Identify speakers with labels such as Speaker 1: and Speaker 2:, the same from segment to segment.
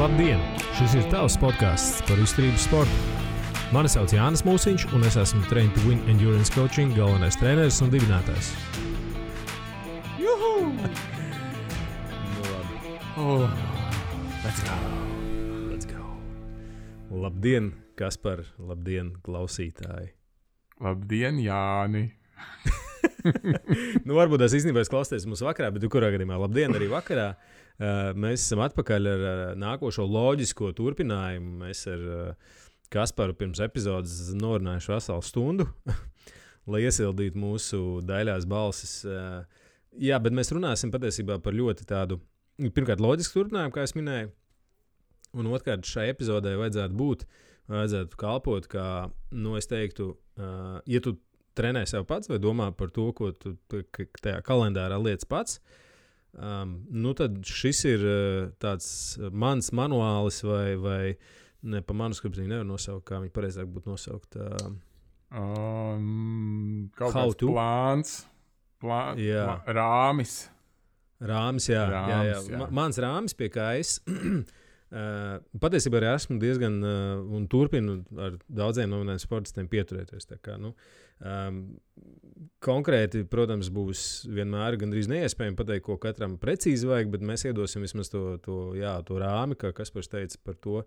Speaker 1: Labdien! Šis ir tavs podcasts par izturības sportu. Mani sauc Jānis Mūsiņš, un es esmu Train to Win Endurance Coaching galvenais treneris un dibinātājs.
Speaker 2: Juhu!
Speaker 1: Oh, let's go. Labdien, Kaspar, labdien, klausītāji.
Speaker 2: Labdien, Jāni!
Speaker 1: Varbūt tās īstenībā es klausties mums vakarā, bet kurā gadījumā labdien arī vakarā. Mēs esam atpakaļ ar nākošo loģisko turpinājumu. Mēs ar Kasparu pirms epizodes norunājuši veselu stundu, lai iesildītu mūsu daļās balsis. Jā, bet mēs runāsim patiesībā par ļoti tādu, pirmkārt, loģisku turpinājumu, kā es minēju, un otrkārt, šai epizodē vajadzētu kalpot, kā, es teiktu, ja tu trenē sev pats vai domā par to, ko tu tajā kalendārā lietas pats, tad šis ir tāds mans manuālis vai ne pa manuskriptu nevar nosaukt, kā viņi pareizāk būtu nosaukt.
Speaker 2: Kaut kāds plāns, rāmis.
Speaker 1: Rāmis, jā. Mans rāmis, pie kā es patiesībā arī esmu diezgan un turpinu ar daudziem nominējiem sportistiem pieturēties. Tā kā, konkrēti, protams, būs vienmēr gandrīz neiespējami pateikt, ko katram precīzi vajag, bet mēs iedosim vismaz to rāmi, kā Kaspars teica par to,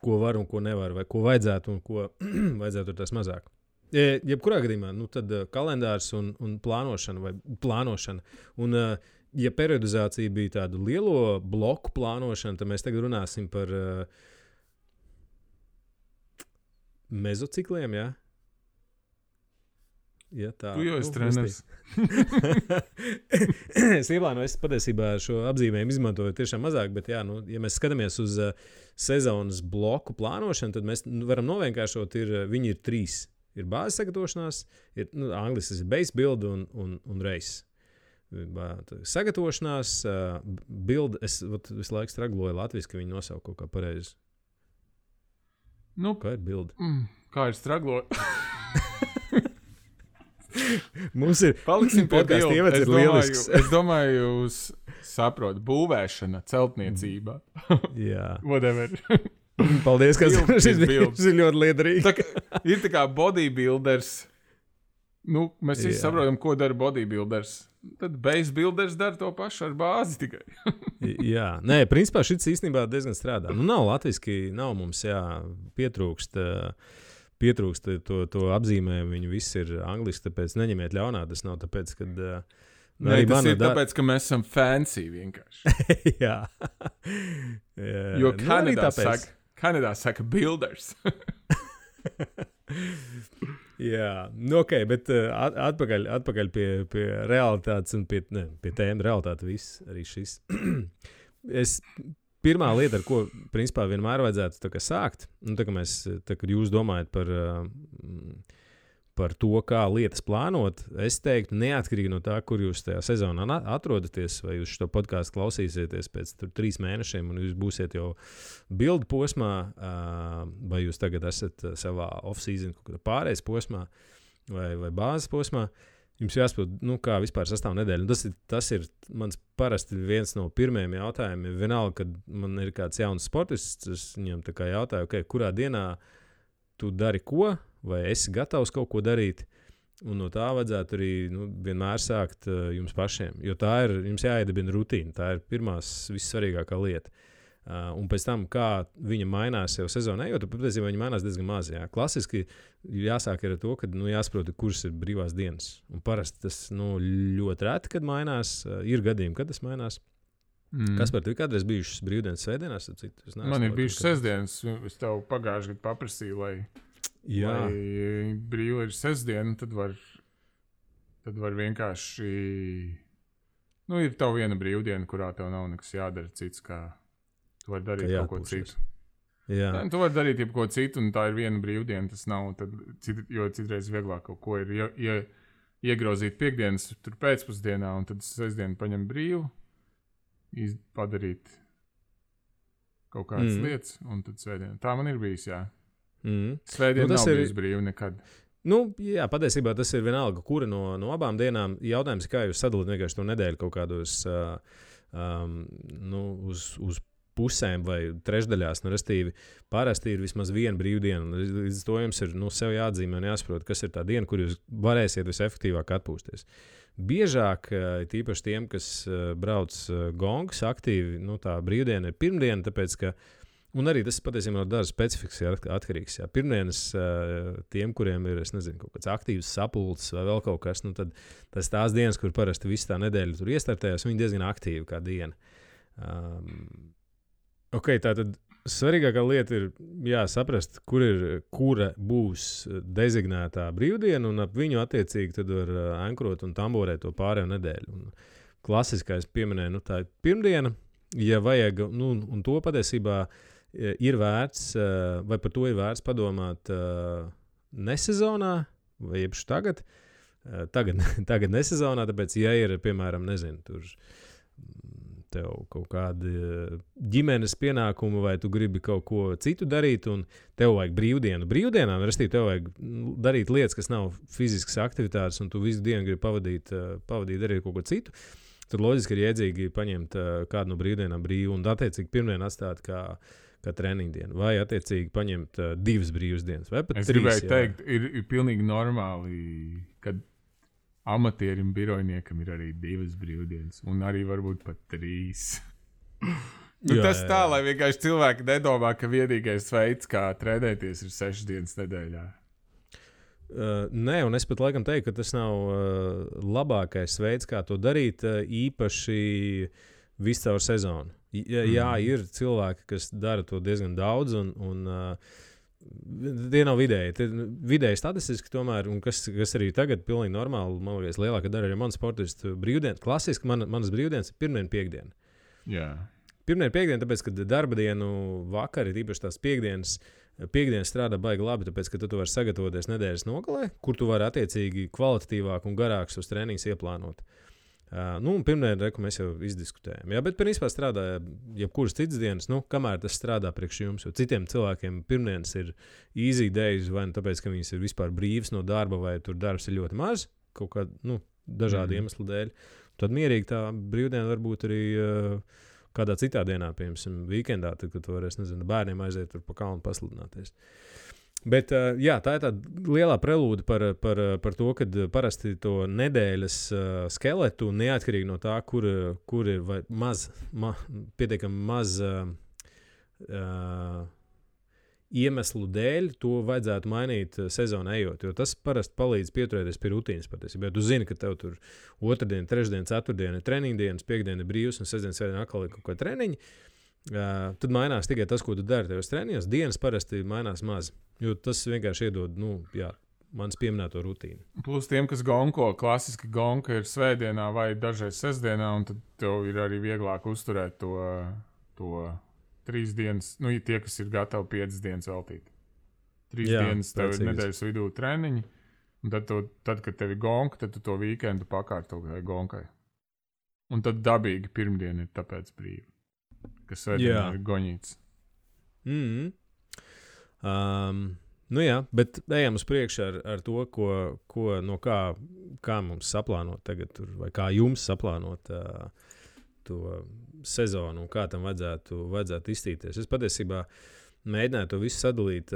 Speaker 1: ko var un ko nevar, vai ko vajadzētu un ko vajadzētu tās mazāk. Jebkurā gadījumā, tad kalendārs un plānošana. Un, ja periodizācija bija tāda lielo bloku plānošana, tad mēs tagad runāsim par mezocikliem, jā? Ja tā,
Speaker 2: tu jau esi treneris.
Speaker 1: Es ieplānoju, es patiesībā šo apzīmējumu izmantoju tiešām mazāk, bet ja mēs skatāmies uz sezonas bloku plānošanu, tad mēs varam novienkāršot, viņi ir 3. Ir bāzes sagatavošanās, angliski ir base build un race. Sagatavošanās, build, es visu laiku stragloju latviski, ka viņi nosauka kaut kā pareizi. Kā ir build?
Speaker 2: Kā ir stragloju?
Speaker 1: Mums ir
Speaker 2: paliksim pie
Speaker 1: podcastu ievads ir lielisks.
Speaker 2: Es domāju, jūs saprot, būvēšana, celtniecība.
Speaker 1: Jā.
Speaker 2: Whatever.
Speaker 1: Paldies, ka šis ir ļoti liederīgi.
Speaker 2: Ir tā kā bodybuilders. Mēs visi saprotam, ko dara bodybuilders. Tad base builders dara to pašu ar bāzi tikai.
Speaker 1: Jā. Nē, principā šis īstenībā diezgan strādā. Nav latviski, nav mums, pietrūkst to apzīmējumu, viņi visi ir angliski, tāpēc neņemiet ļaunā, tas nav tāpēc, kad...
Speaker 2: tas ir tāpēc, ka mēs esam fancy vienkārši.
Speaker 1: Jā.
Speaker 2: Jo Kanadā saka builders.
Speaker 1: Jā, bet atpakaļ pie realitātes un pie tēma realitāte viss, arī šis. Pirmā lieta, ar ko, principā, vienmēr vajadzētu sākt, kad jūs domājat par to, kā lietas plānot, es teiktu, neatkarīgi no tā, kur jūs tajā sezonā atrodaties, vai jūs šo podcastu klausīsieties pēc 3 mēnešiem, un jūs būsiet jau build posmā, vai jūs tagad esat savā off-season pārējais posmā, vai bāzes posmā, jums jāsaprot, kā vispār sastāv nedēļa. Un tas ir mans parasti viens no pirmajiem jautājumiem. Vienalga, kad man ir kāds jauns sportists, es viņam tā kā jautāju, kurā dienā tu dari ko, vai esi gatavs kaut ko darīt. Un no tā vajadzētu arī vienmēr sākt jums pašiem. Jo tā ir, jums jāiedibina rutīna. Tā ir pirmās vissvarīgākā lieta. Un pēc tam, kā viņa mainās jau sezonā, jo patiesībā viņa mainās diezgan maz. Jā. Klasiski jāsāk ar to, ka jāsaprot, kuras ir brīvās dienas. Un parasti tas ļoti reti, kad mainās. Ir gadījumi, kad tas mainās. Kas par tevi kādreiz bijušas brīvdienas svētdienās?
Speaker 2: Man ir bijušas sestdienas. Es tev pagājuši gadu paprasīju, lai brīva ir sestdiena, tad var vienkārši... ir tev viena brīvdiena, kurā tev nav nekas jādara cits, kā... Tu vari darīt kaut ko citu.
Speaker 1: Jā.
Speaker 2: Tu vari darīt jebko citu, un tā ir viena brīvdiena. Tas nav, jo citreiz vieglāk kaut ko ir iegrozīt piekdienas tur pēcpusdienā, un tad sestdienu paņem brīvu, padarīt kaut kādas lietas, un tad svētdienu. Tā man ir bijis, jā. Svētdiena nav bijis brīva nekad.
Speaker 1: Jā, patiesībā tas ir vienalga, kura no abām dienām. Jautājums ir, kā jūs sadalāt vienkārši to nedēļu kaut kādos uz pusēm vai trešdaļās. Restīvi, parasti ir vismaz viena brīvdiena. Līdz to jums ir sev jāatzīmē un jāsaprot, kas ir tā diena, kur jūs varēsiet visefektīvāk atpūsties. Biežāk, tīpaši tiem, kas brauc gongas aktīvi, tā brīvdiena ir pirmdiena, tāpēc, ka, un arī tas patiesībā no dažas specifikas atkarīgs. Jā. Pirmdienas tiem, kuriem ir, es nezinu, kaut kāds aktīvs sapulces vai vēl kaut kas, tad tas tās dienas, kur parasti visu tā nedēļu tur iestartējās, viņi diezgan aktīvi kā diena. Tātad svarīgākā lieta ir saprast, kura būs dezignētā brīvdiena, un ap viņu attiecīgi tad var ankrot un tamborēt to pārējo nedēļu. Un klasiskais pieminēja, tā ir pirmdiena, ja vajag, un to patiesībā ir vērts, vai par to ir vērts padomāt nesezonā, vai jebšu tagad nesezonā, tāpēc, ja ir, piemēram, nezinu, tur tev kaut kādi ģimenes pienākumi, vai tu gribi kaut ko citu darīt, un tev vajag brīvdienu. Brīvdienām, restīvi, tev vajag darīt lietas, kas nav fiziskas aktivitātes, un tu visu dienu gribi pavadīt darīt kaut ko citu. Tad loģiski ir iedzīgi paņemt kādu no brīvdienām brīvu, un attiecīgi pirmdien atstāt kā treniņdienu, vai attiecīgi paņemt 2 brīvas dienas, vai pat 3.
Speaker 2: Es gribēju teikt, ir pilnīgi normāli, kad amatierim, birojniekam ir arī 2 brīvdienas, un arī varbūt pat 3. Tas tā, lai vienkārši cilvēki nedomā, ka vienīgais veids, kā trenēties, ir 6 dienas nedēļā.
Speaker 1: Nē, un es pat laikam teiktu, ka tas nav labākais veids, kā to darīt, īpaši visu caur sezonu. Jā, ir cilvēki, kas dara to diezgan daudz, un tie nav vidēji statistiski tomēr, un kas arī tagad pilnīgi normāli, man liekas, lielākā daļa arī manu sportistu brīvdienu. Klasiski manas brīvdienas ir pirmdiena, piekdiena.
Speaker 2: Jā.
Speaker 1: Pirmdiena, piekdiena, tāpēc, ka darba dienu vakari, īpaši tās piekdienas strādā baigi labi, tāpēc, ka tu vari sagatavoties nedēļas nogalē, kur tu vari attiecīgi kvalitatīvāk un garāks uz treniņus ieplānot. Pirmdienu reku mēs jau izdiskutējām. Jā, bet principā strādā jebkuras citas dienas, kamēr tas strādā priekš jums. Jo citiem cilvēkiem pirmdienas ir easy days, vai tāpēc, ka viņas ir vispār brīvas no darba, vai tur darbs ir ļoti maz, kaut kādu dažādu iemeslu dēļ. Tad mierīgi tā brīvdiena varbūt arī kādā citā dienā, piemēram, weekendā, tad, kad tu varēsi, nezinu, bērniem aiziet tur pa kalnu pasludināties. Bet jā, tā ir tāda lielā prelūde par to, kad parasti to nedēļas skeletu, neatkarīgi no tā, kur ir pietiekami maz iemeslu dēļ, to vajadzētu mainīt sezonā ejot, jo tas parasti palīdz pieturēties pie rutīnas patiesībā. Ja tu zini, ka tev tur otrdiena, trešdiena, ceturtdiena ir treniņdienas, piekdiena ir brīvs un sestdiena, svētdiena atkal ir kaut kā treniņi, tad mainās tikai tas, ko tu dari tajos treniņos. Dienas parasti mainās maz, jo tas vienkārši iedod, mans pieminēto rutīnu.
Speaker 2: Plus tiem, kas gonko, klasiski gonka ir svētdienā vai dažreiz sestdienā, un tad tev ir arī vieglāk uzturēt to 3 dienas, tie, kas ir gatavi 5 dienas veltīt. 3 dienas tev ir nedēļas vidū treniņi, un tad, kad tev ir gonka, tad tu to weekendu pakārto gonkai. Un tad dabīgi pirmdiena ir tāpēc brīva. Kas svētdienā ir goņīts.
Speaker 1: Jā, bet ejam uz priekšu ar to, kā mums saplānot tagad, vai kā jums saplānot to sezonu un kā tam vajadzētu iztīties. Es patiesībā mēģināju to visu sadalīt.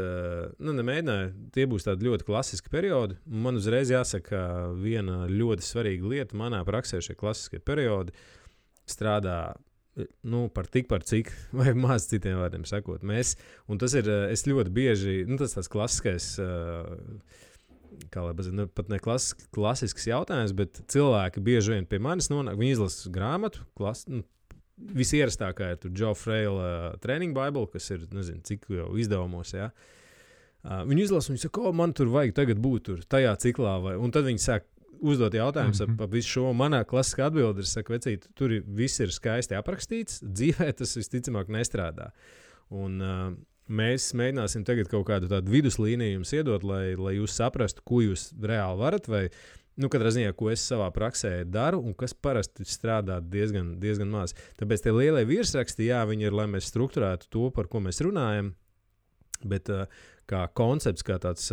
Speaker 1: Nemēģināju, tie būs tādi ļoti klasiski periodi. Man uzreiz jāsaka, viena ļoti svarīga lieta manā praksē šie klasiskie periodi strādā par cik, vai maz citiem vārdiem sakot. Un tas ir, es ļoti bieži, tas tāds klasiskais, pat ne klasisks jautājums, bet cilvēki bieži vien pie manis nonāk, viņi izlasa grāmatu, visierastākā ir tur Joe Fraila Training Bible, kas ir, nezinu, cik jau izdevumos, jā. Viņi izlasa, viņi saka, man tur vajag tagad būt tur tajā ciklā, un tad viņi sāk uzdot jautājumus par visu šo. Manā klasiskā atbilde ir, saka, vecīt, tur viss ir skaisti aprakstīts, dzīvē tas visticamāk nestrādā. Un mēs mēģināsim tagad kaut kādu tādu viduslīniju jums iedot, lai jūs saprastu, ko jūs reāli varat, vai, katrā ziņā, ko es savā praksē daru, un kas parasti strādā diezgan maz. Tāpēc tie lielie virsraksti, jā, viņi ir, lai mēs strukturētu to, par ko mēs runājam, bet kā koncepts, kā tāds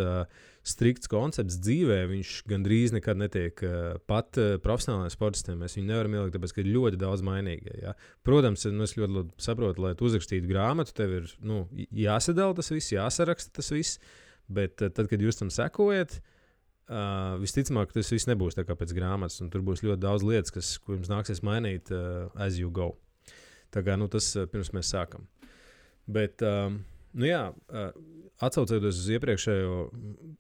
Speaker 1: strikts koncepts dzīvē, viņš gandrīz nekad netiek pat profesionālajiem sportistiem. Mēs viņu nevaram ielikt, tāpēc, ka ir ļoti daudz mainīgie. Ja? Protams, es ļoti labi saprotu, lai tu uzrakstītu grāmatu, tev ir jāsadala tas viss, jāsaraksta tas viss, bet tad, kad jūs tam sekojat, visticamāk, tas viss nebūs tā kā pēc grāmatas, un tur būs ļoti daudz lietas, ko jums nāksies mainīt as you go. Tā kā tas pirms mēs sākam. Bet, atsaucoties uz iepriekšējo,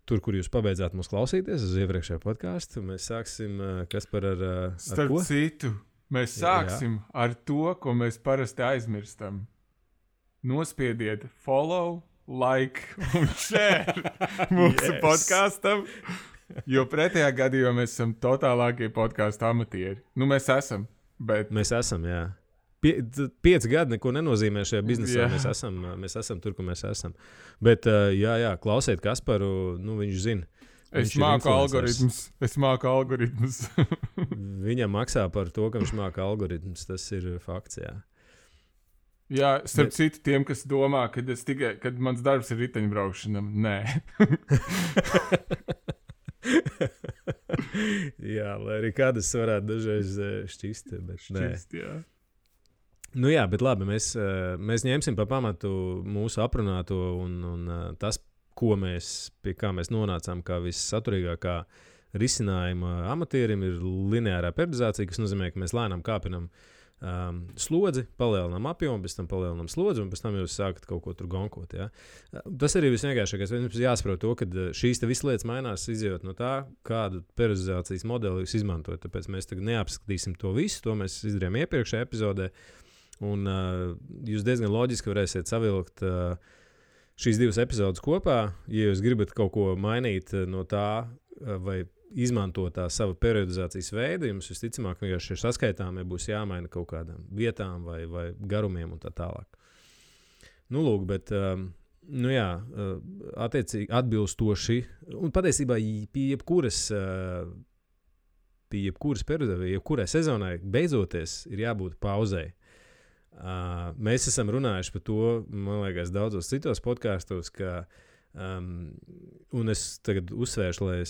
Speaker 1: tur, kur jūs pabeidzāt mūs klausīties, uz iepriekšējo podcastu, mēs sāksim, Kaspar, ar
Speaker 2: Starp
Speaker 1: ko?
Speaker 2: citu, mēs sāksim ar to, ko mēs parasti aizmirstam. Nospiediet follow, like un share mūsu podkastam, jo pretējā gadījumā mēs esam totālākie podcastu amatieri. Mēs esam, bet...
Speaker 1: Mēs esam, jā. 5 gadi neko nenozīmē šajā biznesā. Mēs esam tur, kur mēs esam. Bet, klausiet Kasparu, viņš zina.
Speaker 2: Es māku algoritmus.
Speaker 1: Viņam maksā par to, ka viņš māka algoritmus. Tas ir fakts, jā.
Speaker 2: Jā, starp citu tiem, kas domā, kad mans darbs ir riteņbraukšana, nē.
Speaker 1: Jā, lai arī kādas varētu dažreiz šķist, bet nē.
Speaker 2: Jā.
Speaker 1: Bet labi, mēs ņemsim pa pamatu mūsu aprunāto un tas, pie kā mēs nonācām, kā vissaturīgākā risinājuma amatierim, ir lineārā periodizācija, kas nozīmē, ka mēs lēnām kāpinam slodzi, palielinām apjomu, pēc tam palielinām slodzi, un pēc tam jūs sākat kaut ko tur gonkot. Ja? Tas arī visvienkāršākais. Mums jāsaprot to, ka šīs visas lietas mainās, izjūt no tā, kādu periodizācijas modeli jūs izmantojat. Tāpēc mēs tagad neapskatīsim to visu, to mēs izdarījām iepriekšējā epizodē. Un jūs diezgan loģiski varēsiet savilkt šīs 2 epizodes kopā. Ja jūs gribat kaut ko mainīt no tā, vai izmantot tā savu periodizācijas veidu, jums visticamāk vienkārši šie saskaitāmie būs jāmaina kaut kādām vietām vai garumiem un tā tālāk. Lūk, bet, attiecīgi atbilstoši, un patiesībā pie jebkuras periodizācijas, jebkurai sezonai beidzoties ir jābūt pauzei. Mēs esam runājuši par to, man liekas, daudzos citos podkastos, ka, un es tagad uzsvēršu, lai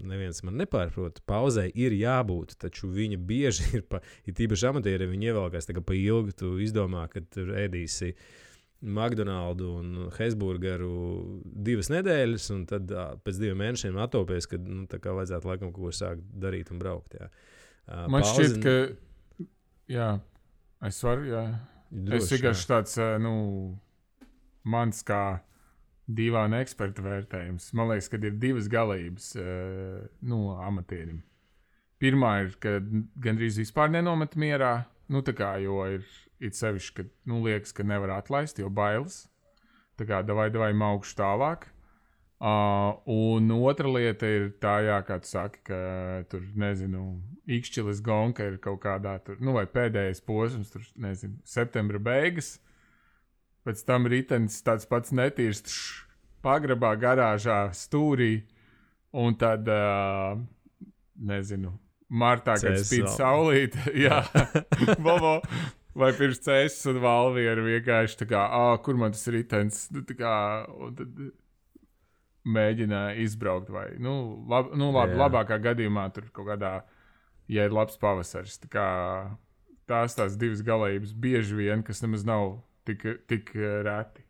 Speaker 1: neviens man nepārprot, pauzei ir jābūt, taču viņa bieži ir tīpaši amatieri, viņi ievelkās tā kā pa ilgu, tu izdomā, ka tur ēdīsi McDonaldu un Hesburgeru 2 nedēļas, un tad pēc 2 mēnešiem atopies, kad tā kā vajadzētu laikam kaut ko sākt darīt un braukt. Jā.
Speaker 2: Man šķiet, ka jā. Es varu, jā. Es vienkārši tāds, mans kā dīvaina eksperta vērtējums. Man liekas, ka ir 2 galības amatierim. Pirmā ir, ka gandrīz vispār nenomet mierā, jo ir sevišķi, ka liekas, ka nevar atlaist, jo bailes. Tā kā davai maukšu tālāk. Un otra lieta ir tā, kā tu saki, ka tur, ikšķilis gonka ir kaut kādā tur, vai pēdējais posms, tur, septembra beigas. Pēc tam ritenis tāds pats netīrs pagrabā, garāžā, stūrī. Un tad, martā, kad spīd saulīte, jā, Bobo, vai pirms cēsas un valvieru vienkārši tā kā, kur man tas ritenis, tā kā, un tad mēģināja izbraukt vai, labākā gadījumā tur kaut kādā, ja ir labs pavasaris. Tā kā tās 2 galības bieži vien, kas nemaz nav tik reti.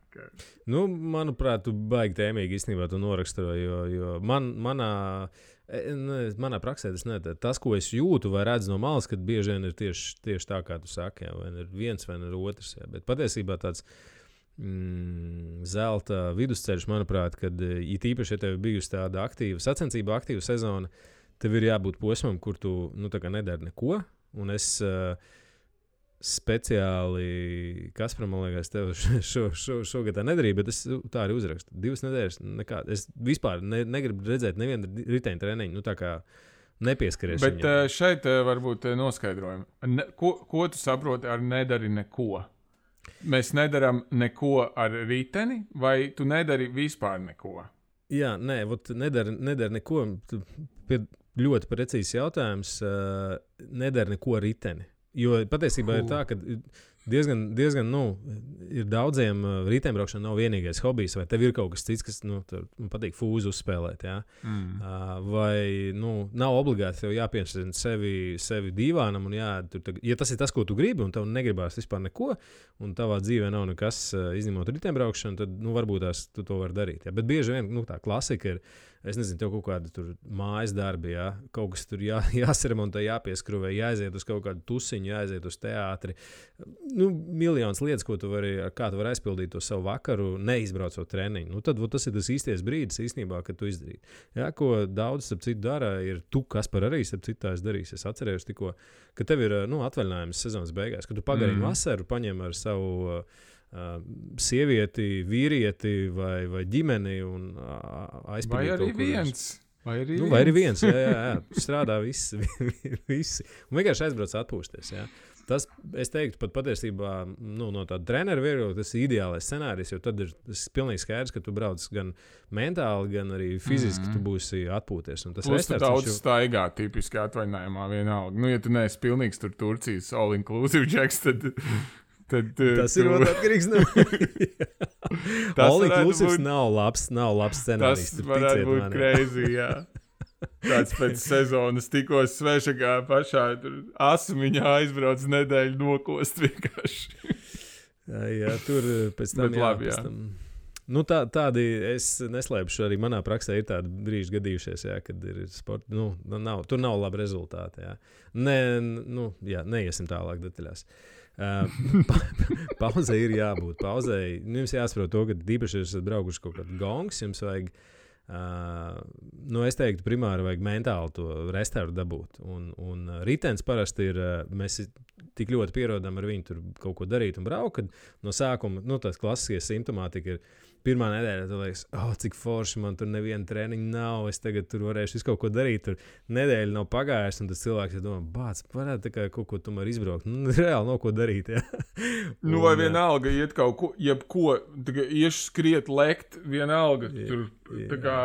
Speaker 1: Manuprāt, tu baigi tēmīgi īstenībā to noraksturoji, jo manā praksē tas, ko es jūtu vai redzu no malas, kad bieži vien ir tieši tā, kā tu saki, jā, vai ir viens vai ir otrs, jā, bet patiesībā tāds zelta vidusceļš, manuprāt, kad īpaši, ja tev bijusi tāda sacensība aktīva sezona, tev ir jābūt posmam, kur tu nedari neko, un es speciāli, Kaspar, man liekas, tev šogad tā nedarīju, bet es tā arī uzrakstu. 2 nedēļas nekā. Es vispār negribu redzēt nevienu riteņu treniņu, tā kā nepieskaries
Speaker 2: viņam. Bet šeit varbūt noskaidrojumi. Ko tu saproti ar nedari neko? Mēs nedaram neko ar riteni, vai tu nedari vispār neko?
Speaker 1: Jā, nedari neko. Ļoti precīzs jautājums. Nedari neko ar riteni. Jo patiesībā ir tā, ka diezgan ir daudziem riteņbraukšana nav vienīgais hobijs, vai tev ir kaut kas cits, kas man patīk fūzi uzspēlēt. Ja? Vai nav obligāti tev jāpiespriež sevi dīvānam, un ja tas ir tas, ko tu gribi, un tev negribās vispār neko, un tavā dzīvē nav nekas izņemot riteņbraukšanu, tad varbūt tu to vari darīt. Ja? Bet bieži vien tā klasika ir. Es nezinu, tev kaut kāda tur mājas darbi, ja? Kaut kas tur jāsaremontē, jāpieskruvē, jāaiziet uz kaut kādu tusiņu, jāaiziet uz teātri. Miljonas lietas, kā tu vari aizpildīt to savu vakaru, neizbraucot treniņu. Tad tas ir tas īstais brīdis īstenībā, kad tu izdarīti. Ja? Ko daudz, starp citu, dara, ir tu, Kaspar, arī, starp citu, tā es darīšu. Es atcerējos tikko, ka tev ir atvaļinājums sezonas beigās, kad tu pagarini vasaru, paņem ar savu sievieti, vīrieti vai ģimeni un aizpildīt kaut ko. Vai arī viens, jā. Strādā visi. Un vienkārši aizbrauc atpūsties, jā. Tas, es teiktu, pat patiesībā no tāda trenera viedokļa, tas ir ideālais scenārijs, jo tad ir pilnīgi skaidrs, ka tu brauc gan mentāli, gan arī fiziski tu būsi atpūties. Un tas
Speaker 2: plus tu daudz staigā tipiski atvaļinājumā vienalga. Ja tu neesi pilnīgs tur Turcijas all-inclusive džeks, tad
Speaker 1: tas ir atkarīgs no all-inclusive nav labs scenārijs.
Speaker 2: Tas varētu būt crazy, jā. Tāds pēc sezonas tikko svešagā pašā asumiņā aizbrauc nedēļu nokost vienkārši.
Speaker 1: jā, tur pēc tam,
Speaker 2: labi,
Speaker 1: tādi, es neslēpšu, arī manā praksē ir tādi brīži gadījušies, jā, kad ir sports, tur nav labi rezultāti, jā. Neiesim tālāk detaļās. Pauzē ir jābūt. Pauzē jums jāsaprot to, ka īpaši jūs esat braukuši kaut kādu gongs, jums vajag, es teiktu, primāri vajag mentāli to restauru dabūt. Un ritens parasti ir, mēs tik ļoti pierodam ar viņu tur kaut ko darīt un braukt, kad no sākuma, tās klasiskie simptomātika ir pirmā nedēļa, tu liekas, cik forši, man tur neviena treniņa nav, es tagad tur varēšu visu kaut ko darīt, tur nedēļa nav pagājusi, un tas cilvēks ir domā, bāc, varētu tā kā kaut ko tomēr izbraukt. Reāli nav ko darīt, jā.
Speaker 2: Vai vienalga iet kaut ko, jebko, iešu skriet, lekt, vienalga, tur, tā kā,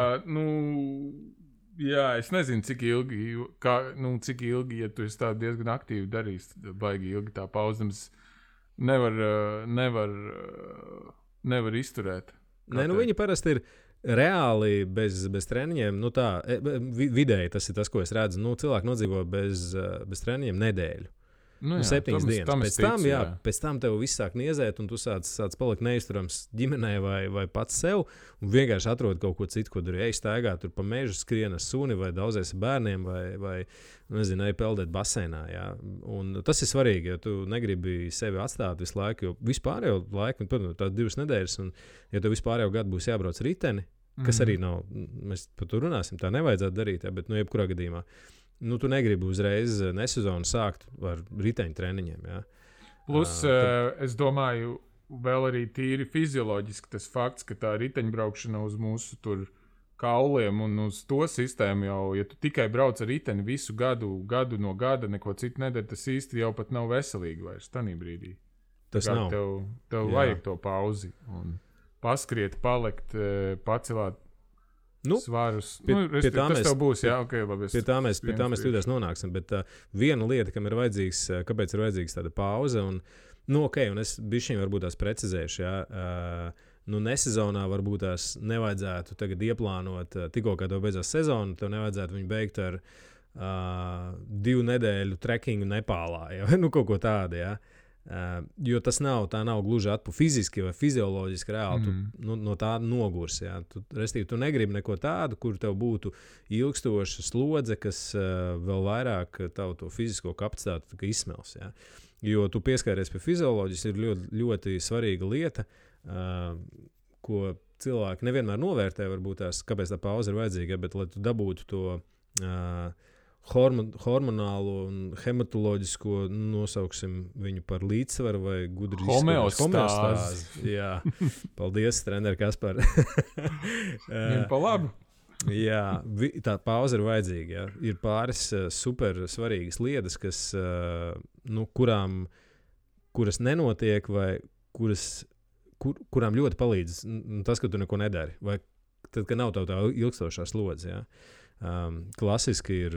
Speaker 2: jā, es nezinu, cik ilgi, ja tu esi tā diezgan aktīvi darījis, baigi ilgi tā pauzams, nevar izturēt.
Speaker 1: Viņi parasti ir reāli bez treniņiem. Vidēji tas ir tas, ko es redzu. Cilvēki nodzīvo bez treniņiem nedēļu. 7 dienas. Pēc tam tev viss sāk niezēt, un tu sāc palikt neizturams ģimenē vai pats sev, un vienkārši atrod kaut ko citu, ko tur staigā, tur pa mežu skrien ar suni, vai daudzies ar bērniem, vai nezinu, peldēt baseinā. Jā. Un tas ir svarīgi, jo tu negribi sevi atstāt visu laiku, jo vispārējo laiku, tās 2 nedēļas, un ja tev vispārējo gadu būs jābrauc riteni, kas arī nav, mēs par to runāsim, tā nevajadzētu darīt, jā, bet jebkurā gadījumā. Tu negribi uzreiz nesezonu sākt ar riteņu treniņiem. Ja?
Speaker 2: Plus, es domāju, vēl arī tīri fizioloģiski tas fakts, ka tā riteņbraukšana uz mūsu tur kauliem un uz to sistēmu jau, ja tu tikai brauc ar riteni visu gadu no gada, neko citu nedara, tas īsti jau pat nav veselīgi vairs tanī brīdī.
Speaker 1: Tas nav.
Speaker 2: Tev vajag to pauzi un paskriet, palikt, pacelāt svarus. Tas tev būs, jā, ok, labi. Pie tā mēs
Speaker 1: tūdēs nonāksim, bet viena lieta, kāpēc ir vajadzīgs tāda pauze, un es bišķiņ varbūt tās precizēšu, jā, nesezonā varbūt tās nevajadzētu tagad ieplānot, tikko kā tev beidzās sezona, tev nevajadzētu viņu beigt ar 2 nedēļu trekingu Nepālā, jā, kaut ko tādu, jā. Jo tas nav gluži fiziski vai fizioloģiski reāli. Tu no tā nogurs. Ja? Tu negribi neko tādu, kur tev būtu ilgstoša slodze, kas vēl vairāk tavu to fizisko kapacitāti izsmels. Ja? Jo tu pieskaries pie fizioloģijas, ir ļoti, ļoti svarīga lieta, ko cilvēki nevienmēr novērtē, varbūt kāpēc tā pauze ir vajadzīga, bet lai tu dabūtu to hormonālo un hematoloģisko, nosauksim viņu par līdzsvaru vai gudri
Speaker 2: homeostāzi.
Speaker 1: Jā, paldies, treneri Kaspar.
Speaker 2: Viņam pa labu.
Speaker 1: Jā, tā pauze ir vajadzīga. Jā. Ir pāris super svarīgas lietas, kuras nenotiek vai kurām ļoti palīdz tas, ka tu neko nedari. Vai tad, ka nav tā ilgstošā slodze. Jā. Klasiski ir,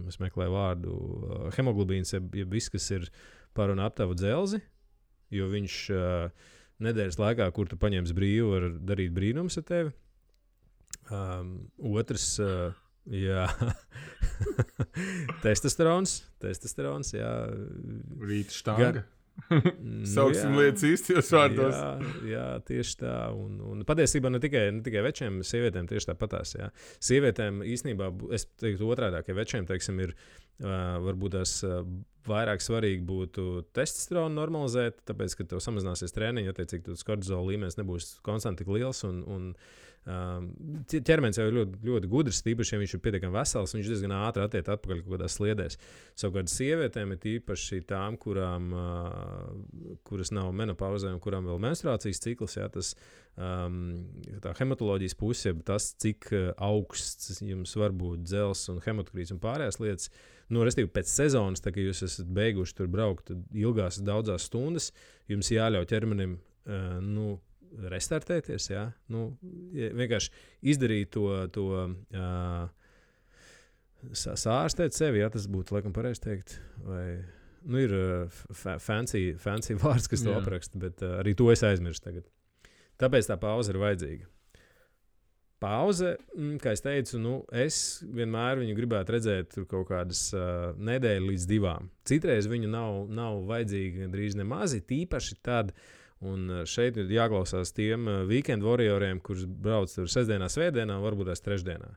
Speaker 1: es meklēju vārdu, hemoglobīns, ja viss, kas ir par un ap tavu dzelzi, jo viņš nedēļas laikā, kur tu paņemsi brīvu, var darīt brīnums ar tevi. Otrs, jā, testosterons, jā.
Speaker 2: Rīta štanga. Sauksim lietas īstajos vārdos.
Speaker 1: Jā, tieši tā. Un patiesībā ne tikai večiem, sievietēm tieši tāpatās. Jā. Sievietēm īstenībā, es teiktu otrādāk, ja večiem, teiksim, ir varbūt tās vairāk svarīgi būtu testosteronu normalizēt, tāpēc, ka tev samazināsies treniņi, attiecīgi, tas kortizola līmenis nebūs konstanti tik liels un ķermenis jau ir ļoti, ļoti gudrs, tīpaši, ja viņš ir pietiekami vesels, viņš diezgan ātri attiek atpakaļ kaut kādās sliedēs. Savukārt sievietēm ir tīpaši tām, kuras nav menopauzē un kurām vēl menstruācijas cikls, jā, tas tā hematoloģijas puse, tas, cik augsts jums var būt dzels un hematokrīts un pārējās lietas, restīvi pēc sezonas, tā kā jūs esat beiguši tur braukt ilgās daudzās stundas, jums jāļauj ķermenim, restartēties, jā. Vienkārši izdarīt to sārstēt sevi, jā, tas būtu, laikam, pareizi teikt, vai, ir fancy vārds, kas to apraksta, bet arī to es aizmirstu tagad. Tāpēc tā pauze ir vajadzīga. Pauze, kā es teicu, es vienmēr viņu gribētu redzēt tur kaut kādas nedēļu līdz 2. Citreiz viņu nav vajadzīga gandrīz nemazi, tīpaši tad, un šeit ir jāklausās tiem weekend warrioriem, kurus brauc tur sestdienā, svētdienā, varbūt tās trešdienā.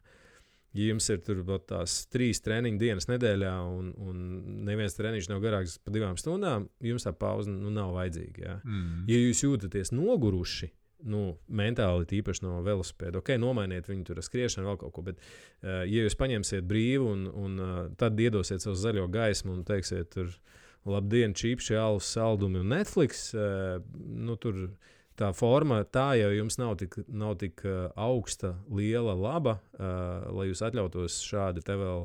Speaker 1: Ja jums ir tur tās 3 treniņu dienas nedēļā un neviens treniņš nav garāks pa 2 stundām, jums tā pauze nav vajadzīga. Jā. Ja jūs jūtaties noguruši, mentāli tīpaši no velosipēda, nomainiet viņu tur ar skriešanu vēl kaut ko, bet ja jūs paņemsiet brīvu un tad iedosiet savu zaļo gaismu un teiksiet tur labdien, čipši, alus, saldumi un Netflix, tur tā forma, tā jau jums nav tik augsta, liela, laba, lai jūs atļautos šādi te vēl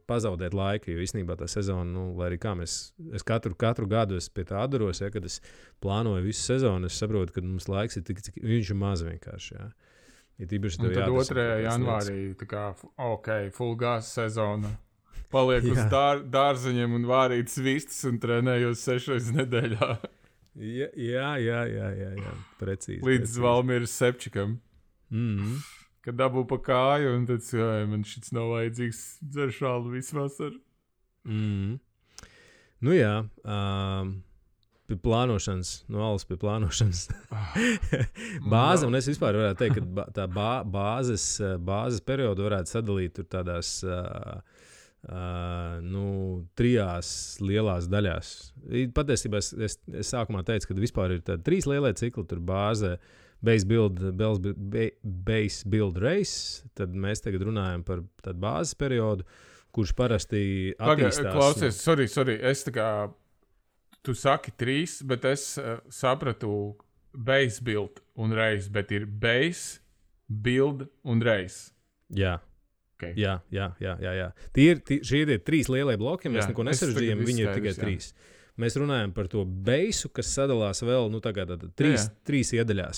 Speaker 1: pazaudēt laiku, jo īstenībā tā sezona, lai arī kā es katru gadu pie tā atdaros, ja, kad es plānoju visu sezonu, es saprotu, ka mums laiks ir tik, cik viņš ir maz vienkārši, jā. Ja tīpaši
Speaker 2: un tad 2. janvārī, tā kā, full gas sezona. Paliek uz dārzeņiem un vārīt svistas un trenējos 6 nedēļā.
Speaker 1: Jā, precīzi.
Speaker 2: Līdz Valmieras Sepčikam. Kad dabū pa kāju un tad, man šits nav vajadzīgs dzeršālu visu vasaru.
Speaker 1: Jā, pie plānošanas, no alas pie plānošanas. Bāze, un es vispār varētu teikt, ka tā bāzes periodu varētu sadalīt tur tādās 3 lielās daļās. Patiesībā es sākumā teicu, ka vispār ir tādi 3 lielie cikli, tur bāze, base build race, tad mēs tagad runājam par tādu bāzes periodu, kurš parasti attīstās.
Speaker 2: Klausies, sorry, es tā kā, tu saki 3, bet es sapratu base build un race, bet ir base, build un race.
Speaker 1: Jā.
Speaker 2: Okay.
Speaker 1: Jā. Šie ir 3 lielie bloki, mēs neko nesarežģījām, viņi ir tikai 3. Mēs runājam par to beisu, kas sadalās vēl, 3 iedaļās,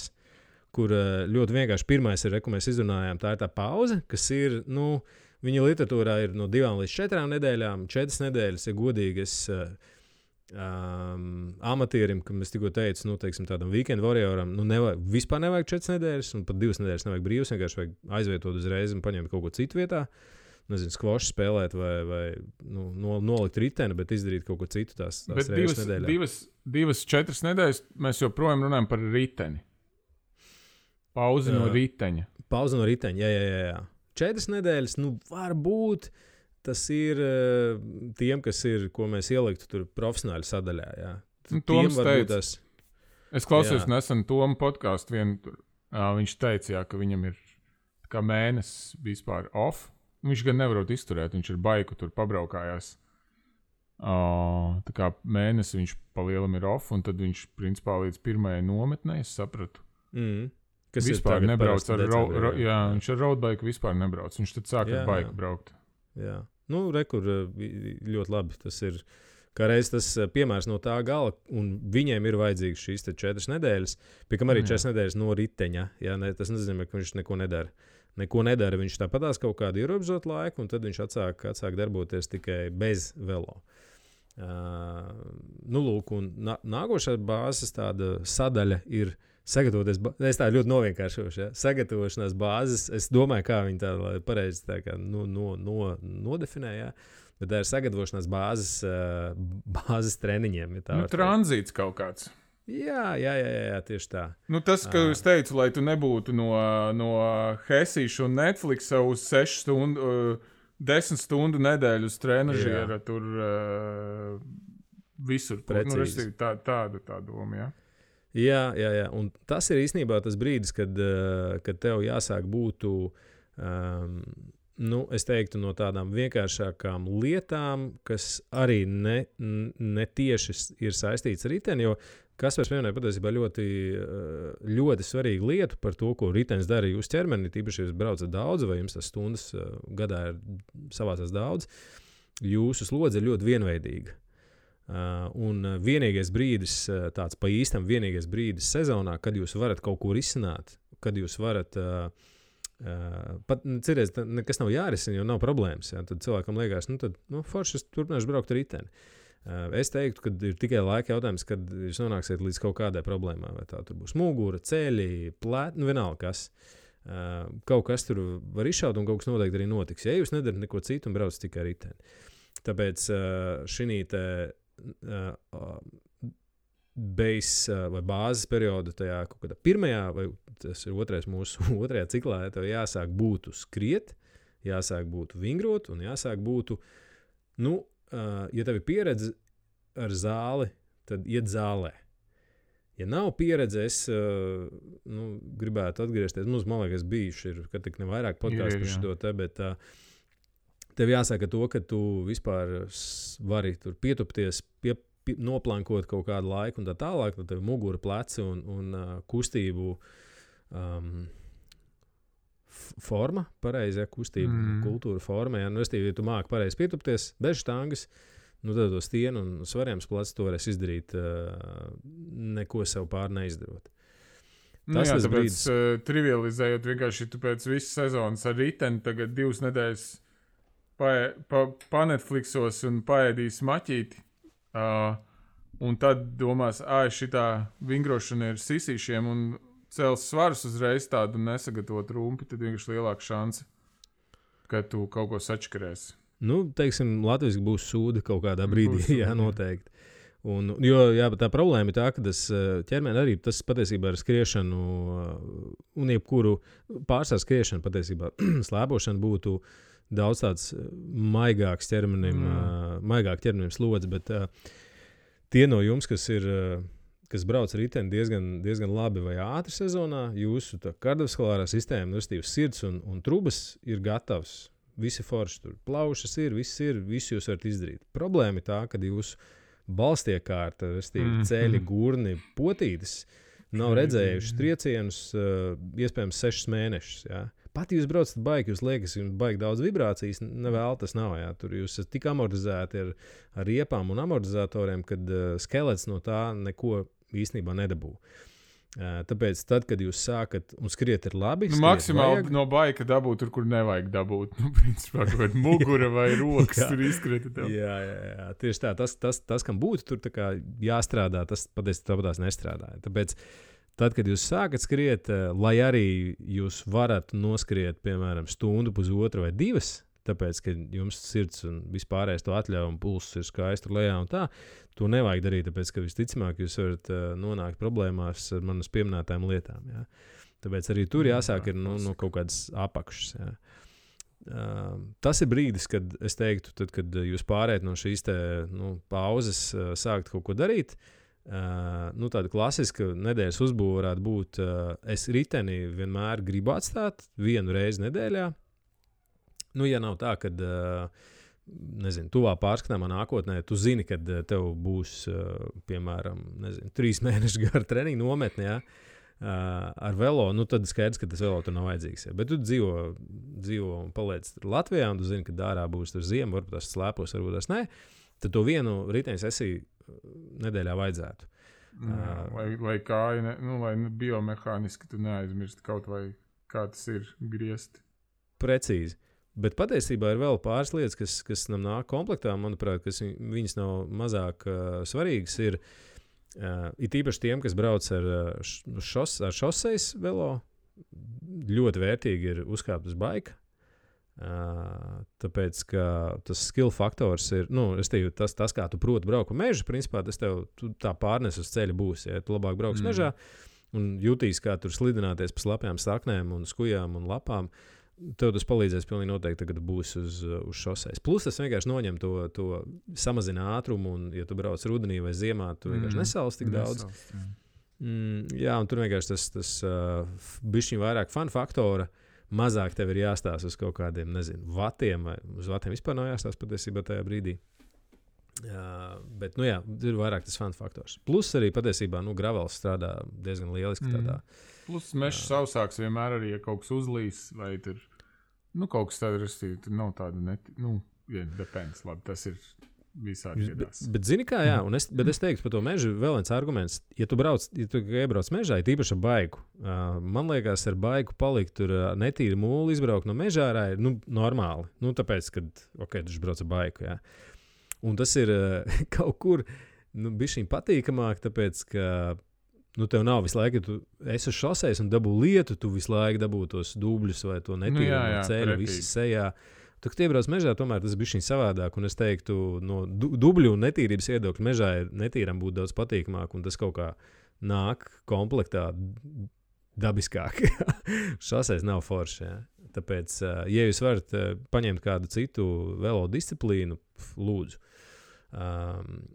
Speaker 1: kur ļoti vienkārši pirmais ir, ko mēs izrunājām, tā ir tā pauze, kas ir, viņa literatūrā ir no 2 līdz 4 nedēļām, 4 nedēļas, ja godīgi es amatierim, kam es tikko teicu, teiksim tādam weekend warrioram, vispār nevajag 4 nedēļas, un pat 2 nedēļas nevajag brīvs, vienkārši vajag aizvietot uzreiz un paņemt kaut ko citu vietā. Nezinu, skvošu spēlēt vai nolikt riteni, bet izdarīt kaut ko citu tās reizes nedēļā.
Speaker 2: 2-4 nedēļas mēs joprojām runājam par riteni. Pauzi no riteņa.
Speaker 1: Pauzi no riteņa, jā. 4 nedēļas, varbūt tas ir tiem, kas ir, ko mēs ieliktu tur profesionāli sadaļā, jā.
Speaker 2: Toms teica, es klausījos nesen Tomu podcastu vienu, viņš teica, ka viņam ir kā mēnesis vispār off. Viņš gan nevarot izturēt, viņš ir baiku tur pabraukājās. Tā kā mēnesi viņš palielam ir off, un tad viņš principā līdz 1. nometnē, es sapratu. Kas vispār nebrauc ar viņš ar roadbaiku vispār nebrauc. Viņš tad sāk ar baiku braukt.
Speaker 1: Jā. Rekur ļoti labi. Tas ir kā reiz tas piemērs no tā gala, un viņiem ir vajadzīgs šīs 4 nedēļas, pie kam arī 4 nedēļas no riteņa. Jā, tas nenozīmē, ka viņš neko nedara. Viņš tāpatās kaut kādu ierobežotu laiku, un tad viņš atsāk darboties tikai bez velo. Lūk, un nākošā bāzes tāda sadaļa ir sagatavoties. Es tā ļoti novienkāršošu. Ja? Sagatavošanās bāzes, es domāju, kā viņi tā pareizi tā kā nodefinē. Ja? Bet tā ir sagatavošanās bāzes treniņiem. Ja
Speaker 2: tranzīts kaut kāds.
Speaker 1: Jā, tieši tā.
Speaker 2: Tas, ka es teicu, lai tu nebūtu no Hesīša un Netflixa uz 10 stundu nedēļu uz trenažiera, tur visur.
Speaker 1: Precīzi.
Speaker 2: Tāda doma,
Speaker 1: Jā, un tas ir īstenībā tas brīdis, kad tev jāsāk būt, es teiktu, no tādām vienkāršākām lietām, kas arī ne tieši ir saistīts ar riteni, jo Kaspars pieminēja patiesībā ļoti, ļoti svarīgu lietu par to, ko ritenis dara jūsu ķermenī, tīpaši, ja jūs braucat daudz vai jums tas stundas gadā ir savācās daudz, jūsu slodze ir ļoti vienveidīga. Un vienīgais brīdis, tāds pa īstam vienīgais brīdis sezonā, kad jūs varat kaut ko risināt, kad jūs varat, pat cerēs, nekas nav jārisina, jo nav problēmas, tad cilvēkam liekas, forši es turpināšu braukt ar riteni. Es teiktu, ka ir tikai laika jautājums, kad jūs nonāksiet līdz kaut kādai problēmai, vai tā tur būs mugura, ceļi, plēti, vienalga kas. Kaut kas tur var izšaut un kaut kas noteikti arī notiks, ja jūs nedarat neko citu un braucat tikai ar riteni. Tāpēc šī base vai bāzes perioda tajā kaut kādā pirmajā, vai tas ir otrais mūsu otrajā ciklā, ja tev jāsāk būtu skriet, jāsāk būtu vingrot un jāsāk būtu, ja tev ir pieredze ar zāli, tad iet zālē. Ja nav pieredze, es gribētu atgriezties. Man liekas, bijuši ir, kad tik nevairāk podkāstu par šo te, bet tev jāsaka to, ka tu vispār vari tur pietupties, noplankot kaut kādu laiku un tā tālāk, tad tev mugura, pleci un kustību forma, pareizi, kustība, kultūra forma. Ja tu māki pareizi pietupties, bez štangas, tad to stienu un svarījums plecs to varēs izdarīt, neko sev pār neizdarot.
Speaker 2: Tāpēc brīdis, trivializējot vienkārši tu pēc visas sezonas ar riteni, tagad 2 nedēļas pa-Netflixos un paēdīs maķīti, un tad domās, šitā vingrošana ir sisīšiem un cels svarus uzreiz tādu nesagatavot rumpi, tad vienkārši lielāka šanse, ka tu kaut ko sačkarēsi.
Speaker 1: Teiksim, Latvijas būs sūda kaut kādā brīdī, noteikti. Jo tā problēma ir tā, ka tas ķermeni arī tas patiesībā ar skriešanu un jebkuru pārstāv skriešanu patiesībā slēpošana būtu daudz tāds maigāks ķermenim, maigāk ķermenim slodzi, bet tie no jums, kas brauc ar riteni diezgan labi vai ātri sezonā, jūsu kardiovaskulārā sistēma, sirds un trubas ir gatavs. Visi forši tur plaušas viss jūs varat izdarīt. Problēma ir tā, ka jūsu balstiekārta, ceļi, gurni, potītes nav redzējuši triecienus iespējams 6 mēnešus. Ja? Pat jūs braucat baigi, jūs liekas, jums baigi daudz vibrācijas, nevēl tas nav. Ja? Tur jūs esat tik amortizēti ar riepām un amortizatoriem, kad skelets no tā neko īstenībā nedabū. Tāpēc, tad, kad jūs sākat un skriet ir labi,
Speaker 2: maksimāli no baika dabūt tur, kur nevajag dabūt. Principā, kaut kāda mugura vai rokas tur izskrieta tev.
Speaker 1: Jā, tieši tā. Tas kam būtu tur tā kā jāstrādā, tas patiesībā tāpatās nestrādāja. Tāpēc, tad, kad jūs sākat skriet, lai arī jūs varat noskriet, piemēram, stundu, pusotru vai 2, tāpēc, ka jums sirds un vispārējais to atļauj un pulss ir skaisti lejā un tā, to nevajag darīt, tāpēc, ka visticamāk jūs varat nonākt problēmās ar manas pieminētām lietām. Ja? Tāpēc arī tur jāsāk ir no kaut kādas apakšas. Ja? Tas ir brīdis, kad es teiktu, tad, kad jūs pārējat no šīs pauzes sākt kaut ko darīt, tāda klasiska nedēļas uzbūve varētu būt, es riteni vienmēr gribu atstāt 1 reizi nedēļā. Ja nav tā, kad tuvā pārskatāmā nākotnē, tu zini, kad tev būs, piemēram, 3 mēneši gara treniņa nometne, ja, ar velo, tad skaidrs, ka tas velo tur nav vajadzīgs. Ja. Bet tu dzīvo un paliec Latvijā, un tu zini, ka dārā būs tur ziema, varbūt tas slēpos, varbūt tas ne, tad to vienu riteņu sesiju nedēļā vajadzētu.
Speaker 2: Lai kāja, lai biomehāniski tu neaizmirsti kaut vai kā tas ir griezt.
Speaker 1: Precīzi. Bet patiesībā ir vēl pāris lietas, kas nam nāk komplektā, manuprāt, kas viņas nav mazāk svarīgas. Ir īpaši tiem, kas brauc ar šoseis velo, ļoti vērtīgi ir uzkāpt uz baika. Tāpēc, ka tas skill faktors ir, tas kā tu proti braukt pa mežu, principā tas tev tā pārnes uz ceļa būs. Ja tu labāk brauks mežā un jutīs, kā tur slidināties pa slapjām saknēm un skujām un lapām, tev tas palīdzēs pilnīgi noteikti, kad būs uz šoseis. Plus tas vienkārši noņem to samazina ātrumu, un ja tu brauc rudenī vai ziemā, tu vienkārši nesals tik daudz. Jā, un tur vienkārši tas bišķiņ vairāk fun faktora, mazāk tev ir jāstāsta uz kaut kādiem, vatiem, vai uz vatiem vispār nav jāstāsta patiesībā tajā brīdī. Bet, ir vairāk tas fun faktors. Plus arī patiesībā, gravels strādā diezgan lieliski tādā.
Speaker 2: Plus mežs sausāks vienmēr arī, ja kaut kas uzlīs, vai tur, kaut kas tāda rastīja, tur nav tāda, depends, labi, tas ir visādi iedās.
Speaker 1: Bet zini kā, jā, bet es teiktu par to mežu vēl viens arguments. Ja tu iebrauc mežā, ir īpaši ar baiku. Man liekas, ar baiku palikt tur netīri mūli, izbraukt no mežā ārā ir normāli. Tāpēc, kad, tu brauc ar baiku, jā. Un tas ir kaut kur bišķiņ patīkamāk, tāpēc, ka tev nav visu laiku, tu esi uz šoseis un dabū lietu, tu visu laiku dabū tos dubļus vai to netīru ceļu, visi sejā. Tu, kad iebrauc mežā, tomēr tas bišķiņ savādāk, un es teiktu, no dubļu un netīrības viedokļa mežā ir netīram būt daudz patīkamāk, un tas kaut kā nāk komplektā dabiskāk. Šoseis nav forši, jā. Tāpēc, ja jūs varat paņemt kādu citu velo disciplīnu, lūdzu.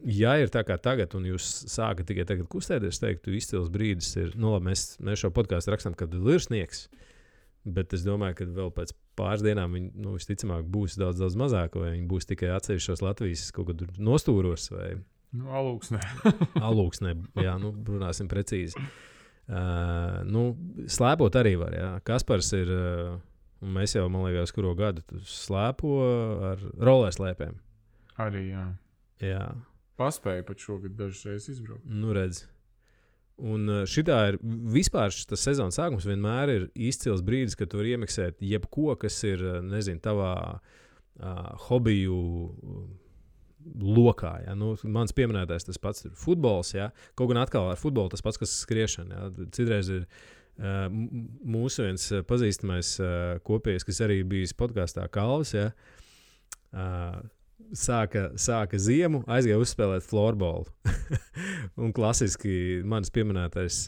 Speaker 1: Ja ir tā kā tagad, un jūs sākat tikai tagad kustēties, teiktu, izcils brīdis ir, labi, mēs šo podcastu rakstam, kad ir sniegs, bet es domāju, ka vēl pēc pāris dienām viņi, visticamāk, būs daudz, daudz mazāk, vai viņi būs tikai atsevišķos Latvijas kaut kad nostūros, vai...
Speaker 2: Alūksnē.
Speaker 1: Alūksnē, jā, runāsim precīzi. Slēpot arī var, jā. Kaspars ir, un mēs jau, man liekas, kuro gadu slēpo ar rollerslēpēm.
Speaker 2: Arī, jā.
Speaker 1: Jā.
Speaker 2: Paspēja pat šogad dažas reizes izbraukt.
Speaker 1: Redz. Un šitā ir vispār tas sezonas sākums vienmēr ir izcils brīdis, kad tu vari iemiksēt jebko, kas ir, tavā hobiju lokā. Ja? Mans pieminētais tas pats ir futbols, ja? Kaut gan atkal ar futbolu tas pats, kas skriešana. Ja? Citreiz ir mūsu viens pazīstamais kopējs, kas arī bijis podkastā Kalvis, ja? Sāka ziemu, aizgāja uzspēlēt florbolu. Un klasiski mans pieminētais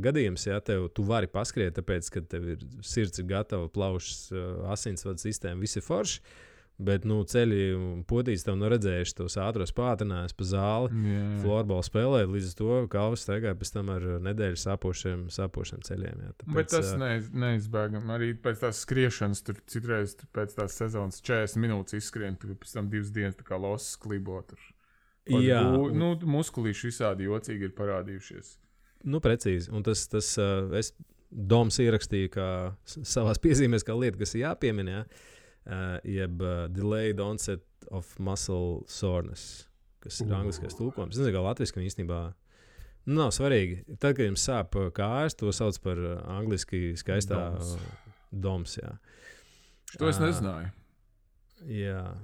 Speaker 1: gadījums, ja tu vari paskriet, tāpēc, ka tev ir sirds ir gatava, plaušas, asinsvadu sistēma, visi forši, bet ceļi un potītes tev redzējuši tos ātros pātrinājus pa zāli, florbolu spēlēt, līdz to Kalvis staigāja pēc tam ar nedēļu sāpošiem ceļiem. Ja. Tāpēc,
Speaker 2: bet tas neizbēgam. Arī pēc tās skriešanas, tur citreiz pēc tās sezonas 40 minūtes izskrien, tur pēc tam 2 dienas tā kā losas klibo tur.
Speaker 1: Jā.
Speaker 2: Muskulīši visādi jocīgi ir parādījušies.
Speaker 1: Precīzi. Un tas Doms ierakstīja kā savās piezīmēs kā lieta, kas ir jāpiemina, jeb delayed onset of muscle soreness, kas ir angliskais tulkojums. Es nezinu, kā latviski viņi īstenībā nav svarīgi. Tad, kad jums sāp kājas, to sauc par angliski skaistā doms. Jā.
Speaker 2: To es nezināju.
Speaker 1: Jā,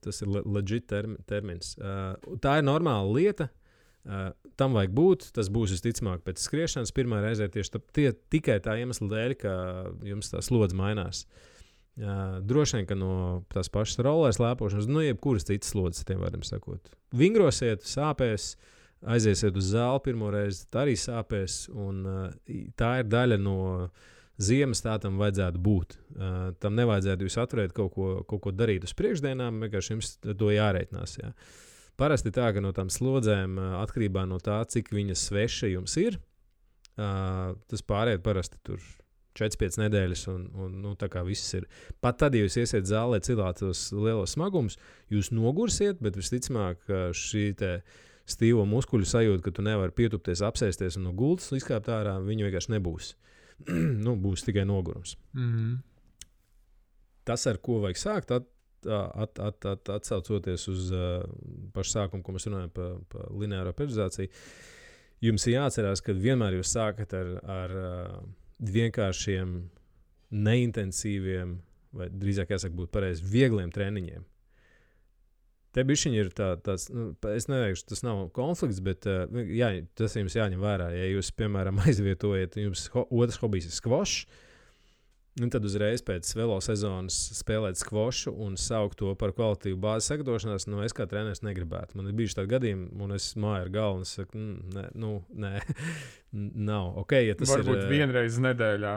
Speaker 1: tas ir legit termins. Tā ir normāla lieta. Tam vajag būt. Tas būs visticamāk pēc skriešanas pirmā reizē tieši tikai tā iemesla dēļ, ka jums tā slodze mainās. Droši vien, ka no tās pašas rollers lēpošanas, jebkuras citas slodzes, tiem vārdiem sakot. Vingrosiet, sāpēs, aiziesiet uz zāli pirmo reizi, tā arī sāpēs, un tā ir daļa no ziemas, tā tam vajadzētu būt. Tam nevajadzētu jūs atturēt kaut ko darīt uz priekšdienām, vienkārši jums to jārēķinās. Jā. Parasti tā, ka no tām slodzēm, atkarībā no tā, cik viņas sveša jums ir, tas pāriet parasti tur 4-5 nedēļas, un tā kā viss ir. Pat tad, ja jūs iesiet zālē cilāt tos lielos smagumus, jūs nogursiet, bet visticamāk šī te stīvo muskuļu sajūta, ka tu nevari pietupties, apsēsties un no gultas izkāpt ārā, viņa vienkārši nebūs. Būs tikai nogurums. Tas, ar ko vajag sākt, atsaucoties uz pašu sākumu, ko mēs runājam par lineāro periodizāciju, jums ir jāatcerās, ka vienmēr jūs sākat ar vienkāršiem neintensīviem, vai drīzāk jāsaka būt pareizi, viegliem treniņiem. Te bišķiņi ir tāds, es neteikšu, tas nav konflikts, bet tas jums jāņem vērā. Ja jūs, piemēram, aizvietojat, jums otrs hobijs ir skvošs, tad uzreiz pēc velo sezonas spēlēt skvošu un saukt to par kvalitīvu bāzes sagatavošanās, es kā treneris negribētu. Man ir bijuši tādi gadījumi, un es māju ar galvu, un es saku, nē, nav. Okay, ja tas
Speaker 2: varbūt vienreiz nedēļā.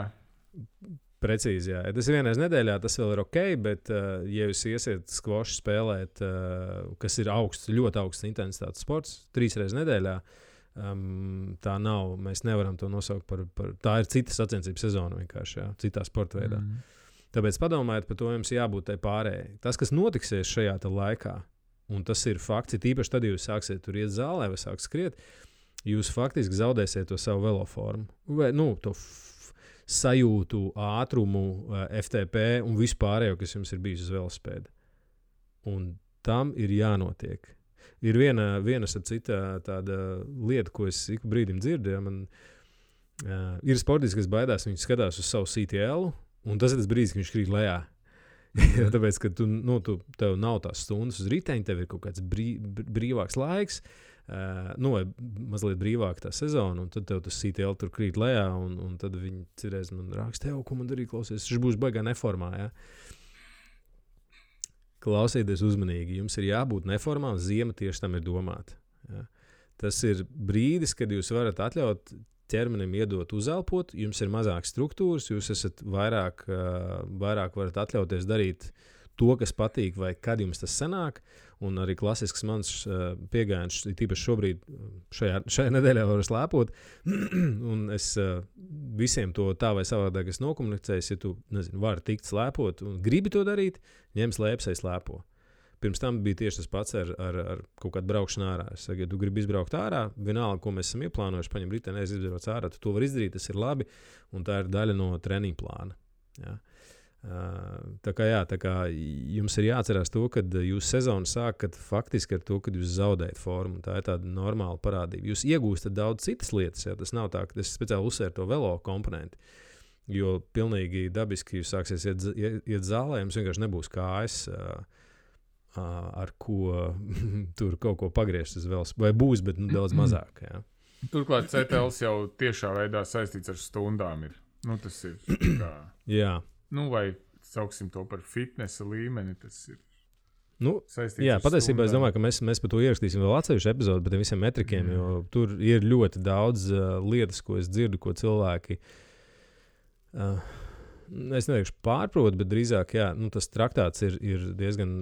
Speaker 1: Precīzi, jā. Ja tas ir vienreiz nedēļā, tas vēl ir ok, bet, ja jūs iesiet skvošu spēlēt, kas ir ļoti augsts intensitātes sports, 3 reizes nedēļā, tā nav, mēs nevaram to nosaukt par tā ir cita sacensību sezona vienkārši, jā, citā sporta veidā. Tāpēc padomājiet par to, jums jābūt tai pārējai. Tas, kas notiksies šajā laikā, un tas ir fakts, tīpaši tad, ja jūs sāksiet tur iet zālē vai sāksiet skriet, jūs faktiski zaudēsiet to savu veloformu. Vai, to sajūtu, ātrumu, FTP un vispārējo, kas jums ir bijis uz velospēda. Un tam ir jānotiek. Ir viena cita tāda lieta, ko es ik brīdim dzirdu. Ja, ir sportisti, kas baidās, viņi skatās uz savu CTL, un tas ir tas brīdis, kad viņš krīt lejā. Tāpēc, ka tev nav tās stundas uz riteņa, tev ir kaut kāds brīvāks laiks, vai mazliet brīvāk tā sezona, un tad tev tas CTL tur krīt lejā, un tad viņi cirēs man raksta, ko man darīt, klausies, viņš būs baigā neformā, ja? Klausieties uzmanīgi, jums ir jābūt neformā, un ziema tieši tam ir domāta. Ja? Tas ir brīdis, kad jūs varat atļaut ķermenim iedot uzelpot, jums ir mazāk struktūras, jūs esat vairāk varat atļauties darīt to, kas patīk, vai kad jums tas sanāk, un arī klasisks mans piegājiens, tīpaši šobrīd šajā nedēļā varu slēpot, un es visiem to tā vai savādāk es nokomunicēju, ja tu, vari tikt slēpot un gribi to darīt, ņem slēpsai slēpo. Pirms tam bija tieši tas pats ar kaut kādu braukšanu ārā. Es saku, ja tu gribi izbraukt ārā, vienalga, ko mēs esam ieplānojuši, paņem riteni, izbrauc ārā, tu to vari izdarīt, tas ir labi, un tā ir daļa no treniņa plāna. Ja? Tā kā jums ir jāatcerās to, ka jūs sezonu sākat faktiski ar to, kad jūs zaudējat formu. Tā ir tāda normāla parādība. Jūs iegūstat daudz citas lietas, ja tas nav tā, ka es speciāli uzsveru to velo komponenti, jo pilnīgi dabiski jūs sāksies iet zālē, jums vienkārši nebūs kājas, ar ko tur kaut ko pagriezt uz velos, vai būs, bet daudz mazāk. Ja.
Speaker 2: Turklāt CTLs jau tiešā veidā saistīts ar stundām ir. Tas ir kā...
Speaker 1: Jā.
Speaker 2: Vai sauksim to par fitnesa līmeni, tas ir saistīts
Speaker 1: jā,
Speaker 2: ar
Speaker 1: patiesībā
Speaker 2: stundām.
Speaker 1: Es domāju, ka mēs par to ierakstīsim vēl atsevišķu epizodu par tiem visiem metrikiem, jo tur ir ļoti daudz lietas, ko es dzirdu, ko cilvēki, es neteikšu pārprot, bet drīzāk, jā, tas traktāts ir diezgan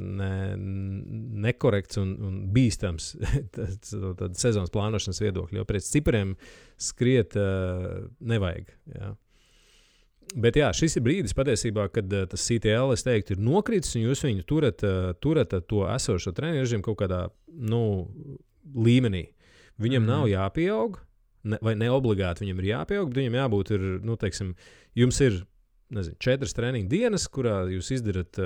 Speaker 1: nekorekts un bīstams tad sezonas plānošanas viedokļi, jo pēc cipariem skriet nevajag, jā. Bet jā, šis ir brīdis patiesībā, kad tas CTL, es teiktu, ir nokritis, un jūs viņu turat to esošo treniņu režīmu kaut kādā, līmenī. Viņam nav jāpieaug, vai neobligāti viņam ir jāpieaug, bet viņam jābūt ir, teiksim, jums ir, 4 treniņu dienas, kurā jūs izdarat,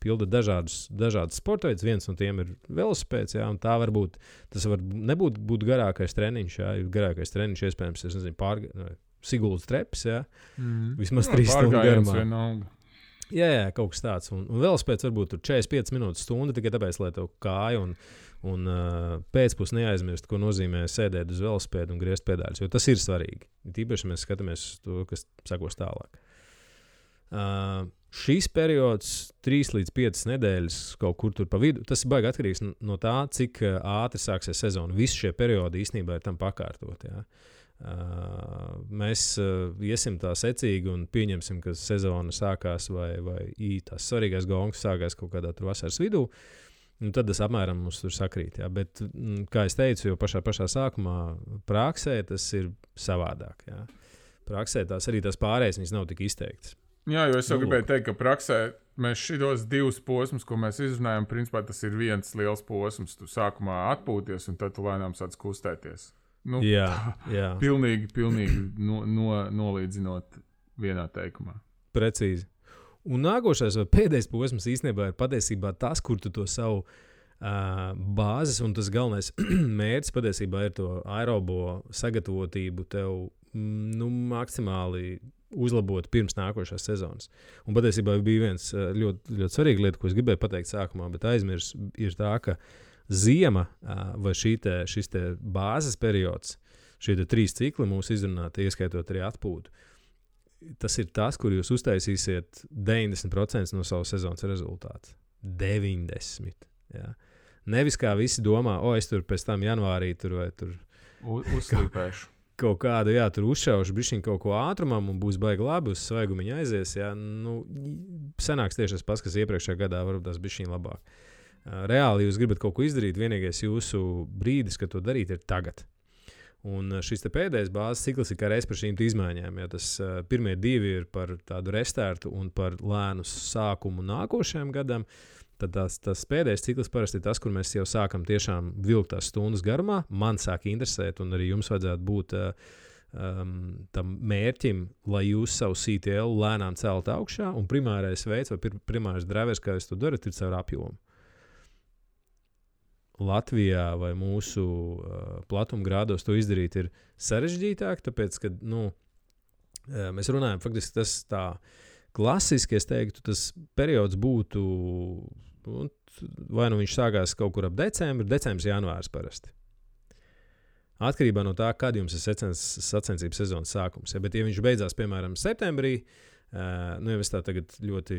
Speaker 1: pildat dažādas sporta veidus, viens no tiem ir velosipēds, jā, un tā varbūt, tas var nebūt garākais treniņš, jā, garākais treniņš, iespējams, es nezinu, Siguldas treps, jā. Vismaz 3 stundu garumā. Jā, kaut kas tāds. Un velospēds varbūt tur 45 minūtes stunda, tikai tāpēc, lai tev kāja un pēcpus neaizmirst, ko nozīmē sēdēt uz velospēdu un griezt pedāļus, jo tas ir svarīgi. Tīpaši mēs skatāmies uz to, kas sakos tālāk. Šīs periods 3 līdz 5 nedēļas kaut kur tur pa vidu, tas ir baigi atkarīgs no tā, cik ātri sāksies sezona. Visi šie periodi īstenībā ir tam pakārtot, jā. Mēs iesim tā secīgi un pieņemsim, ka sezona sākās vai tās svarīgais gongs sākās kaut kādā tur vasaras vidū, un tad tas apmēram mums tur sakrīt. Jā. Bet, kā es teicu, jau pašā sākumā praksē tas ir savādāk. Jā. Praksē arī tās pārējais viņas nav tik izteiktas.
Speaker 2: Jā, jo es jau gribēju teikt, ka praksē mēs šitos 2 posmus, ko mēs izrunājam, principā tas ir viens liels posms. Tu sākumā atpūties un tad tu lēnām sāc kustēties.
Speaker 1: Jā.
Speaker 2: Pilnīgi nolīdzinot vienā teikumā.
Speaker 1: Precīzi. Un nākošais vai pēdējais posms īstenībā ir patiesībā tas, kur tu to savu bāzes un tas galvenais mērķis patiesībā ir to aerobo sagatavotību tev maksimāli uzlabot pirms nākošās sezonas. Un patiesībā bija viens ļoti, ļoti svarīga lieta, ko es gribēju pateikt sākumā, bet aizmirst, ir tā, ka ziema vai šis bāzes periods, šie 3 cikli mūsu izrunāti, ieskaitot arī atpūtu, tas ir tas, kur jūs uztaisīsiet 90% no savas sezonas rezultātu. 90%. Jā. Nevis kā visi domā, es tur pēc tam janvārī tur vai tur
Speaker 2: uzslīpēšu.
Speaker 1: Kaut kādu, tur uzšaušu bišķiņ kaut ko ātrumam un būs baigi labi, uz svaigumiņu aizies. Jā. Sanāks tieši tas pats, kas iepriekšējā gadā varbūt tās bišķiņ labāk. Reāli jūs gribat kaut ko izdarīt, vienīgais jūsu brīdis, kad to darīt, ir tagad. Un šis pēdējais bāzes cikls ir kā reiz par šīm izmaiņām. Ja tas pirmie 2 ir par tādu restartu un par lēnu sākumu nākošajam gadam, tad tas pēdējais cikls parasti ir tas, kur mēs jau sākam tiešām vilkt tās stundas garumā. Man sāk interesēt, un arī jums vajadzētu būt tam mērķim, lai jūs savu CTL lēnām celt augšā, un primārais veids vai primārais drivers, kā jūs to darat, ir caur apjomu. Latvijā vai mūsu platumgrādos to izdarīt ir sarežģītāk, tāpēc, ka mēs runājam, faktiski tas tā klasiski, es teiktu, tas periods būtu, vai nu viņš sākās kaut kur ap decembris, janvārs parasti. Atkarībā no tā, kad jums ir sacensības sezonas sākums. Ja, bet, ja viņš beidzās, piemēram, septembrī, jau es tā tagad ļoti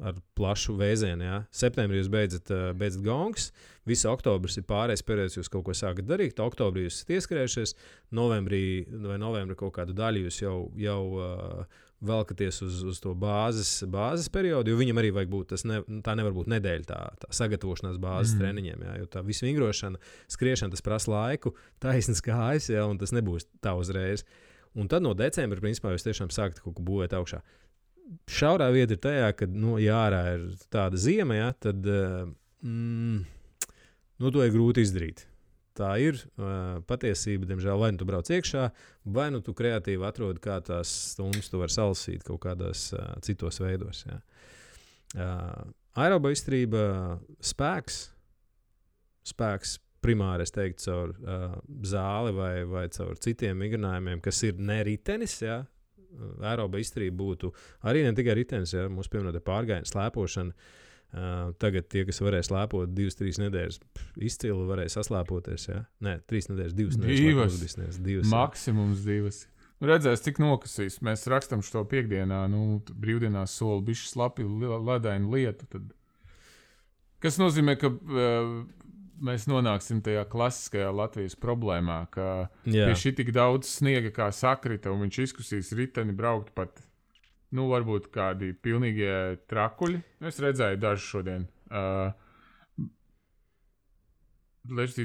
Speaker 1: ar plašu vēzienu. Ja. Septembrī jūs beidzat gongs, visa oktobris ir pārējais periods, jūs kaut ko sākat darīt, oktobrī jūs esat ieskrējušies, novembrī kaut kādu daļu jūs jau velkaties uz to bāzes periodu, jo viņam arī vajag būt, tā nevar būt nedēļa tā sagatavošanās bāzes treniņiem, ja, jo tā visu vingrošana, skriešana, tas prasa laiku, taisnas kājas, ja, un tas nebūs tā uzreiz. Un tad no decembra, principā, jūs tiešām sākat kaut ko būvēt augšā. Šaurā vieta ir tajā, ka, ja ārā ir tāda ziema, ja, tad to ir grūti izdarīt. Tā ir patiesība, diemžēl, vai nu tu brauc iekšā, vai nu tu kreatīvi atrodi, kā tās stundas tu vari salasīt kaut kādos citos veidos. Ja. Aeroba izturība, spēks primāri, es teiktu, caur zāli vai caur citiem vingrinājumiem, kas ir ne ritenis, ja. Aeroba izturība būtu arī ne tikai ritenis, ja mūsu pieminēta pārgājiena, slēpošana. Tagad tie, kas varēja slēpot 2-3 nedēļas, izcili varēja saslēpoties. Ja? Nē, 3 nedēļas, 2 nedēļas. 2.
Speaker 2: Maksimums 2. Redzēs, cik nokasīs. Mēs rakstam šo piekdienā, brīvdienās soli bišķi slapi ledainu lietu. Tad... Kas nozīmē, ka mēs nonāksim tajā klasiskajā Latvijas problēmā, ka pie šī tik daudz sniega kā sakrita, un viņš izkusīs riteni braukt pat, varbūt kādi pilnīgie trakuļi. Es redzēju dažu šodien.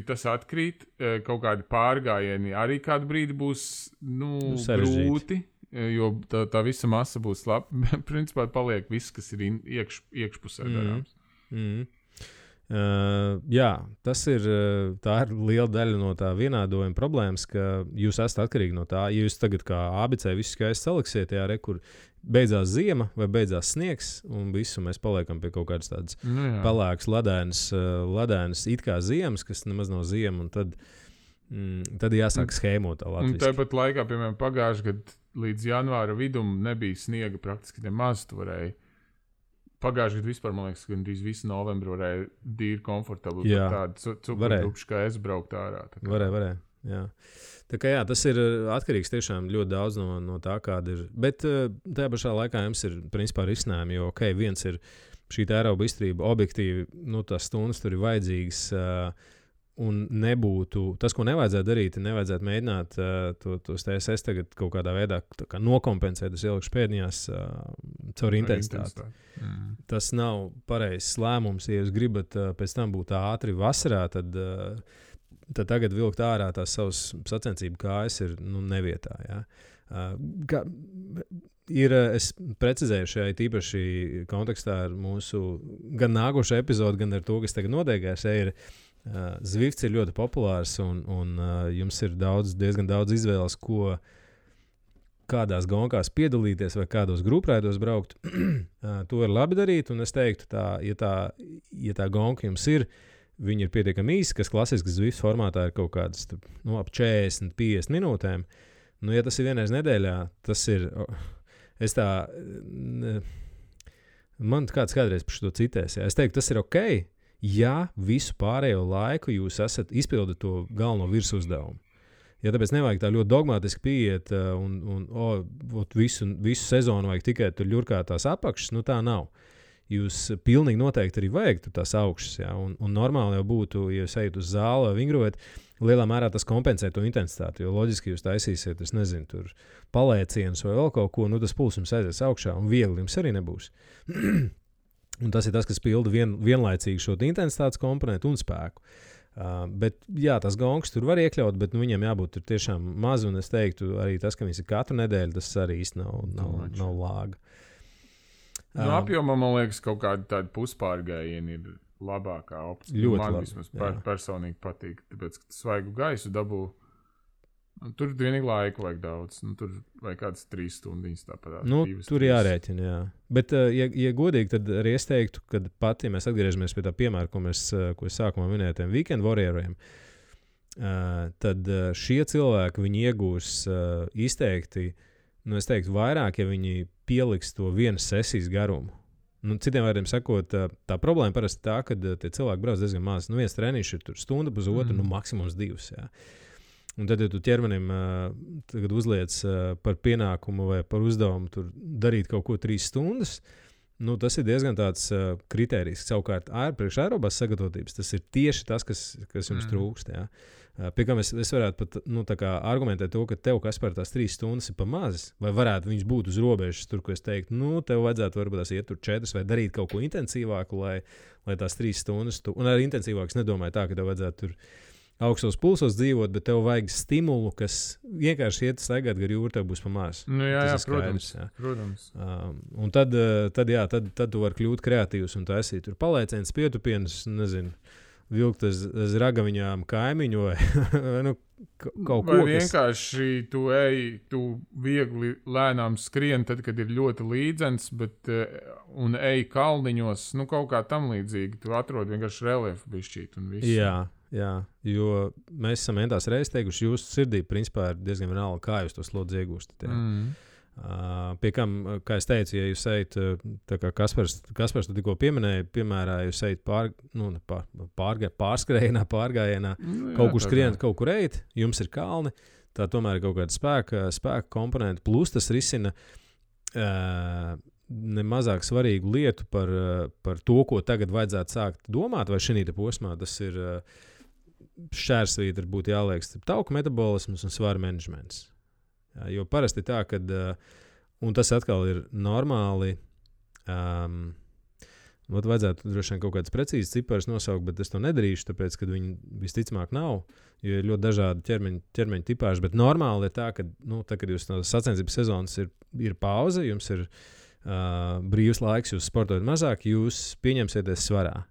Speaker 2: Tas atkrīt, kaut kādi pārgājieni arī kādu brīdi būs grūti, jo tā visa masa būs slapa. Principā paliek viss, kas ir iekšpusē darāms.
Speaker 1: Tā ir liela daļa no tā vienādojuma problēmas, ka jūs esat atkarīgi no tā. Ja jūs tagad kā ABC visu skaisti saliksiet, kur beidzās ziema vai beidzās sniegs, un visu mēs paliekam pie kaut kādas tādas pelēkas, ledēnas it kā ziemas, kas nemaz nav ziema, un tad jāsāk schēmot tā latviski.
Speaker 2: Un tāpat laikā, piemēram, pagājušajā gadā līdz janvāra vidum nebija sniega praktiski nemaz, tu varēji. Pagājušajā gadā vispār, man liekas, gandrīz visu novembru varēja dīri komfortabli tādu cukurupšu kā es braukt ārā.
Speaker 1: Varēja. Jā. Tā kā tas ir atkarīgs tiešām ļoti daudz no tā, kāda ir. Bet tajā pašā laikā jums ir principā risinājumi, jo viens ir šī aeroba izturība objektīvi, tās stundas tur ir vajadzīgas. Un nebūtu tas, ko nevajadzētu darīt, nevajadzētu mēģināt tos TSS tagad kaut kādā veidā nokompensēt, es ielikšu pēdiņās caur intensitāti. Tas nav pareizs lēmums. Ja jūs gribat pēc tam būt ātri vasarā, tad tagad vilkt ārā tās savas sacensību kājas ir nevietā. Ja? Es precizēju šajā tīpaši kontekstā ar mūsu gan nākošo epizodu, gan ar to, kas tagad notiekās. Zvifts ir ļoti populārs, un jums ir diezgan daudz izvēles, kādās gonkās piedalīties vai kādos grupraidos braukt. To ir labi darīt, un es teiktu, ja tā gonka jums ir, viņi ir pietiekami īsi, kas klasiski Zwift formātā ir kaut kādas ap 40-50 minūtēm. Nu, ja tas ir vienreiz nedēļā, tas ir. Man kāds kādreiz par šo citēs. Jā. Es teiktu, tas ir ok, ja visu pārējo laiku jūs esat izpildīt to galveno virsuzdevumu. Ja tāpēc nevajag tā ļoti dogmatiski pieiet visu sezonu vajag tikai tur ļurkāt tās apakšas, nu tā nav. Jūs pilnīgi noteikti arī vajag tās augšas, jā, un normāli jau būtu, ja jūs ejat uz zāli vai vingrojat, lielā mērā tas kompensē to intensitāti, jo loģiski jūs taisīsiet, es nezinu, tur palēcienus vai vēl kaut ko, nu tas puls jums aizies augšā un viegli jums arī nebūs. Un tas ir tas, kas pilda vienlaicīgi šo intensitātes komponentu un spēku. Bet jā, tas gongs tur var iekļaut, bet viņiem jābūt tur tiešām maz, un es teiktu arī tas, ka viņas ir katru nedēļu, tas arī īsti nav lāga.
Speaker 2: Apjomā, man liekas, kaut kāda tāda puspārgājiena ir labākā opcija.
Speaker 1: Ļoti
Speaker 2: man
Speaker 1: labi,
Speaker 2: vismaz personīgi patīk, tāpēc, ka svaigu gaisu dabū. Tur vienīgi laiku vajag daudz. Tur vajag kādas 3 stundas tāpat.
Speaker 1: Tur jārēķina, jā. Bet, ja godīgi, tad arī es teiktu, ka pat, ja mēs atgriežamies pie tā piemēra, ko es sākumā minēju, tiem weekend warrioriem, tad šie cilvēki, viņi iegūs izteikti, es teiktu, vairāk, ja viņi pieliks to vienas sesijas garumu. Citiem vārdiem sakot, tā problēma parasti tā, ka tie cilvēki brauc diezgan maz. Viens treniņš ir tur stunda, pusotru, maksimums 2. Jā. Un tad, ja tu ķermenim tagad uzliec par pienākumu vai par uzdevumu tur darīt kaut ko 3 stundas, tas ir diezgan tāds kritērijs. Savukārt, priekš aerobās sagatavotības, tas ir tieši tas, kas jums trūkst. Jā. Pie kā es varētu pat argumentēt to, ka tev kas par tās 3 stundas ir pa maz, vai varētu viņas būt uz robežas, tur, ko es teiktu, tev vajadzētu varbūt tās iet tur 4 vai darīt kaut ko intensīvāku, lai tās 3 stundas, un arī intensīvāks nedomāju tā, ka tev vajadzētu tur augstos pulsos dzīvot, bet tev vajag stimulu, kas vienkārši iet staigāt gar jūru, tev būs pa maz.
Speaker 2: Protams.
Speaker 1: Un tad tu vari kļūt kreatīvs un taisīt tur palēcienus, pietupienus, nezinu, vilkt aiz ragaviņām kaimiņu vai kaut ko.
Speaker 2: Vai vienkārši tu viegli lēnām skrien, tad, kad ir ļoti līdzens, un ej kalniņos, kaut kā tam līdzīgi. Tu atrod vienkārši reliefu bišķīt un visu.
Speaker 1: Jā, jo mēs esam tās reizes teikuši, jūsu sirdī principā ir diezgan vienalga, kā jūs to slodzi iegūstat. Pie kam, kā es teicu, ja jūs ejat, tā kā Kaspars tu tikko pieminēja, piemērā, jūs ejat pārgājienā, kaut kur skrienat, kaut kur ejat, jums ir kalni, tā tomēr ir kaut kāda spēka komponenta, plus tas risina nemazāk svarīgu lietu par to, ko tagad vajadzētu sākt domāt, vai šī posmā tas ir šķērsvītra būtu jāliek starp tauku metabolismus un svaru menedžments. Jo parasti tā, ka, un tas atkal ir normāli, vajadzētu droši vien kaut kādas precīzas ciparas nosaukt, bet es to nedarīšu, tāpēc, ka viņi visticamāk nav, jo ir ļoti dažādi ķermeņa tipāži, bet normāli ir tā, ka, kad jūs no sacensības sezonas ir pauze, jums ir brīvs laiks, jūs sportojat mazāk, jūs pieņemsieties svarā.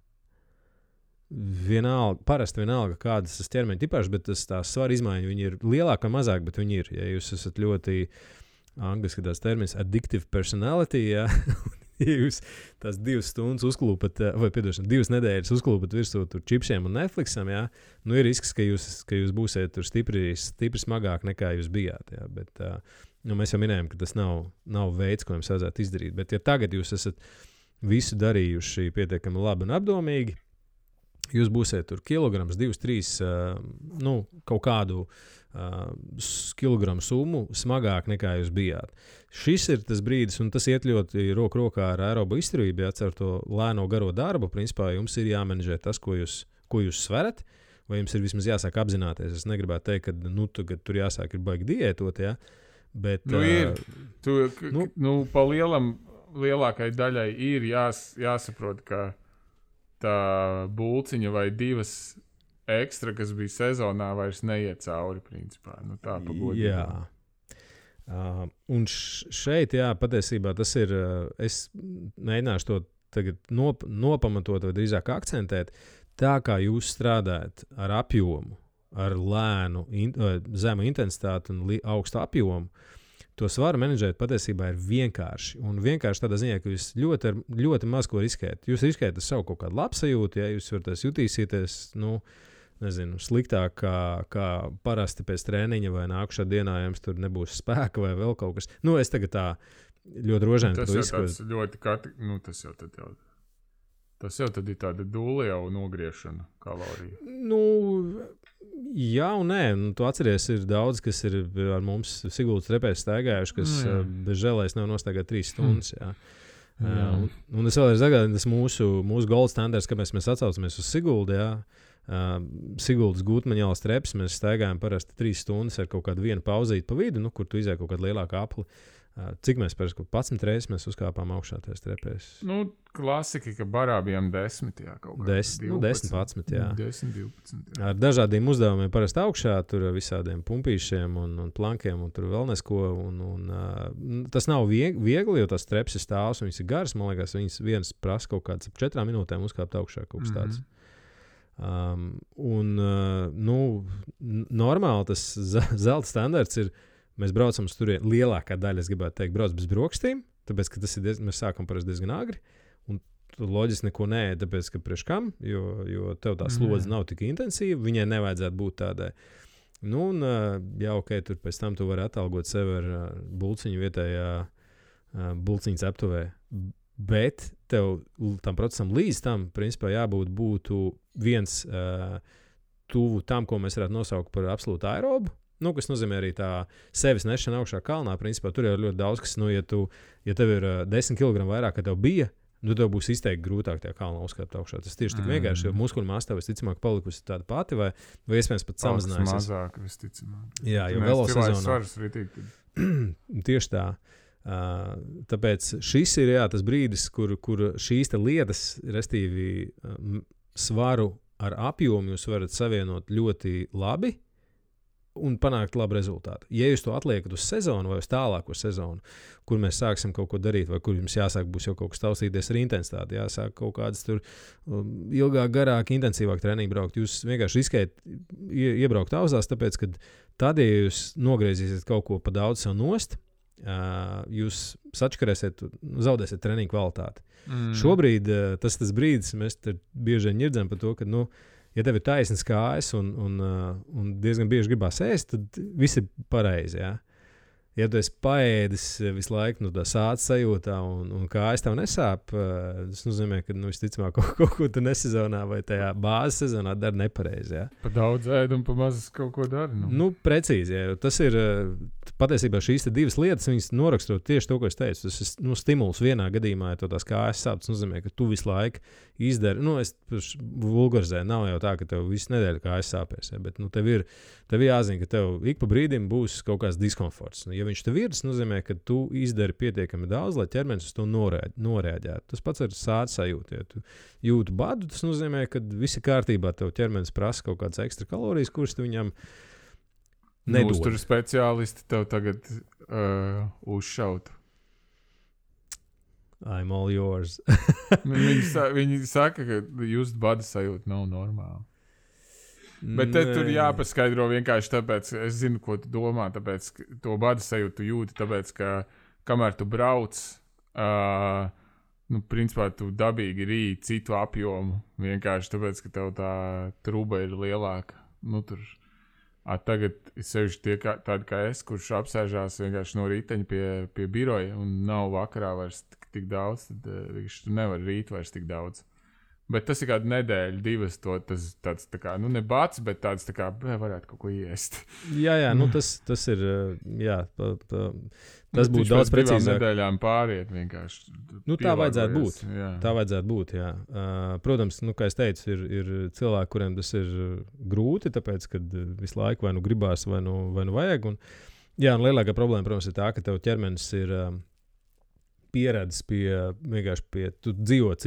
Speaker 1: Parasti vienalga, kādas tas ķermeņa tipāžas, bet tās svara izmaiņas, viņi ir lielāk vai mazāk, bet viņi ir. Ja jūs esat ļoti, angliski tās termins, addictive personality, ja jūs tās 2 stundas uzklūpat, vai 2 nedēļas uzklūpat virsū tur čipšiem un Netflixam, ja, ir risks, ka jūs būsiet tur stipri smagāk nekā jūs bijāt. Ja, bet mēs jau minējām, ka tas nav veids, ko jums vajadzētu izdarīt. Bet ja tagad jūs esat visu darījuši pietiekami labi un apdomīgi, jūs būsiet tur kilograms, 2, 3, kaut kādu kilogramu summu smagāk nekā jūs bijāt. Šis ir tas brīdis, un tas iet ļoti roku rokā ar aerobu izturību, ar to lēno garo darbu. Principā jums ir jāmenedžē tas, ko jūs sverat, vai jums ir vismaz jāsāk apzināties. Es negribētu teikt, ka tagad tur jāsāk ir baigi diētot, ja? Bet,
Speaker 2: pa lielākai daļai ir jāsaprot, ka tā bulciņa vai 2 ekstra, kas bija sezonā, vairs neiet cauri, principā. Tā pagodīgi.
Speaker 1: Jā. Un šeit, patiesībā tas ir, es mēģināšu to tagad nopamatot vai drīzāk akcentēt, tā kā jūs strādājat ar apjomu, ar lēnu, zemu intensitāti un augstu apjomu, to svaru menedžēt patiesībā ir vienkārši. Un vienkārši tādā ziņā, ka jūs ļoti, ļoti maz ko riskējat. Jūs riskējat ar savu kaut kādu labsajūtu, ja jūs varat jutīsieties, nezinu, sliktāk kā parasti pēc treniņa vai nākušā dienā jums tur nebūs spēka vai vēl kaut kas. Nu, es tagad tā ļoti rožēni
Speaker 2: to izskatu. Tas jau tad ir tāda dūle jau nogriešana kaloriju.
Speaker 1: Nu, jā un nē. Nu, tu atceries, ir daudz, kas ir ar mums Siguldas trepēs staigājuši, kas bez žēlēs nav nostaigāt 3 stundas. Jā. Un es vēlreiz atgādinu, tas mūsu gold standards, kāpēc mēs atsaucamies uz Siguldu. Jā. Siguldas Gutmaņālas trepas mēs staigājam parasti 3 stundas ar kaut kādu vienu pauzīti pa vidu, kur tu izēj kaut kādu lielāku apli. Cik mēs parasti 11 reizes mēs uzkāpām augšā tajās trepēs?
Speaker 2: Nu, klasika, ka barā bijām 10, jā, kaut kā.
Speaker 1: 10, 11, jā.
Speaker 2: 10, 12, jā.
Speaker 1: Ar dažādiem uzdevumiem parasti augšā, tur visādiem pumpīšiem un plankiem, un tur vēl nesko. Tas nav viegli, jo tās trepas ir stāvs, viņas ir garas, man liekas, viņas viens prasa kaut kāds 4 minūtēm uzkāpt augšā kaut kas tāds. Normāli tas zelta standarts ir. Mēs braucam uz turieni, lielākā daļa, es gribētu teikt, brauc bez brokastīm, tāpēc, ka tas ir mēs sākam parasti diezgan agri, un tu loģiski neko neēd, tāpēc, ka priekš kam, jo tev tā slodze nav tik intensīva, viņai nevajadzētu būt tādai. Nu, un ok, tur pēc tam tu vari atalgot sevi ar bulciņu vietējā bulciņas aptuvē, bet tev tam procesam līdz tam, principā, būtu viens tuvu tam, ko mēs varētu nosaukt par absolūtu aerobu. Nu, kas nozīmē arī tā sevis nešana augšā kalnā. Principā tur jau ir ļoti daudz, kas, ja tev ir 10 kg vairāk, kā tev bija, tev būs izteikti grūtāk tajā kalnā uzkāpt augšā. Tas tieši tik vienkārši, jo muskuļu masa tev visticamāk palikusi tāda pati, vai iespējams pat samazinājusies.
Speaker 2: Mazāk, visticamāk.
Speaker 1: Jā, jo velo sezonā. Tieši tā. Tāpēc šis ir tas brīdis, kur šīs lietas, restīvi svaru ar apjomu, jūs varat savienot ļoti labi. Un panākt labu rezultātu. Ja jūs to atliekat uz sezonu vai uz tālāko sezonu, kur mēs sāksim kaut ko darīt, vai kur jums jāsāk būs jau kaut kas taustīties ar intensitāti, jāsāk kaut kādas tur ilgāk, garāk, intensīvāk treniņu braukt, jūs vienkārši riskējat iebraukt auzās, tāpēc, ka tad, ja jūs nogriezīsiet kaut ko pa daudz sev nost, jūs sačkarēsiet, zaudēsiet treniņu kvalitāti. Šobrīd tas brīdis, mēs bieži vien ņirdzam par to, ka, ja tev ir taisnas kājas un diezgan bieži gribās ēst, tad viss ir pareizi. Ja? Ja tu esi paēdis visu laiku no tā sāta sajūtā un kājas tev nesāp, tas nozīmē, ka visticamāk kaut ko tu nesezonā vai tajā bāzes sezonā dari nepareizi. Ja?
Speaker 2: Pa daudz ēd un pa maz kaut ko dari.
Speaker 1: Nu, precīzi. Ja? Tas ir patiesībā šīs divas lietas, viņas norakstot tieši to, ko es teicu. Tas ir stimuls vienā gadījumā, ja tās kājas sāp, tas nozīmē, ka tu visu laiku izdari. Es vulgarizēju, nav jau tā, ka tev visu nedēļu kājas sāpēs. Ja? Bet tev ir jāzina, ka tev ik pa brīdim būs kaut kāds diskomforts. Ja viņš tev ir, tas nozīmē, ka tu izdari pietiekami daudz, lai ķermenis uz to noreaģētu. Tas pats ar sāta sajūtu. Ja tu jūti badu, tas nozīmē, ka viss ir kārtībā, tev ķermenis prasa kaut kādas ekstra kalorijas, kuras tu viņam nedod.
Speaker 2: Uzturu speciālisti tev tagad uzšautu.
Speaker 1: I'm all yours.
Speaker 2: viņi saka, ka just bada sajūta nav normāla. Bet tur jāpaskaidro vienkārši tāpēc, es zinu, ko tu domā, tāpēc to bada sajūtu jūti, tāpēc, ka kamēr tu brauc, principā tu dabīgi rīji citu apjomu, vienkārši tāpēc, ka tev tā truba ir lielāka. Tagad sevišķi tie tādi kā es, kurš apsēžās vienkārši no rīteņa pie biroja un nav vakarā vairs tik daudz, tad tu nevar rīt vairs tik daudz. Bet tas ir kāda nedēļa, 2, tas tāds tā kā, ne bats, bet tāds tā kā, varētu kaut ko iest.
Speaker 1: Jā, tas ir, tas būtu daudz precīzāk.
Speaker 2: Nedēļām pāriet vienkārši.
Speaker 1: Tā vajadzētu būt. Jā. Tā vajadzētu būt, jā. Protams, kā es teicu, ir cilvēki, kuriem tas ir grūti, tāpēc, kad visu laiku vai nu gribās, vai nu vajag. Un lielākā problēma, protams, ir tā, ka tev ķermenis ir pieredzis pie tu dzīvo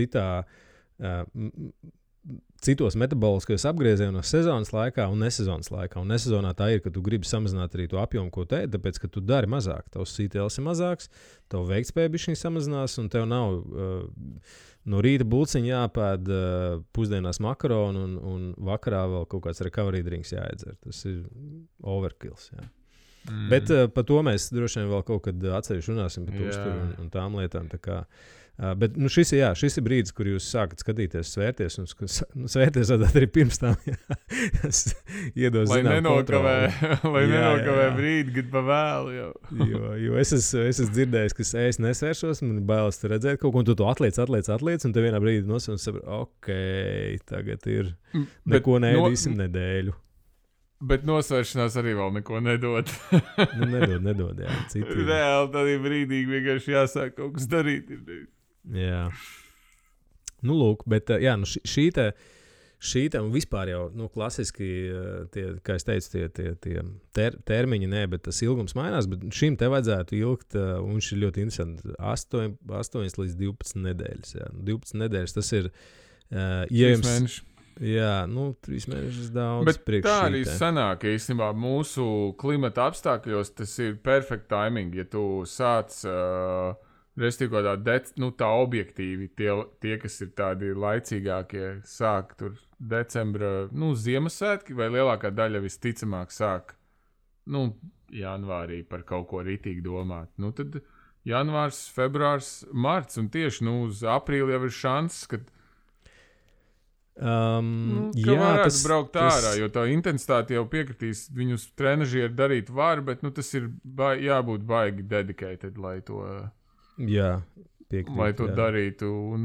Speaker 1: citos metaboliskajos apgriezienos sezonas laikā un nesezonas laikā. Un nesezonā tā ir, ka tu gribi samazināt arī to apjomu, ko te, tāpēc, ka tu dari mazāk. Tavs CTLs ir mazāks, tavu veiktspēja bišķiņ samazinās, un tev nav no rīta bulciņa jāpēd, pusdienās makaronu un vakarā vēl kaut kāds recovery drinks jāiedzer. Tas ir overkills, jā. Bet par to mēs droši vien vēl kaut kad atsevišķi runāsim par uzturu un tām lietām. Tā kā, bet šis ir brīdis, kur jūs sākat skatīties, svērties, un svērties arī pirms tam. Iedos,
Speaker 2: lai nenokavē brīdi, kad pa vēlu jau.
Speaker 1: jo es esmu dzirdējis, ka es nesvēršos, man ir bailes redzēt kaut ko, un tu to atliec, un te vienā brīdī nosauc un saprot, tagad ir neko neēdīsim nedēļu.
Speaker 2: Bet nosvēršanās arī vēl neko nedod.
Speaker 1: Nedod, jā. Citi.
Speaker 2: Reāli tādā brīdī vienkārši jāsāk kaut kas darīt.
Speaker 1: Jā. Nu, lūk, bet šī te un vispār jau, klasiski, kā es teicu, tie termiņi, bet tas ilgums mainās, bet šim te vajadzētu ilgt, un šis ir ļoti interesanti, 8 līdz 12 nedēļas. Jā. 12 nedēļas, tas ir,
Speaker 2: mēneši.
Speaker 1: Jā, 3 mēnešus daudz.
Speaker 2: Bet tā arī sanāk, īstenībā mūsu klimata apstākļos tas ir perfect timing, ja tu sāc, tā objektīvi, tie, kas ir tādi laicīgākie, sāk tur decembra, Ziemassvētki, vai lielākā daļa visticamāk sāk, janvārī par kaut ko ritīgi domāt. Tad janvārs, februārs, marts, un tieši, uz aprīli jau ir šanss, ka varētu braukt ārā, jo tā intensitāte jau piekritīs, viņus trenažieri darīt var, bet tas ir jābūt baigi dedicated, lai to, darītu, un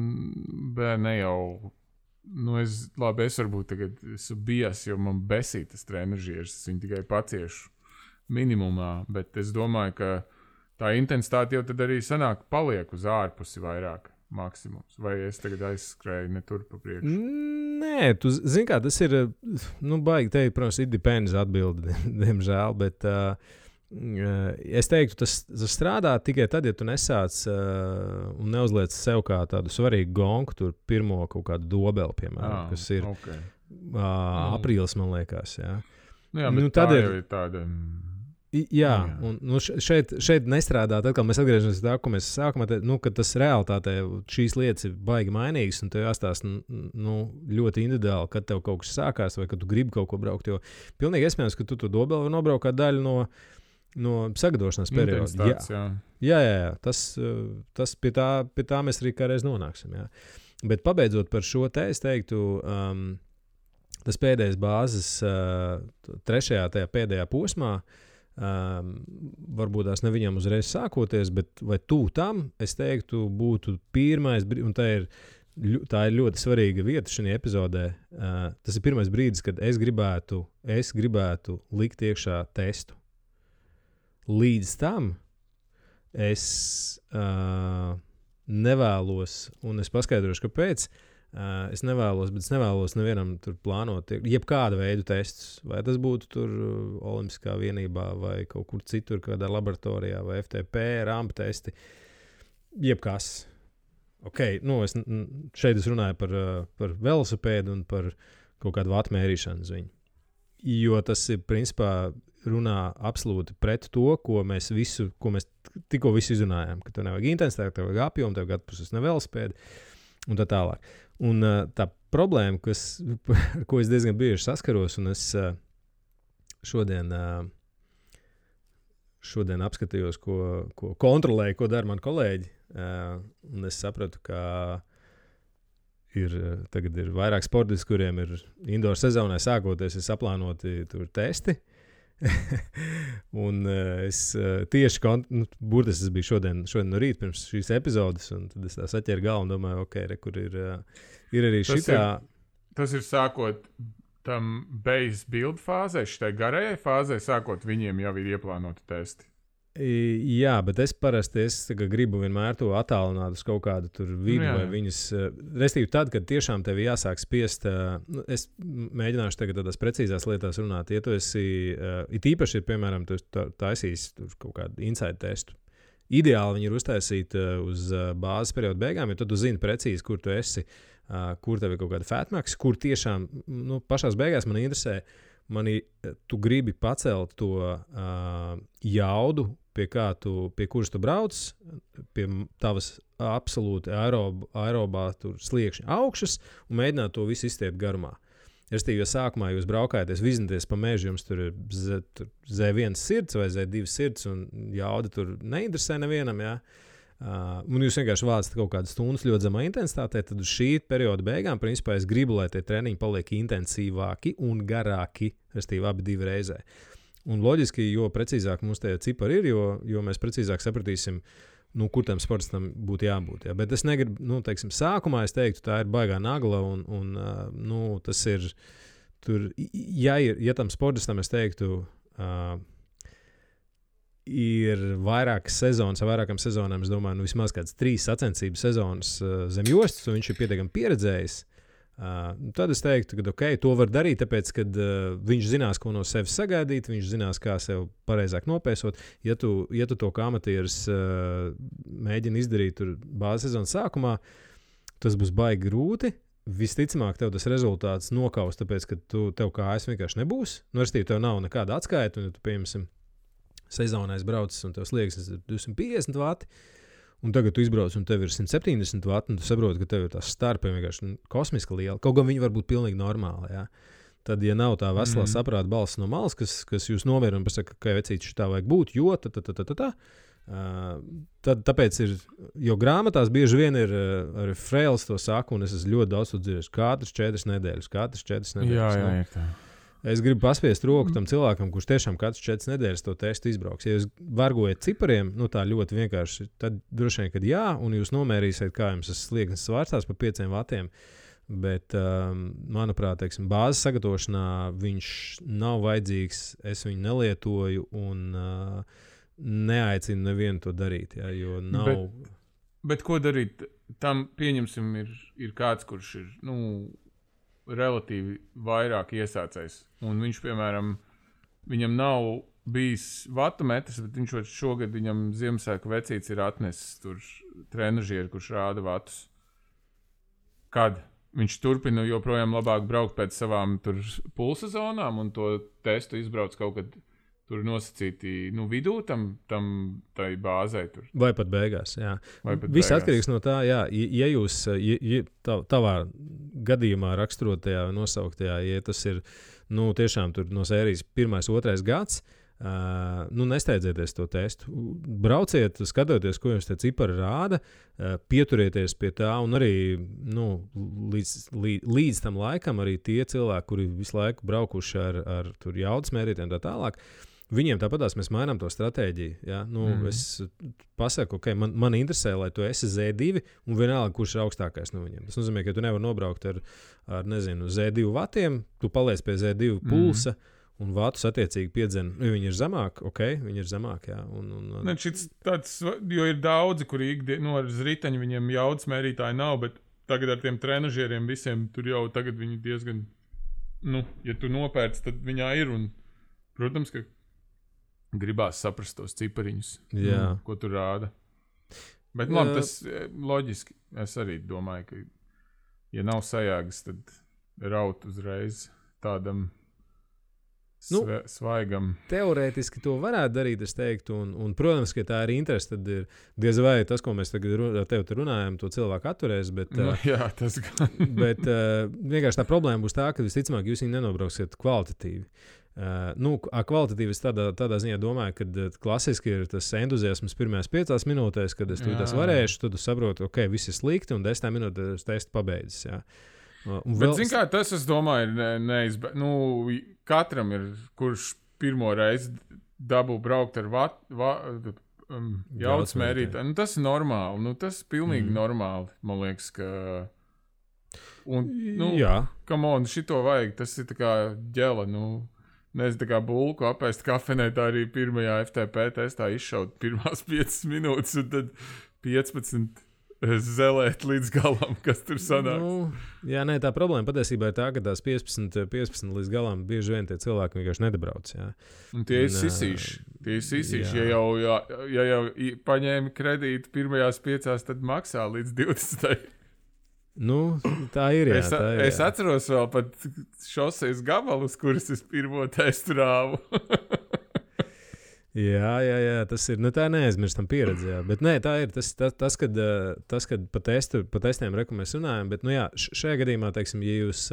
Speaker 2: ne jau, es varbūt tagad esmu bijis, jo man besīt tas trenažieris, es viņu tikai paciešu minimumā, bet es domāju, ka tā intensitāte jau tad arī sanāk paliek uz ārpusi vairāk. Maksimums. Vai es tagad aizskrēju ne tur pa priekšu?
Speaker 1: Nē, tu zini kā, tas ir, baigi teikt, protams, it depends atbildi, diemžēl, bet es teiktu, tas strādā tikai tad, ja tu nesāc un neuzliec sev kā tādu svarīgu gonku, tur pirmo kaut kādu dobeli, piemēram, kas ir aprīlis, man liekas, jā.
Speaker 2: Jā, bet tā jau ir tāda...
Speaker 1: Jā, un šeit nestrādā. Tad, kad mēs atgriežamies pie tā, ko mēs sākumā teicām, ka tas realitātē šīs lietas ir baigi mainīgas, un tev jāstāsta ļoti individuāli, kad tev kaut kas sākās, vai kad tu gribi kaut ko braukt. Jo pilnīgi iespējams, ka tu to dobeli var nobraukt kā daļu no sagatavošanās perioda. Jā. Tas pie tā mēs arī kādreiz nonāksim. Jā. Bet pabeidzot par šo te, es teiktu, tas pēdējais bāzes, trešajā tajā pēdējā posmā, varbūt tās ne viņam uzreiz sākoties, bet vai tuvu tam, es teiktu, būtu pirmais, un tā ir ļoti svarīga vieta šajā epizodē. Tas ir pirmais brīdis, kad es gribētu likt iekšā testu. Līdz tam es nevēlos, un es paskaidrošu, kāpēc. Es nevēlos nevienam tur plānot jebkāda veida testus. Vai tas būtu tur Olimpiskā vienībā vai kaut kur citur, kādā laboratorijā, vai FTP, rampa testi. Jebkas. Šeit es runāju par velosipēdu un par kaut kādu vatu mērīšanu uz viņu. Jo tas ir, principā, runā absolūti pret to, ko mēs tikko izrunājām. Ka tev nevajag intensitāti, tev vajag apjomu, tev vajag atpūsties no velosipēda un tā tālāk. Un tā problēma, ar ko es diezgan bieži saskaros, un es šodien apskatījos, ko kontrolēju, ko dara mani kolēģi, un es sapratu, ka tagad ir vairāk sportisti, kuriem ir indoor sezonai sākoties, ir saplānoti tur testi. Un es tieši burtiski biju šodien no rīta pirms šīs epizodes, un tad es tā saķēru galvu un domāju, kur ir arī šitā.
Speaker 2: Tas ir sākot tam base build fāzē, šitai garajai fāzē, sākot viņiem jau ir ieplānoti testi.
Speaker 1: Jā, bet es parasti gribu vienmēr to attālināt uz kaut kādu tur vidu vai viņas. Restīvi tad, kad tiešām tev jāsāk spiest, es mēģināšu tagad tādās precīzās lietās runāt. Ja tu esi, it īpaši ir, piemēram, tu taisīs kaut kādu inside testu. Ideāli viņi ir uztaisīti uz bāzes perioda beigām, jo tad tu zini precīzi, kur tu esi, kur tev ir kaut kāda fatmax, kur tiešām, pašās beigās man interesē, tu gribi pacelt to jaudu, pie kuras tu brauc, pie tavas absolūti aerobā sliekšņa augšas un mēģināt to visu izstiept garumā. Restīvi, jo sākumā jūs braukājaties, vizināties pa mežu, jums tur ir Z1 sirds vai Z2 sirds, un jauda tur neinteresē nevienam, jā. Un jūs vienkārši vācat kaut kādas stundas ļoti zemā intensitātē, tad uz šī perioda beigām, principā, es gribu, lai tie treniņi paliek intensīvāki un garāki, restīvi abi divi reizē. Un loģiski, jo precīzāk mums tie cipari ir, jo mēs precīzāk sapratīsim, kur tam sportistam būtu jābūt. Jā. Bet es negribu, teiksim, sākumā es teiktu, tā ir baigā nagla, un tas ir, tur, ja tam sportistam es teiktu, ir vairākas sezonas, ar vairākām sezonām, es domāju, vismaz kāds 3 sacensību sezonas zem jostas, un viņš ir pietiekami pieredzējis. Tad es teiktu, ka to var darīt, tāpēc, ka viņš zinās, ko no sevis sagaidīt, viņš zinās, kā sev pareizāk nopēsot. Ja tu to kā amatieris mēģini izdarīt tur bāzes sezonas sākumā, tas būs baigi grūti. Visticamāk, tev tas rezultāts nokaus, tāpēc, ka tev kājas vienkārši nebūs. Restīvi, tev nav nekāda atskaita, un ja tu, piemēram, sezonā braucis, un tev slieksnis ir 250 vati, un tagad tu izbrauc, un tev ir 170 vati, un tu saproti, ka tev ir tās starpi vienkārši kosmiski liela. Kaut gan viņi var būt pilnīgi normāli, jā. Tad, ja nav tā veselā saprāta balss no malas, kas jūs nomierina un pasaka, ka vecīti šitā vajag būt, jo tad tāpēc ir, jo grāmatās bieži vien ir arī Freils to saka, un es esmu ļoti daudz to dzirdējis, katras 4 nedēļas.
Speaker 2: Jā, ir tā.
Speaker 1: Es gribu paspiest roku tam cilvēkam, kurš tiešām katrs 4 nedēļas to testu izbrauks. Ja jūs vargojat cipariem, tā ļoti vienkārši, tad droši vien, kad jā, un jūs nomērīsiet, kā jums tas slieksnis svārstās pa 5 vatiem. Bet, manuprāt, teiksim, bāzes sagatavošanā viņš nav vajadzīgs, es viņu nelietoju un neaicinu nevienu to darīt. Jā, jo nav...
Speaker 2: Bet ko darīt? Tam, pieņemsim, ir kāds, kurš ir, relatīvi vairāk iesācējs. Un viņš, piemēram, viņam nav bijis vatu metrs, bet viņš šogad viņam Ziemassvētku vecītis ir atnesis tur trenažieri, kurš rāda vatus. Kad viņš turpina joprojām labāk braukt pēc savām tur pulsa zonām un to testu izbrauc kaut kad tur nosacīti vidū tai bāzei. Tur.
Speaker 1: Vai pat beigās, jā. Viss atkarīgs no tā, jā. Ja jūs tavā gadījumā raksturotajā vai nosauktajā, ja tas ir tiešām tur no sērijas 1., 2. gads, nesteidzieties to testu. Brauciet, skatoties, ko jums tie cipari rāda, pieturieties pie tā un arī līdz tam laikam arī tie cilvēki, kuri visu laiku braukuši ar tur jaudas mērītiem tā tālāk, viņiem tāpatās mēs mainām to stratēģiju. Ja? Es pasaku, man interesē, lai tu esi Z2 un vienalga, kurš ir augstākais no viņiem. Tas nozīmē, ka tu nevari nobraukt ar Z2 vatiem, tu paliec pie Z2 pulsa un vatus attiecīgi piedzen. Viņi ir zemāk, viņi ir zemāk, jā.
Speaker 2: Ne, tāds, jo ir daudzi, kuri ar riteņu viņiem jaudas mērītāji nav, bet tagad ar tiem trenažieriem visiem tur jau tagad viņi diezgan, ja tu nopērc, tad viņā ir un, protams, ka gribās saprast tos cipariņus, ko tu rāda. Bet labi, tas loģiski. Es arī domāju, ka ja nav sajēgas, tad raut uzreiz tādam svaigam.
Speaker 1: Teorētiski to varētu darīt, es teiktu, un protams, ka tā ir interese, tad ir diez vai tas, ko mēs tagad ar tevi runājam, to cilvēku atturēs, bet,
Speaker 2: jā, tas gan.
Speaker 1: Bet vienkārši tā problēma būs tā, ka visticamāk jūs viņu nenobrauksiet kvalitatīvi. Kvalitatīvi es tādā ziņā domāju, ka klasiski ir tas entuziasms pirmajās 5 minūtēs, kad es tas varēšu, tad saprotu, viss ir slikti, un 10 minūtēs testu pabeidzis, jā.
Speaker 2: Bet, zin kā, tas, es domāju, ir katram ir, kurš pirmo reizi dabū braukt ar jaudas mērītāju. Tas ir normāli, tas ir pilnīgi normāli, man liekas, ka... Un, come on, šito vajag, tas ir tā kā ģela, nezinu, tā kā bulku apēst kafenē, tā arī pirmajā FTP testā izšaut pirmās 5 minūtes, un tad 15 zelēt līdz galam, kas tur sanāk.
Speaker 1: Tā problēma patiesībā ir tā, ka tās 15 līdz galam bieži vien tie cilvēki vienkārši nedabrauc. Jā.
Speaker 2: Un tie ir sisīši. Ja jau paņēmi kredītu pirmajās 5, tad maksā līdz 20.
Speaker 1: Tā ir, jā.
Speaker 2: Es atceros vēl pat šoseis gabalus, kurus es pirmo testu rāvu.
Speaker 1: Jā, tas ir, tā neaizmirstam pieredze, jā. Bet tā ir tas, kad pa testiem mēs runājam, bet, šajā gadījumā, teiksim, ja jūs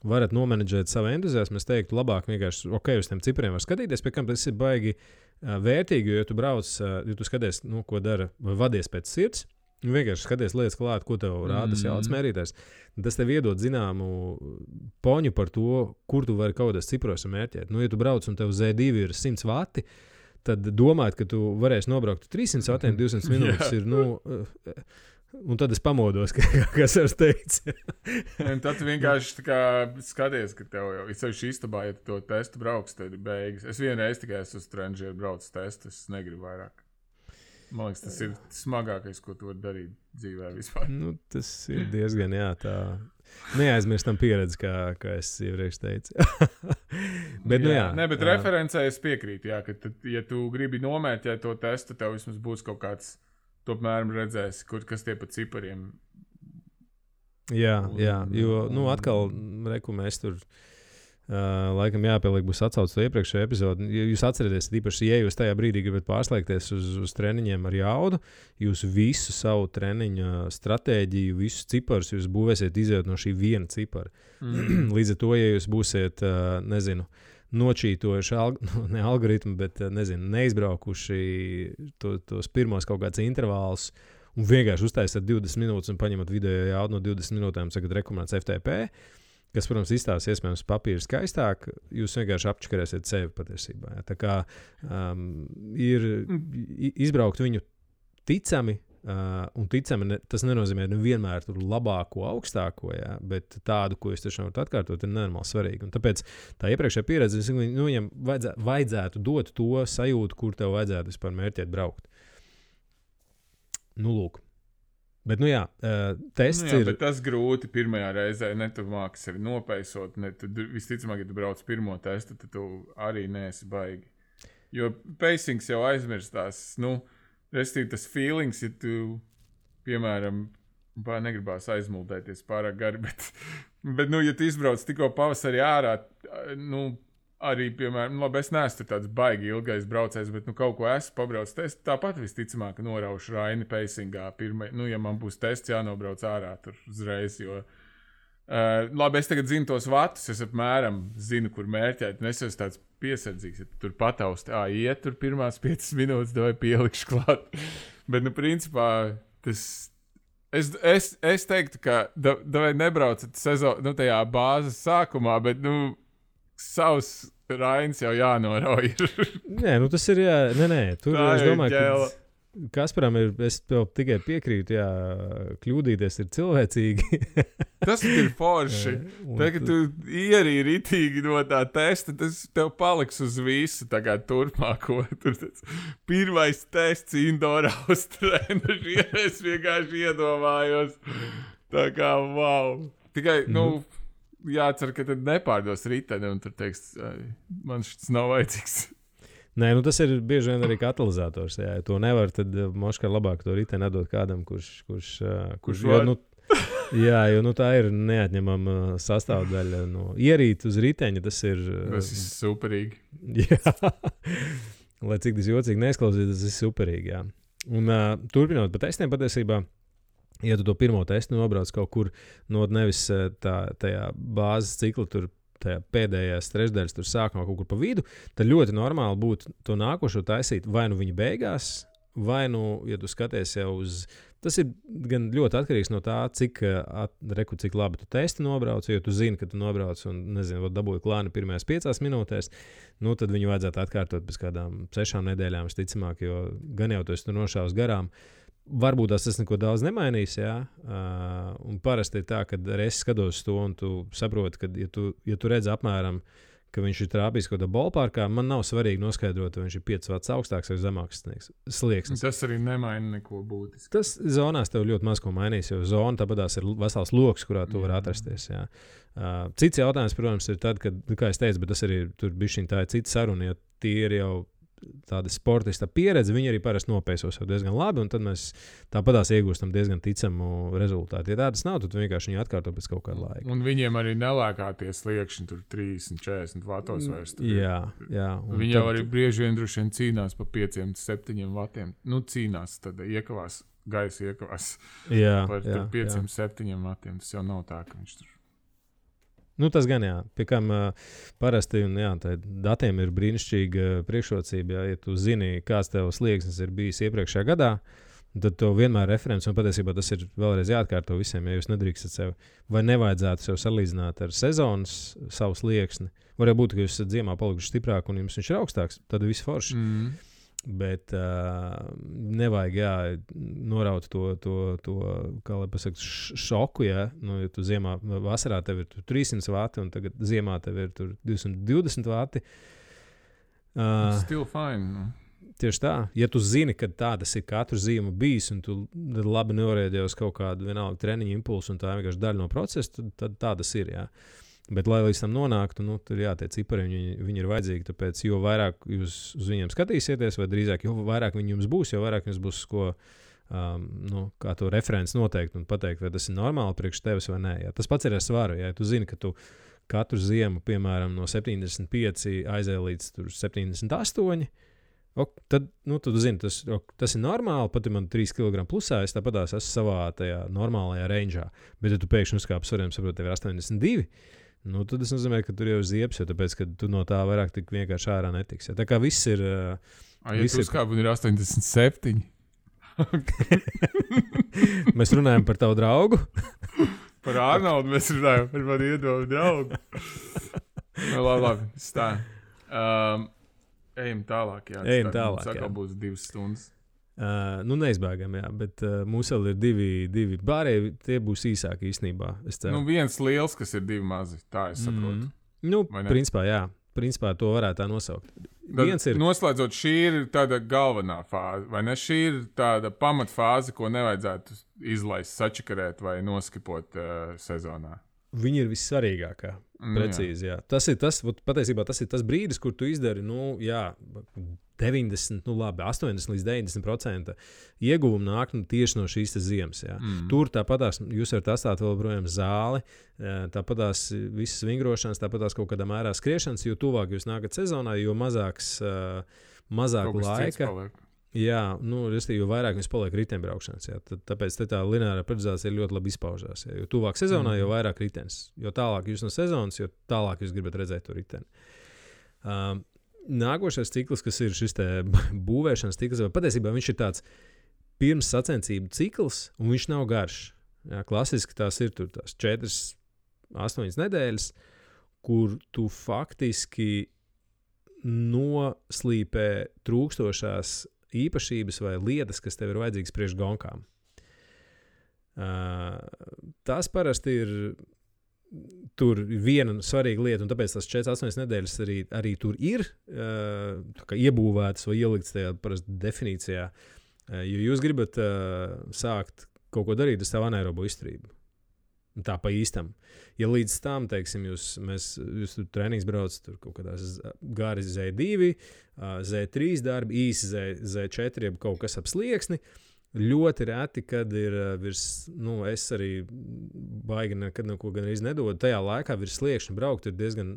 Speaker 1: varat nomenedžēt savu entuziasmu, es teiktu, labāk vienkārši, uz tiem cipriem var skatīties, pie kam tas ir baigi vērtīgi, jo tu brauc, ja tu skaties, ko dara, vai vadies pēc sirds, vienkārši skaties lietas klāt, ko tev rāda tas jaudas mērītājs. Tas tev iedod zināmu poņu par to, kur tu vari kaut kādos cipros mērķēt. Ja tu brauc un tev Z2 ir 100 vati, tad domāt, ka tu varēsi nobraukt 300 vatiem 200 minūtes ir, un tad es pamodos, kas ar teicu.
Speaker 2: Tad tu vienkārši skaties, ka tev jau ir sevišķi istabā, ja tu to testu brauks, tad ir beigas. Es vienreiz tikai esmu uz Tranžieru braucis testu, es negribu vairāk. Man liekas, tas ir smagākais, ko tu vari darīt dzīvē vispār.
Speaker 1: Tas ir diezgan, tā neaizmirstam pieredzi, kā es iepriekš teicu. Bet,
Speaker 2: bet referencē es piekrītu, ka tad, ja tu gribi nomērķēt to testu, tev vismaz būs kaut kāds tomēr redzēs, kas tie pa cipariem.
Speaker 1: Jā, jo, atkal, mēs tur laikam jāpieliek būs atsauc to iepriekšējo epizodi. Jūs atcerieties, īpaši, ja jūs tajā brīdī gribat pārslēgties uz treniņiem ar jaudu, jūs visu savu treniņa stratēģiju, visus ciparus jūs būvēsiet izējot no šī viena cipara. Līdz ar to, ja jūs būsiet, nočītojuši ne algoritmu, bet neizbraukuši tos pirmos kaut kāds intervālus un vienkārši uztaisat 20 minūtes un paņemat video jaudu no 20 minūtēm, sakat rekomendāts FTP, kas, protams, izstāsta iespējams papīru skaistāk, jūs vienkārši apčakarēsiet sevi patiesībā. Ja? Tā kā ir izbraukt viņu ticami, un ticami tas nenozīmē vienmēr tur labāko, augstāko, ja? Bet tādu, ko jūs tiešām varat atkārtot, ir nenormāli svarīgi. Un tāpēc tā iepriekšējā pieredze, viņam vajadzētu dot to sajūtu, kur tev vajadzētu vispār mērķēt braukt. Lūk. Bet, tests ir...
Speaker 2: Bet tas grūti pirmajā reizē, ne tu māks arī nopeisot, visticamāk, ja tu brauc pirmo testu, tad tu arī neesi baigi. Jo pacings jau aizmirstās, restīvi tas feelings, ja tu, piemēram, negribās aizmuldēties pārāk gari, bet ja tu izbrauc tikko pavasarī ārā, arī, piemēram, labi, es neesmu tāds baigi ilgais braucējs, bet kaut ko esmu pabraucis testu, tāpat visticamāk noraušu Raini pacingā pirmai, ja man būs tests jānobrauc ārā tur uzreiz, jo labi, es tagad zinu tos vatus, es apmēram zinu, kur mērķēt, un es esmu tāds piesardzīgs, ja tu tur patausti, iet tur pirmās 5 minūtes, vai pielikšu klāt. Bet, principā, tas... Es teiktu, ka vai nebraucat sezonu, tajā bāzes sākumā, bet, savs Rains jau jānorauj.
Speaker 1: Nē, tas ir, tur es domāju, ka Kasparam es tev tikai piekrītu, kļūdīties ir cilvēcīgi.
Speaker 2: Tas ir forši. Tad, kad tu ierīji ritīgi no tā testa, tas tev paliks uz visu tagad turpmāko. Pirmais tests Indoor Austrēna, es vienkārši iedomājos. Tā kā, wow. Tikai, jācer, ka tad nepārdos riteni un tur teiks, man šis nav vajadzīgs.
Speaker 1: Nē, tas ir bieži vien arī katalizators. Ja to nevar, tad moškā labāk to riteni atdot kādam, kurš jo tā ir neatņemama sastāvdaļa no ierīt uz riteņa. Tas ir
Speaker 2: superīgi.
Speaker 1: Jā, lai cik tas jocīgi neizklausītos, tas ir superīgi. Jā. Un turpinot pa testiem patiesībā, ja tu to pirmo testu nobrauc kaut kur no nevis tajā bāzes cikla tur, tajā pēdējās trešdaļas tur sākumā kaut kur pa vidu, tad ļoti normāli būtu to nākošo taisīt vai viņa beigās, vai ja tu skaties jau uz... Tas ir gan ļoti atkarīgs no tā, cik labi tu testi nobrauc, jo tu zini, ka tu nobrauc un, dabūji klāni pirmajās 5 minūtēs, tad viņu vajadzētu atkārtot pēc kādām 6 nedēļām, visticamāk, jo gan jau tu esi tur nošāvis garām. Varbūt tas neko daudz nemainīs, un parasti ir tā, ka es skatos to, un tu saproti, ka, ja tu redzi apmēram, ka viņš ir trāpījis kaut kādā ballparkā, man nav svarīgi noskaidrot, vai viņš ir 5 vats augstāks vai zemāks slieksnis.
Speaker 2: Tas arī nemaina neko būtiski.
Speaker 1: Tas zonās tev ļoti maz ko mainīs, jo zona tāpatās ir vesels loks, kurā tu vari atrasties. Jā. Cits jautājums, protams, ir tad, kad, kā es teicu, bet tas arī tur bišķiņ tā ir cita saruna, ja tie ir jau tāda sportista pieredze, viņi arī parasti nopēsos jau diezgan labi, un tad mēs tāpatās iegūstam diezgan ticamu rezultātu. Ja tādas nav, tad vienkārši viņi atkārto pēc kaut kāda laika.
Speaker 2: Un viņiem arī nelēkāties sliekšņi tur 30-40 vatos vairs.
Speaker 1: Jā.
Speaker 2: Viņi jau arī brieži vien droši vien cīnās pa 5-7 vatiem. Cīnās, tad iekavās, gaisa iekavās par 5-7 vatiem. Tas jau nav tā, ka viņš tur
Speaker 1: Nu, tas gan, jā. Pie kam parasti, un jā, tā datiem ir brīnišķīga priekšrocība, ja tu zini, kāds tev slieksnis ir bijis iepriekšējā gadā, tad tev vienmēr referents, un patiesībā tas ir vēlreiz jāatkārto visiem, ja jūs nedrīkstat sev, vai nevajadzētu sev salīdzināt ar sezonas savu slieksni. Varētu būt, ka jūs esat ziemā palikuši stiprāk un jums viņš ir augstāks, tad viss forši. Bet nevajag noraut to kā lai pasaka, šoku, ja tu ziemā, vasarā tev ir 300 vati un tagad ziemā tev ir 220 vati.
Speaker 2: Still fine.
Speaker 1: Tieši tā. Ja tu zini, ka tā tas ir katru ziemu bijis un tu labi norēģē uz kaut kādu vienalga treniņu impulsu un tā vienkārši daļa no procesa, tad tā tas ir, jā. Bet, lai līdz tam nonāktu, tur tie cipari viņi ir vajadzīgi. Tāpēc, jo vairāk jūs uz viņiem skatīsieties, vai drīzāk, jo vairāk viņi jums būs, jo vairāk jums būs ko, kā to referents noteikt un pateikt, vai tas ir normāli priekš tevis vai nē. Jā. Tas pats ir ar svaru. Ja tu zini, ka tu katru ziemu, piemēram, no 75 aizēj līdz 78, tad tu zini, tas ir normāli. Pat ja man 3 kg plusā, es tāpat esmu savā tajā normālajā rangeā. Bet, ja tu pēkšņi uzkāp svariem, saproti, tev ir 82, tad tas nozīmē, ka tur jau ir ziepes, jo tāpēc, ka tu no tā vairāk tik vienkārši ārā netiksi. Ja? Tā kā viss ir...
Speaker 2: Ja tu uzkāp un ir 87?
Speaker 1: Mēs runājam par tavu draugu.
Speaker 2: Par Arnoldu mēs runājam, par mani iedomu draugu. Labi, tā. Ejam tālāk, jā.
Speaker 1: Ejam tālāk,
Speaker 2: jā. Būs 2 stundas.
Speaker 1: Neizbēgam, jā, bet mums vēl ir divi bārēji, tie būs īsāki īstenībā.
Speaker 2: Viens liels, kas ir 2 mazi, tā es saprotu.
Speaker 1: Principā, jā. Principā to varētu tā nosaukt.
Speaker 2: Noslēdzot, šī ir tāda galvenā fāze, vai ne? Šī ir tāda pamatfāze, ko nevajadzētu izlaist, sačakarēt vai noskipot sezonā.
Speaker 1: Viņa ir vissvarīgākā. Precīzi, jā. Patiesībā tas ir tas brīdis, kur tu izdari, 90, 80 līdz 90% ieguvumu nāk tieši no šīs ziemas. Jā. Tur tāpatās jūs varat atstāt vēl projām zāli, tāpatās visas vingrošanas, tāpatās kaut kādā mērā skriešanas, jo tuvāk jūs nākat sezonā, jo mazāk laika. Jā, jo vairāk jums paliek riteņbraukšanas. Tāpēc tā lineārā periodizācija ļoti labi izpaužās. Jā. Jo tuvāk sezonā, jo vairāk ritenis. Jo tālāk jūs no sezonas, jo tālāk jūs gribat redzēt to riteni. Nākošais cikls, kas ir šis būvēšanas cikls, patiesībā viņš ir tāds pirms sacensību cikls, un viņš nav garš. Jā, klasiski tās ir tās 4-8 nedēļas, kur tu faktiski noslīpē trūkstošās īpašības vai lietas, kas tev ir vajadzīgas priekš gonkām. Tas parasti ir tur viena svarīga lieta, un tāpēc tās 4-8 nedēļas arī tur ir iebūvētas vai ieliktas tajā parasti definīcijā. Jo jūs gribat sākt kaut ko darīt ar savu anaerobo izturību. Tā pa īstam. Ja līdz tam, teiksim, jūs tur treniņus braucat, tur kaut kādās gari Z2, Z3 darbi, īsi Z4, jeb kaut kas ap slieksni, ļoti reti, kad ir virs, es arī baigi nekad neko gan arī nedodu, tajā laikā virs sliekšņa braukt ir diezgan,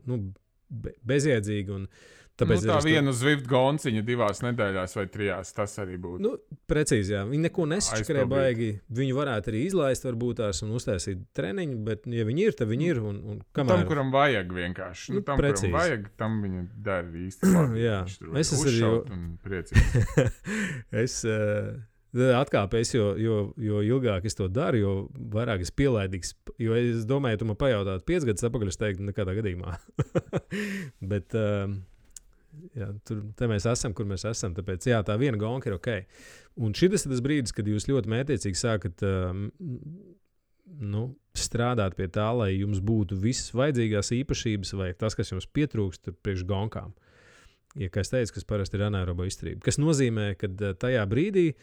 Speaker 1: bezjēdzīgi un tāpēc
Speaker 2: tā viena Zwift gonciņa 2 nedēļās vai 3, tas arī būtu.
Speaker 1: Precīzi, jā. Viņi neko nesačakarē baigi. Viņu varētu arī izlaist varbūt tās un uztaisīt treniņu, bet ja viņi ir, tad viņi ir. Un kamēr...
Speaker 2: Tam, kuram vajag vienkārši. Tam, kuram vajag, tam viņa dara īsti labi.
Speaker 1: Jā. Es esmu
Speaker 2: arī
Speaker 1: priecīgs. Atkāpēs, jo ilgāk es to daru, jo vairāk es pielaidīgs. Jo es domāju, ja tu man pajautātu 5 gadus atpakaļ, es teiktu nekādā gadījumā. Bet... Jā, te mēs esam, kur mēs esam. Tāpēc jā, tā viena gonka ir ok. Un šis ir tas brīdis, kad jūs ļoti mētiecīgi sākat strādāt pie tā, lai jums būtu visas vajadzīgās īpašības vai tas, kas jums pietrūkst priekš gonkām. Ja, kā es teicu, kas parasti ir anaerobo izturība. Kas nozīmē, ka tajā brīdī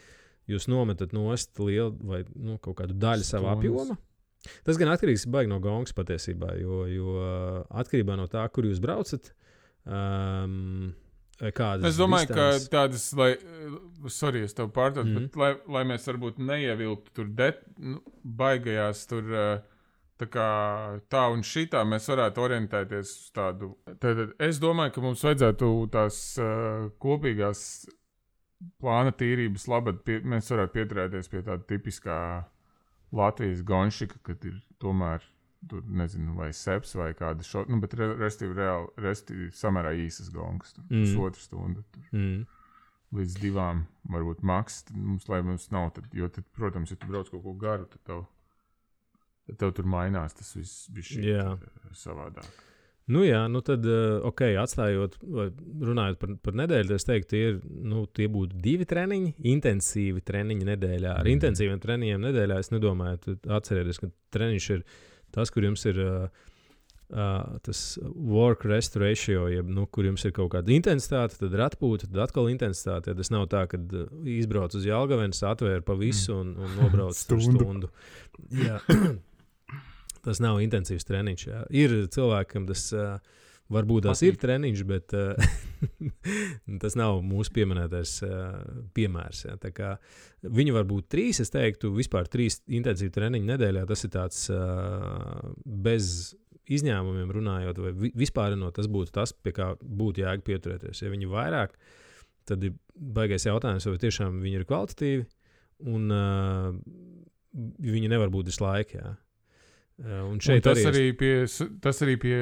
Speaker 1: jūs nometat nost lielu vai kaut kādu daļu savā apjoma. Tas gan atkarīgs baigi no gonkas patiesībā, jo atkarībā no tā, kur jūs braucat,
Speaker 2: es domāju, ka tādas, es tev pārtraucu, bet lai mēs varbūt neievilktu tur baigajās tur tā un šitā, mēs varētu orientēties uz tādu. Tad es domāju, ka mums vajadzētu tās kopīgās plāna tīrības labad, mēs varētu pieturēties pie tāda tipiskā Latvijas gonšika, kad ir tomēr tur nezinu, vai seps vai kāda šot, nu, bet restīvi samērā īsas gongas, tur pusotru stundu, tur līdz 2, varbūt maks, lai mums nav, jo tad, protams, ja tu brauc kaut ko garu, tad tev tur mainās tas viss bija savādāk.
Speaker 1: Nu jā, nu tad, atstājot, runājot par nedēļu, es teiktu, tie būtu 2 treniņi, intensīvi treniņi nedēļā. Ar intensīviem treniņiem nedēļā es nedomāju, atcerieties, ka treniņš ir tas, kur jums ir tas work-rest ratio, kur jums ir kaut kāda intensitāte, tad ir atpūta, tad atkal intensitāte. Tas nav tā, ka izbrauc uz Jelgavenes, atvēr pa visu un nobrauc stundu. Jā. Tas nav intensīvs treniņš. Jā. Ir cilvēkam, tas varbūt tās ir treniņš, bet tas nav mūsu pieminētais piemērs. Jā. Tā kā viņi var būt 3, es teiktu, vispār 3 intensīvi treniņi nedēļā. Tas ir tāds bez izņēmumiem runājot, vai vispārinot, tas būtu tas, pie kā būtu jēga pieturēties. Ja viņi vairāk, tad ir baigais jautājums, vai tiešām viņi ir kvalitatīvi, un viņi nevar būt visu laiku. Jā. Un šeit
Speaker 2: tas arī pie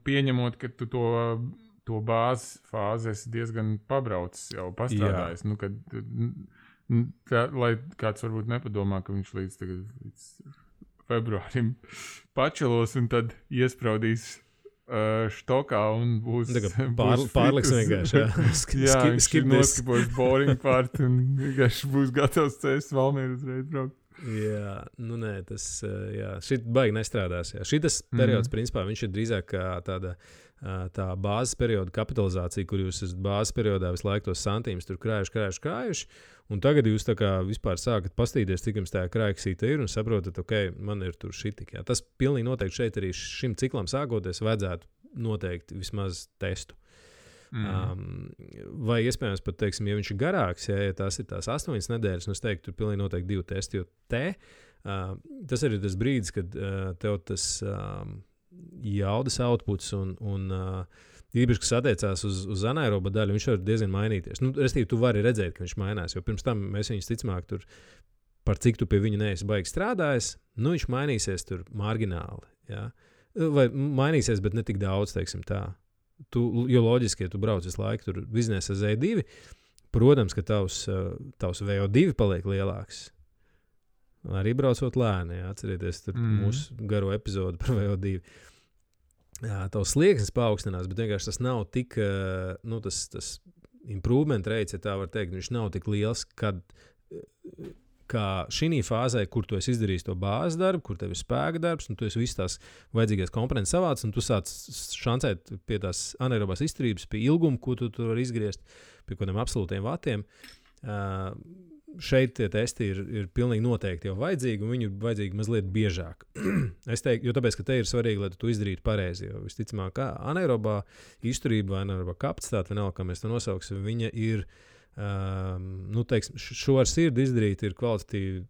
Speaker 2: pieņemot, ka tu to bāzes fāzi esi diezgan pabraucis jau pastrādājis. Nu, lai kāds varbūt nepadomā, ka viņš līdz februārim pačelos un tad iespraudīs štokā un būs
Speaker 1: pārliks vienkārši.
Speaker 2: Viņš noskipos boring part un vienkārši būs gatavs cēst Valmieru uzreiz braukt.
Speaker 1: Jā, nu nē, tas šit baigi nestrādās. Jā. Šitas periods, principā, viņš ir drīzāk kā tā bāzes perioda kapitalizācija, kur jūs esat bāzes periodā visu laiku tos santīmus tur krājuši, un tagad jūs tā kā vispār sākat pastīties, cik jums tā krājuksīta ir, un saprotat, man ir tur šitik. Jā. Tas pilnīgi noteikti šeit arī šim ciklam sākoties vajadzētu noteikti vismaz testu. Vai iespējams pat, teiksim, ja viņš ir garāks, ja tās ir tās 8 nedēļas, es teiktu, tur pilnīgi noteikti 2 testi, jo tas arī tas brīdis, kad tev tas jaudas outputs un īpaši, kas attiecās uz anaeroba daļu, viņš var diezgan mainīties. Nu, restīvi, tu vari redzēt, ka viņš mainās, jo pirms tam mēs viņus ticamāk tur, par cik tu pie viņa neesi baigi strādājis, nu viņš mainīsies tur margināli, jā. Vai mainīsies, bet ne tik daudz, teiksim tā. Jo loģiski, ja tu brauc visu laiku tur biznesa Z2, protams, ka tavs VO2 paliek lielāks. Arī braucot lēni, jā, atcerieties tur mūsu garo epizodu par VO2. Jā, tavs slieksnis paaugstinās, bet vienkārši tas nav tik, tas improvement rates, ja tā var teikt, viņš nav tik liels, kā šī fāzē, kur tu esi izdarījis to bāzes darbu, kur tev ir spēka darbs, un tu esi visas tās vajadzīgās komponentes savāc, un tu sāc šancēt pie tās anaerobās izturības, pie ilguma, ko tu vari izgriezt, pie kādiem absolūtiem vatiem. Šeit tie testi ir pilnīgi noteikti jau vajadzīgi, un viņi ir vajadzīgi mazliet biežāk. Es teiktu, jo tāpēc, ka te ir svarīgi, lai tu izdarītu pareizi, jo visticamāk, kā anaerobā izturība vai anaerobā kapacitāte, vienalga, kā mēs to nosauksim, viņa ir teiksim, šo ar sirdi izdarīt ir kvalitatīvi,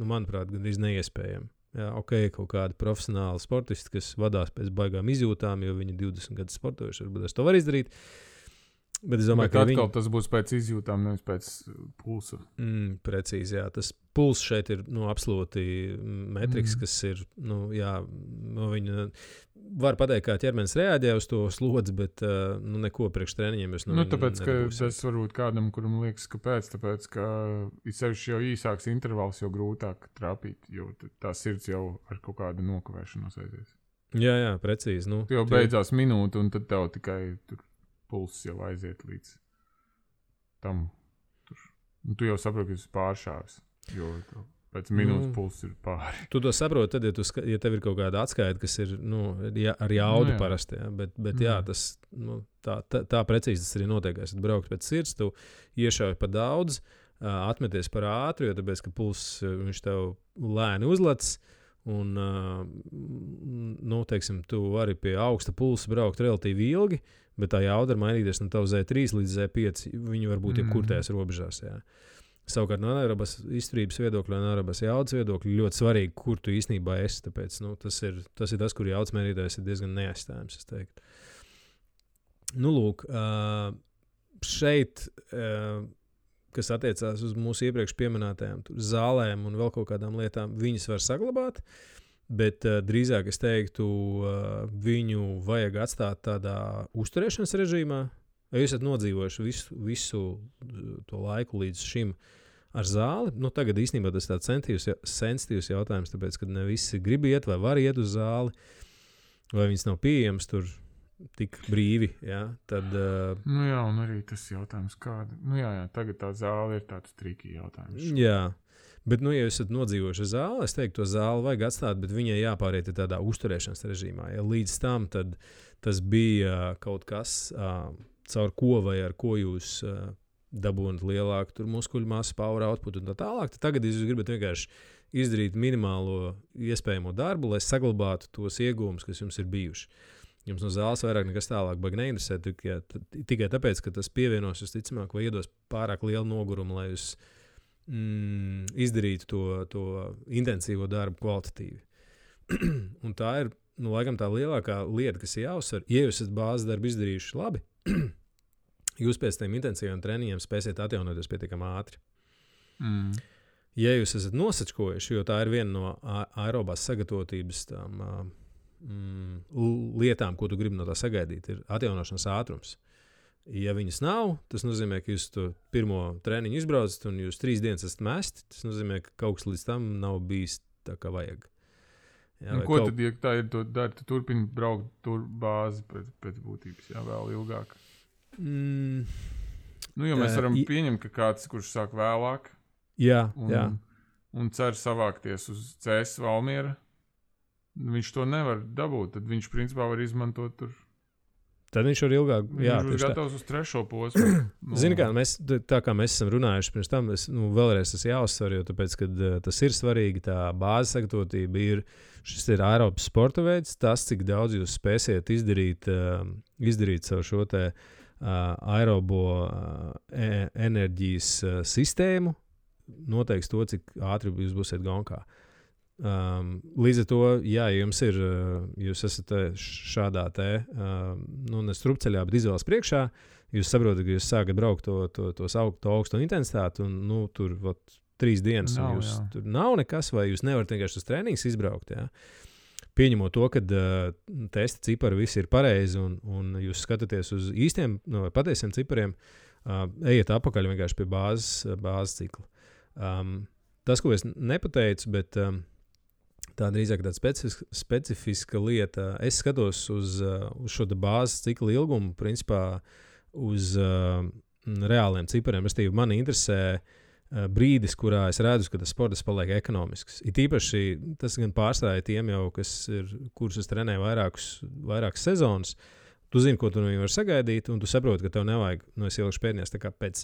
Speaker 1: manuprāt, gandrīz neiespējami. Jā, kaut kādi profesionāli sportisti, kas vadās pēc baigām izjūtām, jo viņi 20 gadus sportojuši, varbūt es to var izdarīt. Bet es domāju, ka
Speaker 2: tas būs pēc izjūtām, nevis pēc pulsa.
Speaker 1: Precīzi, jā. Tas puls šeit ir absolūti metriks, kas ir, viņa var pateikt, kā ķermenis reaģē uz to slodzi, bet neko priekš treniņiem es
Speaker 2: tāpēc, ka tas varbūt kādam, kuram liekas, kāpēc, tāpēc, ka sevišķi jau īsāks intervals, jau grūtāk trāpīt, jo tā sirds jau ar kaut kādu nokavēšanos aizies.
Speaker 1: Jā, precīzi.
Speaker 2: Tu jau beidzās minūte, un tad tev tikai tur pulss jau aiziet līdz tam. Tu jau saproti, ka esi pāršāvis, jo pēc minūtes pulss ir pāri.
Speaker 1: Tu to saproti, tad, ja tev ir kaut kāda atskaita, kas ir ar jaudu parasti, jā. Bet jā, tas, tā precīzi tas arī notiek. Esat braukt pēc sirds, tu iešauj pa daudz, atmeties par ātru, jo tāpēc, ka pulss viņš tev lēni uzlec, un, teiksim, tu vari pie augsta pulsa braukt relatīvi ilgi, bet tā jauda var mainīties no tavu Z3 līdz Z5. Viņi var būt jebkur tajās robežās. Jā. Savukārt no anaerobās izturības viedokļa, anaerobās jaudas viedokļa ļoti svarīgi, kur tu īstenībā esi. Tāpēc tas ir tas, kur jaudas mērītājs ir diezgan neaizstājams, es teiktu. Lūk, šeit, kas attiecās uz mūsu iepriekš pieminētajām zālēm un vēl kaut kādām lietām, viņas var saglabāt. Bet drīzāk es teiktu, viņu vajag atstāt tādā uzturēšanas režīmā. Ja jūs esat nodzīvojuši visu to laiku līdz šim ar zāli, nu tagad īstenībā tas tāds sensitīvs jautājums, tāpēc, ka ne visi grib iet vai var iet uz zāli, vai viņas nav pieejams tur tik brīvi, ja? Tad...
Speaker 2: Nu jā, un arī tas jautājums kāda. Nu jā, tagad tā zāle ir tāds triki jautājums.
Speaker 1: Jā, bet, nu, ja jūs esat nodzīvojuši zāli, es teiktu, to zāli vajag atstāt, bet viņai jāpāriet tādā uzturēšanas režīmā. Ja līdz tam, tad tas bija kaut kas, caur ko vai ar ko jūs dabūnat lielāku tur muskuļu masu, power output un tā tālāk, tad tagad jūs gribat vienkārši izdarīt minimālo iespējamo darbu, lai saglabātu tos iegūmus, kas jums ir bijuši. Jums no zāles vairāk nekas tālāk baigi neinteresē, tikai tāpēc, ka tas pievienos visticamāk vai iedos pārāk lielu nogurumu, lai jūs izdarītu to intensīvo darbu kvalitatīvi. Un tā ir, nu, laikam tā lielākā lieta, kas ir jāuzsver. Ja jūs esat bāzes darbu izdarījuši labi, jūs pēc tiem intensīviem treniņiem spēsiet atjaunoties pietiekami ātri. Ja jūs esat nosačkojuši, jo tā ir viena no aerobās sagatavotības tām lietām, ko tu gribi no tā sagaidīt, ir atjaunošanas ātrums. Ja viņas nav, tas nozīmē, ka jūs to pirmo treniņu izbraucat un jūs 3 dienas esat mesti, tas nozīmē, ka kaut kas līdz tam nav bijis tā, kā vajag.
Speaker 2: Jā, ko tad, ja tā ir to dari, tu turpini braukt tur bāzi pēc būtības, jā, vēl ilgāk? Nu, jo mēs varam pieņemt, ka kāds, kurš sāk vēlāk un cer savākties uz CS Valmiera, viņš to nevar dabūt, tad viņš principā var izmantot tur.
Speaker 1: Tad viņš var ilgāk,
Speaker 2: viņš būs gatavs uz 3. posmu.
Speaker 1: Zini kā, tā kā mēs esam runājuši pirms tam, vēlreiz tas jāuzsver, jo tāpēc, kad tas ir svarīgi, tā bāzes sagatavotība šis ir Eiropas sporta veids, tas, cik daudz jūs spēsiet izdarīt savu šo te aerobo enerģijas sistēmu, noteiks to, cik ātri jūs būsiet gonkā. Līdz ar to, jā, jūs esat šādā nestrupceļā, bet izvēles priekšā, jūs saprotat, ka jūs sākat braukt to augsto intensitāti, un tur 3 dienas, un tur nav nekas, vai jūs nevarat vienkārši uz treniņus izbraukt. Jā. Pieņemot to, ka testa cipari visi ir pareizi, un jūs skatāties uz īstiem vai patiesiem cipariem, ejiet apakaļ vienkārši pie bāzes cikla. Tas, ko es nepateicu, bet tā drīzāk tāda specifiska lieta. Es skatos uz šo bāzes cikla ilgumu, principā uz reāliem cipariem. Restīvi, mani interesē brīdis, kurā es redzu, ka tas sports paliek ekonomisks. It īpaši tas gan pārstāja tiem jau, kurus es trenēju vairākas sezonas. Tu zini, ko tu no viņiem var sagaidīt, un tu saproti, ka tev nevajag, es ielikšu pēdējās, tā kā pēc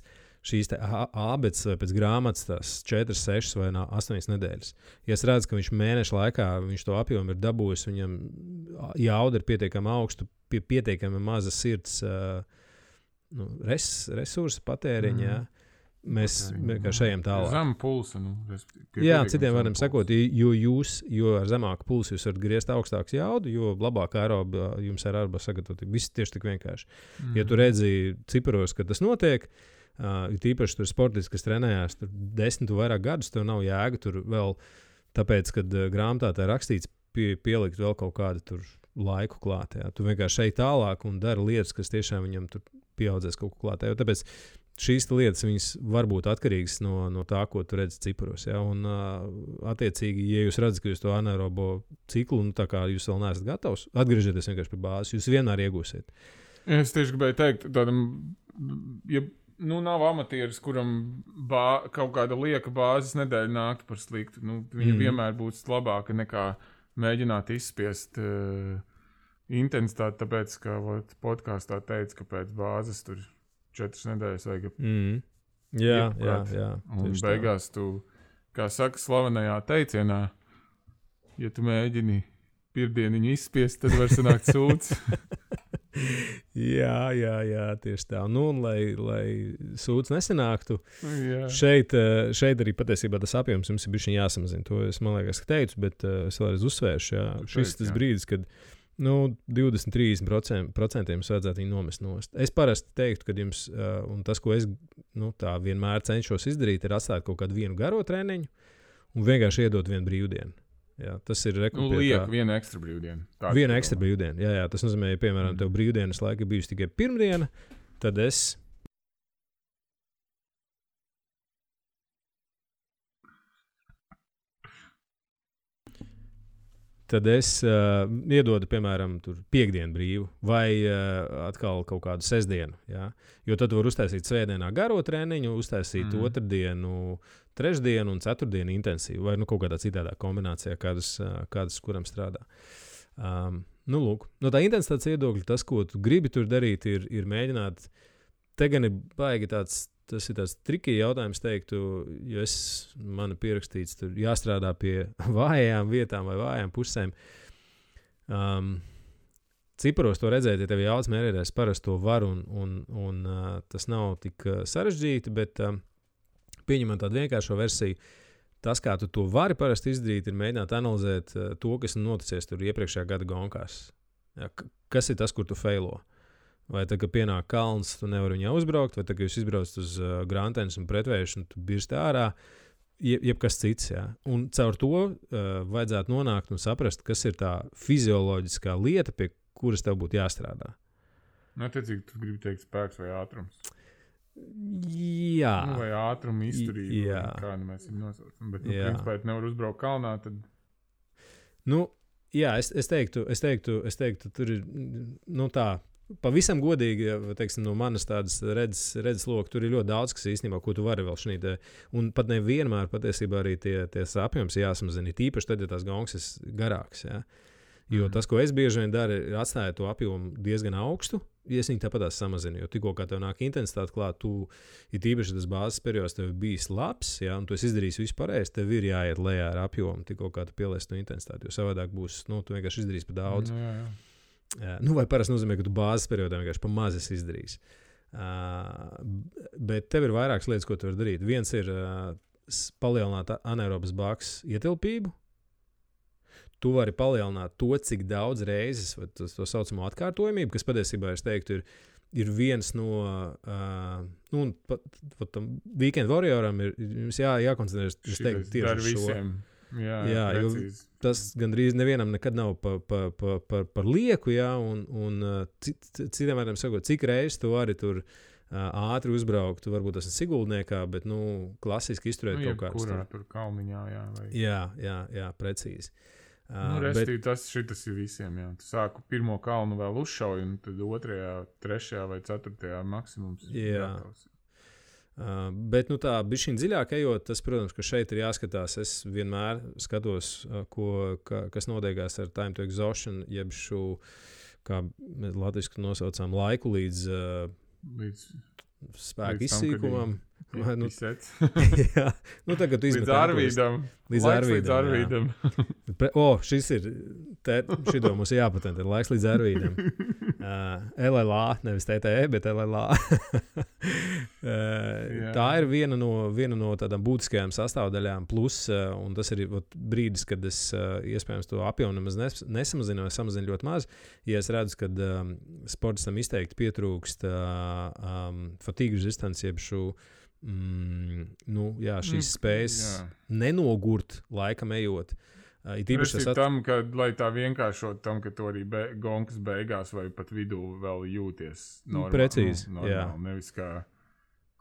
Speaker 1: šīs ābeces vai pēc grāmatas tās 4, 6 vai 8 nedēļas. Ja es redzu, ka viņš mēnešu laikā viņš to apjomu ir dabūjis, viņam jauda ir pietiekami augstu, pietiekami maza sirds resursu patēriņa, mēs vienkārši ejam tālāk.
Speaker 2: Zem pulsa.
Speaker 1: Jā, citiem varam sakot, jo ar zemāku pulsu jūs varat griezt augstāks jaudu, jo labāk aeroba jums ir aeroba sagatavotība. Viss tieši tik vienkārši. Ja tu redzi ciparos, ka tas notiek, tīpaši tur sportisti, kas trenējās tur 10 vai vairāk gadus, tev nav jēga tur vēl, tāpēc, kad grāmatā tā ir rakstīts pielikt vēl kaut kādu tur laiku klāt. Jā. Tu vienkārši ej tālāk un dari lietas, kas tiešām viņam tur pieaudzēs kaut ko klāt. Jā. Tāpēc šīs lietas viņas var būt atkarīgas no tā, ko tu redzi ciparos. Jā. Un attiecīgi, ja jūs redzat, ka jūs to anaerobo ciklu, tā kā jūs vēl neesat gatavs, atgriežieties vienkārši pie bāzes, jūs vienmēr iegūsiet.
Speaker 2: Es tieši gribēju teikt, tādam, ja nav amatieris, kuram kaut kāda lieka bāzes nedēļa nāktu par sliktu. Viņa vienmēr būs labāka nekā mēģināt izspiest intensitāti, tāpēc, ka podkāstā teica, ka pēc bāzes tur 4 nedēļas vajag
Speaker 1: Jā.
Speaker 2: Un beigās tu, kā saka slavenajā teicienā, ja tu mēģini pirmdieniņu izspiest, tad var sanākt sūds.
Speaker 1: Jā, tieši tā. Un, lai sūds nesanāktu, šeit arī patiesībā tas apjoms jums ir bišķiņ jāsamazina. To es, man liekas, teicu, bet es vēlreiz uzsvēršu. Jā. Šis tas brīdis, kad 20-30% jums vajadzētu viņu nomest nost. Es parasti teiktu, ka jums, un tas, ko es tā vienmēr cenšos izdarīt, ir atstāt kaut kādu vienu garo treniņu un vienkārši iedot vienu brīvdienu. Jā, tas ir
Speaker 2: liek vienu ekstra brīvdienu.
Speaker 1: Vienu ekstra brīvdienu, jā. Tas nozīmē, ja, piemēram, tev brīvdienas laika bijusi tikai pirmdiena, tad es iedodu, piemēram, piekdienu brīvu vai atkal kaut kādu sestdienu. Ja? Jo tad var uztaisīt svētdienā garo treniņu, uztaisīt otrdienu, trešdienu un ceturtdienu intensīvu vai kaut kādā citādā kombinācijā, kādas kuram strādā. Lūk, no tā intensitātes viedokļa tas, ko tu gribi tur darīt, ir mēģināt. Te gan ir baigi tas ir tāds triki jautājums, teiktu, jo man ir pierakstīts, tur jāstrādā pie vājām vietām vai vājām pusēm. Ciparos to redzēt, ja tev ir jauts mērķis, parasti to var, un tas nav tik sarežģīti, bet pieņemot tādu vienkāršo versiju, tas, kā tu to vari parasti izdarīt, ir mēģināt analizēt to, kas noticies tur iepriekšējā gada gonkās. Ja, kas ir tas, kur tu feilo? Vai tad, kad pienāk kalns, tu nevari viņā uzbraukt, vai tad, kad jūs izbraucat uz grāmatienes un pretvējuši, un tu birsti ārā, jebkas cits. Ja? Un caur to vajadzētu nonākt un saprast, kas ir tā fizioloģiskā lieta, pie kuras tev būtu jāstrādā.
Speaker 2: Attiecīgi, tu gribi teikt spēks vai ātrums?
Speaker 1: Jā.
Speaker 2: Vai ātruma izturība, kā mēs viņu nosaucam. Bet, principā, ja nevar uzbraukt kalnā, tad...
Speaker 1: Jā, es teiktu, tur ir, tā... Pavisam godīgi, ja, teiksim, no manas tādas redzes loka, tur ir ļoti daudz, kas īstenībā, ko tu vari vēl šeit. Un pat nevienmēr patiesībā arī tie apjoms jāsamazina. Tīpaši tad, ja tās gongas ir garāks. Ja. Jo tas, ko es bieži vien daru, ir atstāt to apjomu diezgan augstu, ja es viņu tāpat samazinu. Jo tikko kā tev nāk intensitāte klāt, ir tīpaši tas bāzes periods, tev ir bijis labs, ja, un tu esi izdarījis visu pareizi, tev ir jāiet lejā ar apjomu, tikko kā tu pieliesi to intensitāti. Jo savādāk būs, tu vienkārši izdarīsi par daudz.
Speaker 2: Jā.
Speaker 1: Vai parasti nozīmē, ka tu bāzes periodā vienkārši pa maz esi izdarījis. Bet tev ir vairākas lietas, ko tu vari darīt. Viens ir palielināt anaerobas bāks ietilpību. Tu vari palielināt to, cik daudz reizes, to saucamo atkārtojamību, kas patiesībā, es teiktu, ir viens no, tam Weekend Warrioram ir jums jākoncentrēs, es teiktu, tieši uz šo.
Speaker 2: Jā,
Speaker 1: jo tas gandrīz nevienam nekad nav par lieku, jā, un citiem vārdiem sakot, cik reizes tu vari tur ātri uzbraukt, tu varbūt tas ir Siguldniekā, bet, klasiski izturēt kaut kāds.
Speaker 2: Kurā tur kalniņā, jā. Vai...
Speaker 1: Jā, precīzi.
Speaker 2: Restīvi, šitas ir visiem, jā. Tu sāku pirmo kalnu vēl uzšauju, un tad otrajā, trešajā vai ceturtajā maksimums ir gatavs.
Speaker 1: Bet tā bišķiņ dziļāk ejot, tas, protams, ka šeit ir jāskatās. Es vienmēr skatos, kas notiekās ar time to exhaustion, jeb šo, kā mēs latviski nosaucām, laiku līdz spēku izsīkumam. Jā, tagad tu izmet
Speaker 2: līdz Arvīdam.
Speaker 1: Šis ir, šito mums ir jāpatentē, laiks līdz Arvīdam. LLA, nevis TTE, bet LLA. Tā ir viena no tādām būtiskajām sastāvdaļām, plus, un tas ir brīdis, kad es iespējams to apjomu nemaz nesamazinu, vai samazinu ļoti maz, ja es redzu, kad sportistam izteikti pietrūkst fatigue resistance, jeb šo šīs spējas nenogurt laikam ejot.
Speaker 2: Tam, ka, lai tā vienkāršot tam, ka tu arī gonkas beigās vai pat vidū vēl jūties normāli.
Speaker 1: Precīzi,
Speaker 2: jā. Nevis kā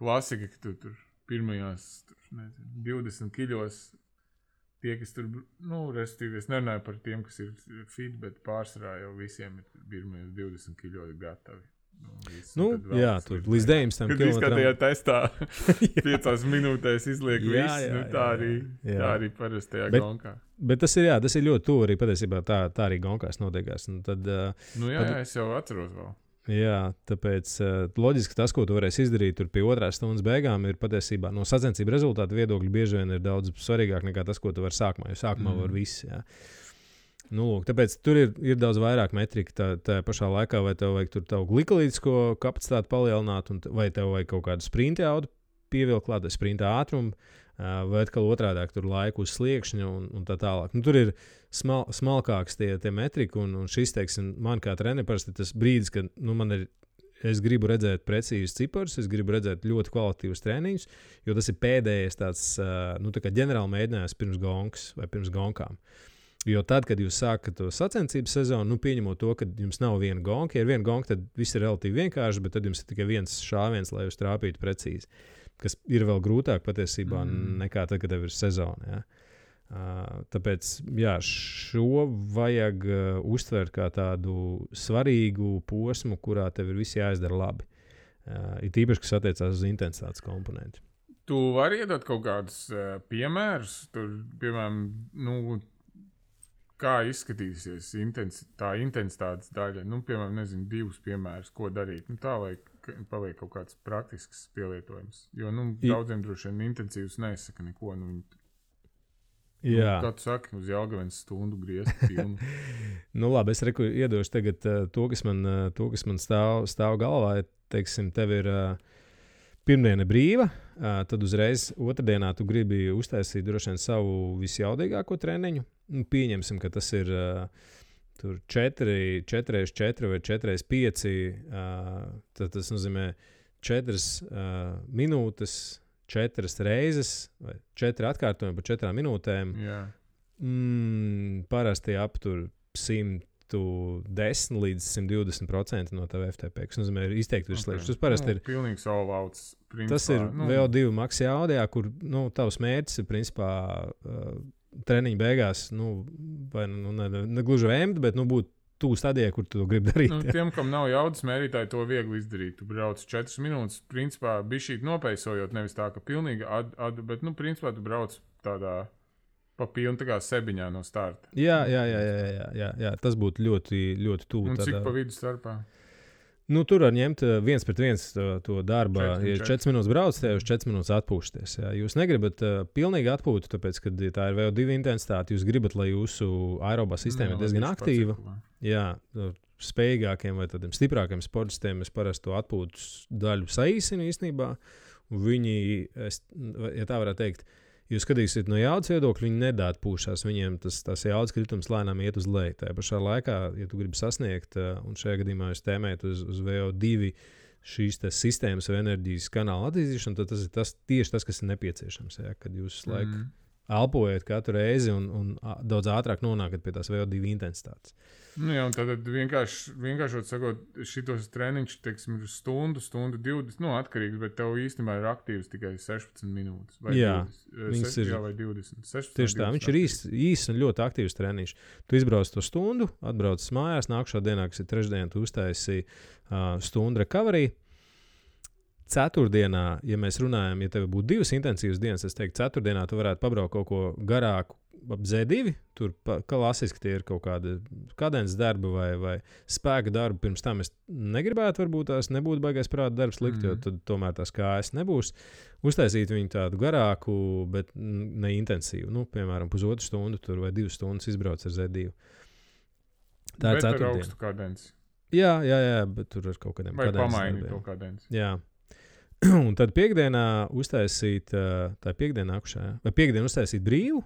Speaker 2: klasika, ka tu tur pirmajās 20 kiļos tie, kas tur, restīvi, es nerunāju par tiem, kas ir fit, bet pārsvarā jau visiem ir pirmajos 20 kiļos gatavi.
Speaker 1: Tur līdz 19
Speaker 2: kilometriem. Kad izskatījā testā 5 minūtēs izliek visu, tā arī parastajā gonkā.
Speaker 1: Bet tas ir ļoti tuvu arī patiesībā tā arī gonkās notiekās.
Speaker 2: Es jau atceros vēl.
Speaker 1: Jā, tāpēc loģiski tas, ko tu varēsi izdarīt tur pie 2 stundas beigām, ir patiesībā no sacensību rezultātu viedokļa bieži vien ir daudz svarīgāk nekā tas, ko tu vari sākumā, jo sākumā var viss, jā. Tāpēc tur ir daudz vairāk metrika tā pašā laikā, vai tev vajag tur tavu glikolītisko kapacitāti palielināt, vai tev vajag kaut kādu sprinta jaudu pievilkt klāt, sprinta ātrumu, vai atkal otrādāk tur laiku uz sliekšņa un tā tālāk. Tur ir smalkāks tie metrika, un šis, teiksim, man kā trenerim parasti tas brīdis, kad es gribu redzēt precīzus ciparus, es gribu redzēt ļoti kvalitatīvus treniņus, jo tas ir pēdējais tāds, tā kā ģenerāli mēģinājums pirms gonkas vai pirms gonkām. Jo tad, kad jūs sākat to sacensību sezonu, pieņemot to, ka jums nav viena gonka, ja ir viena gonka, tad viss ir relatīvi vienkārši, bet tad jums ir tikai viens šāviens, lai jūs trāpītu precīzi. Kas ir vēl grūtāk patiesībā nekā tad, kad tev ir sezona. Ja? Tāpēc šo vajag uztvert kā tādu svarīgu posmu, kurā tev ir viss jāizdara labi. Ir tīpaši, kas attiecās uz intensitātes komponentu.
Speaker 2: Tu vari iedot kaut kādus piemērus, tur, piemēram, kā izskatīsies tā intensitātes daļa? Piemēram, nezinu, 2 piemērus, ko darīt. Tā, lai paliek kaut kāds praktisks pielietojums. Jo, daudziem droši vien intensīvs nesaka neko. Kā tu saki, uz Jelgavens stundu griezt pilnu?
Speaker 1: Labi, es iedošu tagad to, kas man stāv galvā. Teiksim, tev ir pirmdiena brīva, tad uzreiz otrdienā tu gribi uztaisīt droši vien savu visjaudīgāko treniņu. Pieņemsim, ka tas ir 4x4 vai 4x5. Tad tas nozīmē 4 minūtes, 4 reizes vai 4 atkārtojumi par 4 minūtēm.
Speaker 2: Yeah.
Speaker 1: Parasti aptur 110 līdz 120% no tava FTP, kas nozīmē izteikti virsliekas. Tas parasti ir
Speaker 2: pilnīgi all-outs.
Speaker 1: Tas ir VO2 max jaudījā, kur tavs mērķis ir principā treniņa beigās, vai ne gluži vēmt, bet būt tuvu stadijai, kur tu to gribi darīt.
Speaker 2: Tiem, kam nav jaudas mērītāji, to viegli izdarīt. Tu brauc 4 minūtes, principā bišķīt nopeisojot, nevis tā, ka pilnīgi bet, principā tu brauc tādā pa pilnu tā kā sebiņā no starta. Jā,
Speaker 1: tas būtu ļoti, ļoti tuvu.
Speaker 2: Un cik pa vidu starpā?
Speaker 1: Tur var ņemt 1-1 to darbu. Ja 4 minūtes brauc, tad jūs 4 minūtes atpūšaties. Jā. Jūs negribat pilnīgi atpūtu, tāpēc, ka tā ir VO2 intensitāte. Jūs gribat, lai jūsu aerobā sistēma ir diezgan aktīva. Jā, spējīgākiem vai tādiem stiprākiem sportistiem es parasti to atpūtas daļu saīsinu īstenībā. Viņi, ja tā varētu teikt, jūs skatīsiet no jaudas viedokļa, viņi nedatpūšās. Viņiem tas jaudas kritums lēnām iet uz leju. Tajā pašā laikā, ja tu gribi sasniegt, un šajā gadījumā jūs tēmējat uz VO2 šīs sistēmas vai enerģijas kanāla attīstīšanu, tad tas ir tieši tas, kas ir nepieciešams. Ja, kad jūs laiku elpojat katru reizi un daudz ātrāk nonākat pie tās VO2 intensitātes.
Speaker 2: Jā, un tad vienkāršot sakot, šitos treniņš, teiksim, ir stundu 20, atkarīgs, bet tev īstenībā ir aktīvs tikai 16 minūtes. Vai 20, vai 20. 16,
Speaker 1: tieši tā, viņš ir īsts un ļoti aktīvs treniņš. Tu izbrauc to stundu, atbrauc mājās, nākušā dienā, kas ir trešdiena, tu uztaisi stundu recovery. Ceturtdienā, ja mēs runājam, ja tev būtu 2 intensīvas dienas, es teiktu, ceturtdienā tu varētu pabraukt kaut ko garāku ap Z2. Tur klasiski tie ir kaut kādi kadences darbi vai spēka darbi. Pirms tam es negribētu, varbūt tās nebūtu baigais prāta darbs likt, jo tad tomēr tās kājas nebūs. Uztaisīt viņu tādu garāku, bet ne intensīvu. Piemēram, 1,5 stundu tur vai 2 stundas izbrauc ar Z2. Tā ir ceturtdiena.
Speaker 2: Bet ar augstu kadenci.
Speaker 1: Jā, bet tur ar kaut kādiem
Speaker 2: kadences darbiem. Vai pamaini to kadenci.
Speaker 1: Jā. Un tad piekdienā uztaisīt, tā piekdiena nākušā, vai piekdienu uztaisīt brīvu,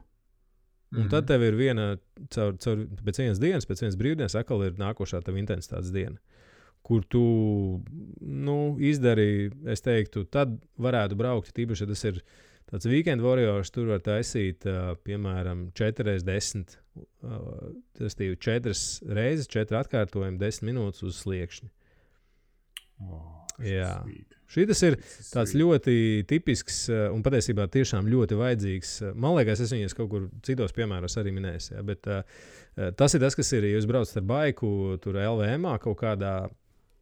Speaker 1: un tad tev ir viena, pēc vienas dienas, pēc vienas brīvdienas, atkal ir nākošā tava intensitātes diena, kur tu, izdari, es teiktu, tad varētu braukt, tīpaši, ja tas ir tāds weekend warriors, tur var taisīt, piemēram, 4x10, tas ir 4 reizes, 4 atkārtojumi, 10 minūtes uz sliekšņa. Jā. Šis ir tāds ļoti tipisks un patiesībā tiešām ļoti vajadzīgs. Man liekas, es viņus kaut kur citos piemēros arī minēju. Ja, bet tas ir tas, kas ir, ja jūs braucat ar baiku, tur LVM-ā kaut kādā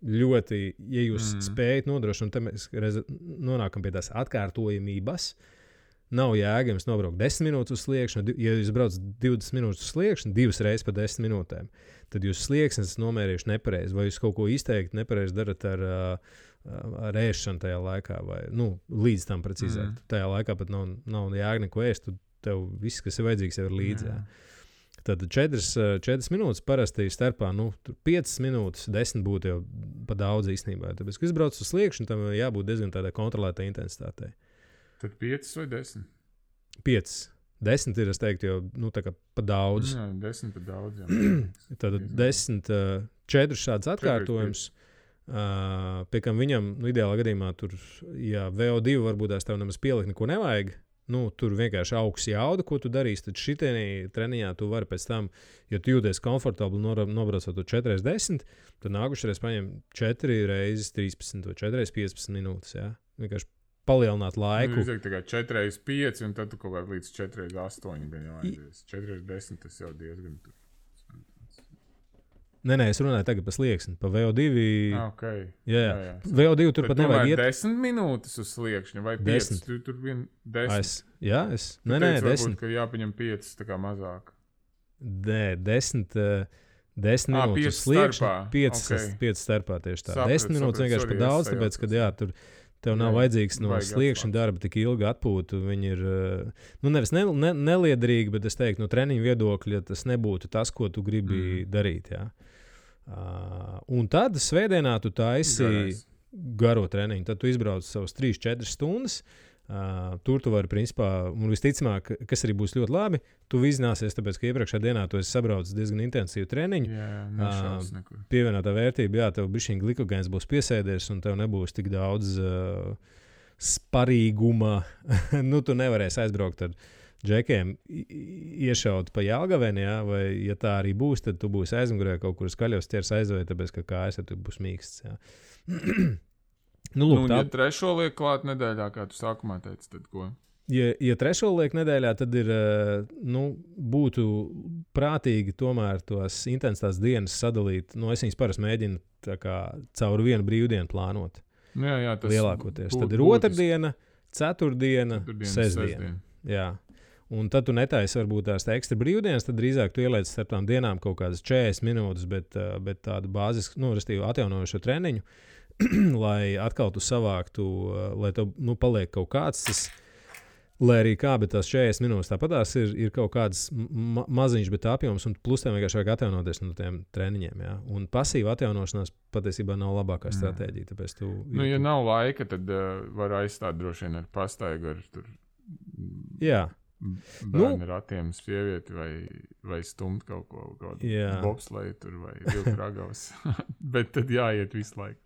Speaker 1: ļoti, ja jūs spējat nodrošināt, tad mēs nonākam pie tās atkārtojamības. Nav jēga jums nobraukt 10 minūtes uz sliekšņu. Ja jūs braucat 20 minūtes uz sliekšņu, 2 reizes pa 10 minūtēm, tad jūs slieksnes nomērījuši nepareizi, vai jūs kaut ko izteikti nepareizi darat ar ēšanu tajā laikā, vai līdz tam precīzāk. Tajā laikā pat nav jēga neko ēst, tev viss, kas ir vajadzīgs, jau ir līdzi. Tad 4 minūtes parasti starpā, 5 minūtes, 10 būtu jau pa daudz īstenībā. Tāpēc, kad izbrauc uz sliekšņu, tam jābūt diezgan tādai kontrolētai intensitātei.
Speaker 2: Tad 5 vai 10?
Speaker 1: 5. 10 ir, es teiktu, jau tā kā pa daudz.
Speaker 2: Jā, 10 pa daudz.
Speaker 1: Tad 10, 4 šāds atkārtojums. Pie kam viņam, ideālā gadījumā, tur, ja VO2 varbūt tās tev nemaz pielikt neko nevajag, tur vienkārši augs jauda, ko tu darīsi, tad šitienī treniņā tu vari pēc tam, ja tu jūties komfortabli nobraucot to 4x10, tad nākušreiz paņem 4x13 vai 4x15 minūtes, jā. Vienkārši palielināt laiku.
Speaker 2: Nu, tā kā 4x5 un tad tu kaut kā līdz 4x8 gan jau aizies. 4x10 tas jau diezgan tur.
Speaker 1: Nē, es runāju tagad par slieksni, pa VO2.
Speaker 2: Okay.
Speaker 1: Jā. VO2 tur pat nevajag iet.
Speaker 2: 10 minūtes uz sliekšņa vai 5? Tur vien 10.
Speaker 1: Nē, 10.
Speaker 2: Varbūt, ka jāpaņem 5 tā kā mazāk.
Speaker 1: Nē, 10 minūtes uz sliekšņa. 5 starpā tieši tā. 10 minūtes vienkārši par daudz, tāpēc, ka tur tev nav vajadzīgs no sliekšņa darba tik ilgi atpūtu. Viņi ir, nevis neliederīgi, bet es teiktu, no treniņu viedokļa tas nebūtu tas, ko tu gribi darīt, jā. Un tad svētdienā tu taisi garo treniņu. Tad tu izbrauc savus 3-4 stundas. Tur tu vari, principā, un visticamāk, kas arī būs ļoti labi, tu vizināsies, tāpēc, ka iepriekšējā dienā tu esi sabraucis diezgan intensīvu treniņu. Pievienotā vērtība, jā, tev bišķiņ glikogēns būs piesēdies, un tev nebūs tik daudz sparīguma. Tu nevarēsi aizbraukt ar džekiem iešaut pa Jelgaveni, jā, vai, ja tā arī būs, tad tu būsi aizmugurē kaut kur skaļos ķers aizvēja, tāpēc, ka kājas tu būs mīksts, jā.
Speaker 2: Ja trešo liek klāt nedēļā, kā tu sākumā teici, tad ko?
Speaker 1: Ja trešo liek nedēļā, tad ir, būtu prātīgi tomēr tos intensitātes dienas sadalīt. Es viņas parasti mēģinu tā kā caur vienu brīvdienu plānot.
Speaker 2: Jā, tas
Speaker 1: lielākoties. Tad ir otrdiena, ceturtdiena, sestdiena. Jā. Un tad tu netaisi varbūt tās ekstra brīvdienas, tad drīzāk tu ieliec starp tām dienām kaut kādas 40 minūtes, bet tādu bāzisku, restīvi atjaunojošo treniņu, lai atkal tu savāktu, lai tev paliek kaut kāds tas, lai arī kā, bet tās 40 minūtes tāpatās ir kaut kāds maziņš, bet apjoms, un plus tev vienkārši vajag atjaunoties no tiem treniņiem, jā. Un pasīva atjaunošanās patiesībā nav labākā stratēģija, tāpēc tu...
Speaker 2: ja nav laika, tad var aizstāt droši vien ar pastaigu, ar tur...
Speaker 1: Jā.
Speaker 2: Bērni ratiem, sievieti vai stumt kaut ko, bobsleju tur vai vilku ragavas. Bet tad jāiet visu laiku.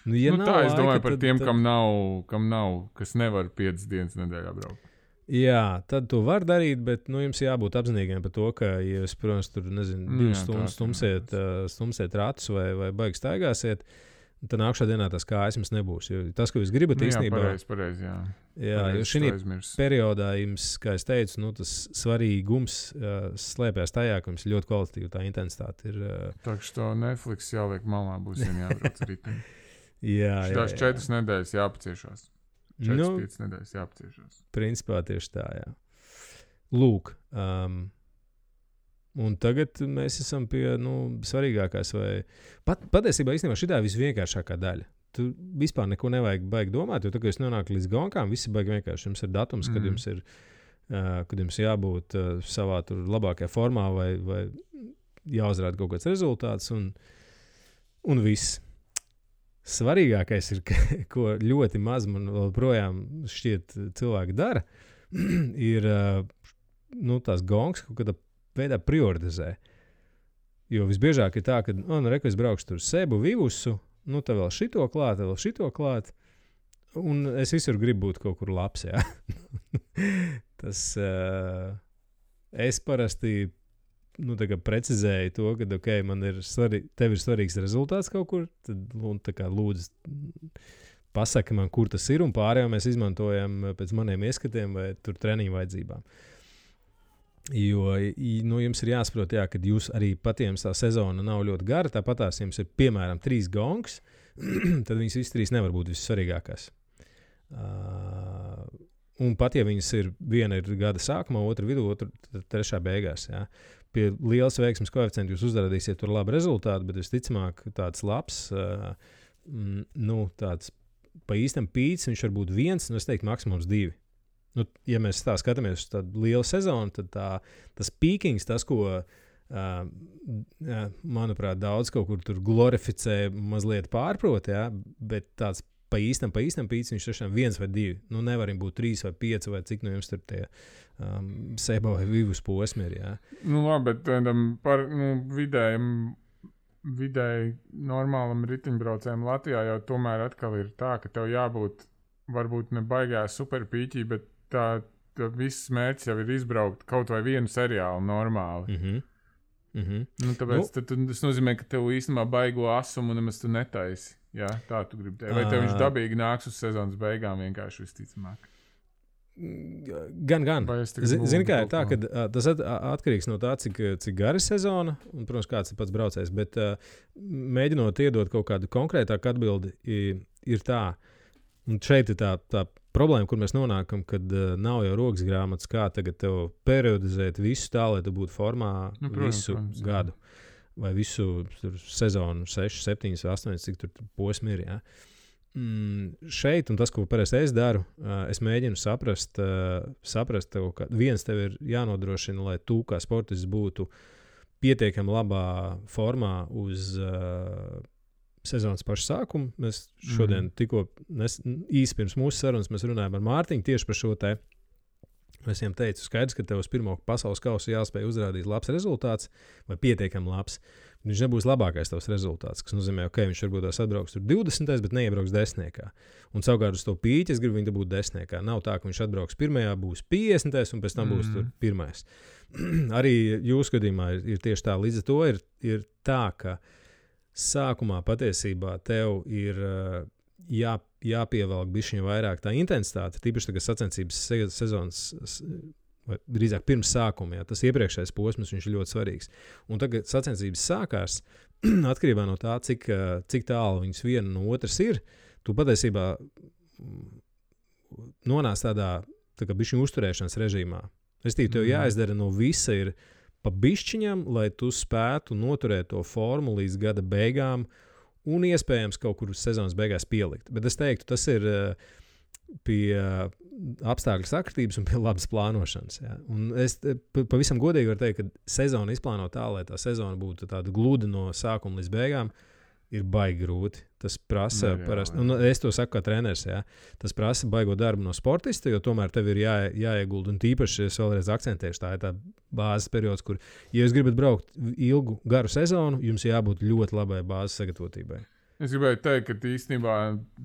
Speaker 1: Ja
Speaker 2: tā es domāju par tiem, kam nav, kas nevar 5 dienas nedēļā braukt.
Speaker 1: Jā, tad tu vari darīt, bet jums jābūt apzinīgiem par to, ka, ja jūs, protams, tur, 2 stundas stumsiet ratus vai baigi staigāsiet, tad nākšā dienā tas kājas jums nebūs. Jo tas, ko jūs gribat īstenībā...
Speaker 2: Pareizi, jā.
Speaker 1: Jā, jo šī periodā jums, kā es teicu, tas svarīgums slēpjas tajā, ka jums ļoti kvalitatīva tā intensitāte ir.
Speaker 2: Tā kā to Netflix jāliek malā, būs jābrauc riteņi.
Speaker 1: Jā.
Speaker 2: Tās 4 nedēļas jāpaciešās. 4-5 nedēļas jāpaciešās.
Speaker 1: Principā tieši tā, jā. Lūk, un tagad mēs esam pie svarīgākās. Patiesībā īstenībā šitā ir visvienkāršākā daļa. Tu vispār neko nevajag baigi domāt, jo tā, kad jūs nonākat līdz gonkām, visi baigi vienkārši. Jums ir datums, kad jums jābūt savā tur labākajā formā vai jāuzrāda kaut kāds rezultāts un viss. Svarīgākais ir, ko ļoti maz man joprojām šķiet cilvēki dara, ir tās gongas kaut kādā veidā prioritizē. Jo visbiežāk ir tā, ka, es braukšu tur Sebu, Vivusu, tev vēl šito klāt, un es visur gribu būt kaut kur labs, jā. Tas, es parasti, precizēju to, ka, tev ir svarīgs rezultāts kaut kur, tad, lūdzu, pasaki man, kur tas ir, un pārējo mēs izmantojam pēc maniem ieskatiem vai tur treniņu vajadzībām. Jo jums ir jāsaprot, kad jūs arī patiems tā sezona nav ļoti gara, tāpatās jums ir piemēram 3 gongas, tad viņas visas 3 nevar būt vissvarīgākās. Un pat ja viņas ir, viena ir gada sākumā, otra vidū, otra trešā beigās. Jā. Pie lielas veiksmes koeficienta jūs uzrādīsiet tur labu rezultātu, bet visticamāk tāds labs, tāds pa īstam pīts, viņš var būt 1, es teiktu maksimums 2. Ja mēs tā skatāmies uz tādu lielu sezonu, tad tas pīkings, tas, ko, manuprāt, daudz kaut kur tur glorificē, mazliet pārprot, jā, bet tāds pa īstam pīts, viņš tiešām 1 vai 2. Nevarim būt 3 vai 5 vai cik jums tur tie Seba vai Vivus posmi ir, jā.
Speaker 2: Labi, bet par vidēji normālam ritiņbraucējam Latvijā jau tomēr atkal ir tā, ka tev jābūt varbūt ne baigā superpīķī, bet tā viss mērķis jau ir izbraukt kaut vai vienu seriālu normāli. Nu, tāpēc tas nozīmē, ka tev īstenībā baigo asumu nemaz tu netaisi. Jā, tā tu gribi teikt. Vai tev viņš dabīgi nāks uz sezonas beigām vienkārši visticamāk?
Speaker 1: Gan. Zini, kā ir tā, ka tas atkarīgs no tā, cik gara ir sezona un, protams, kāds ir pats braucējs. Bet mēģinot iedot kaut kādu konkrētāku atbildi, ir tā. Un šeit ir tā problēma, kur mēs nonākam, kad nav jau rokas grāmatas, kā tagad tev periodizēt visu tā, lai tu būtu formā visu gadu. Vai visu sezonu, 6, 7, 8, cik tur posmi ir. Ja? Šeit, un tas, ko parasti es daru, es mēģinu saprast tev, ka viens tev ir jānodrošina, lai tu kā sportists būtu pietiekami labā formā uz sezonas paša sākuma. Mēs šodien tikko īsi pirms mūsu sarunas mēs runājam ar Mārtiņu tieši par šo te. Es viņam teicu, skaidrs, ka tev uz pirmo pasaules kausu jāspēj uzrādīt labs rezultāts vai pietiekami labs. Viņš nebūs labākais tavs rezultāts, kas nozīmē, ka viņš varbūt tās atbrauks tur 20, bet neiebrauks 10. Un savukārt uz to pīķi es gribu viņu dabūt 10. Nav tā, ka viņš atbrauks 1, būs 50 un pēc tam būs tur 1. Arī jūsu gadījumā ir tieši tā. Līdz ar to ir tā, ka sākumā patiesībā tev ir jāpievelk bišķiņ vairāk tā intensitāte, tīpaši tagad sacensības sezonas, vai drīzāk pirms sākuma, tas iepriekšējais posms, viņš ir ļoti svarīgs. Un tagad sacensības sākās, atkarībā no tā, cik tālu viņas viena no otras ir, tu patiesībā nonāc tādā tā kā bišķiņu uzturēšanas režīmā. Restīvi, tev jāizdara no visa ir pa bišķiņam, lai tu spētu noturēt to formu līdz gada beigām, un iespējams kaut kur sezonas beigās pielikt. Bet es teiktu, tas ir pie apstākļu sakritības un pie labas plānošanas. Jā. Un es pavisam godīgi varu teikt, ka sezonu izplāno tā, lai tā sezona būtu tāda gluda no sākuma līdz beigām, ir baigi grūti. Tas prasa parasti, un es to saku kā treneris, jā, tas prasa baigo darbu no sportista, jo tomēr tev ir jāiegulda, un tīpaši es vēlreiz akcentēšu, tā ir tā bāzes periods, kur, ja jūs gribat braukt ilgu, garu sezonu, jums jābūt ļoti labai bāzes sagatavotībai.
Speaker 2: Es gribēju teikt, ka īstenībā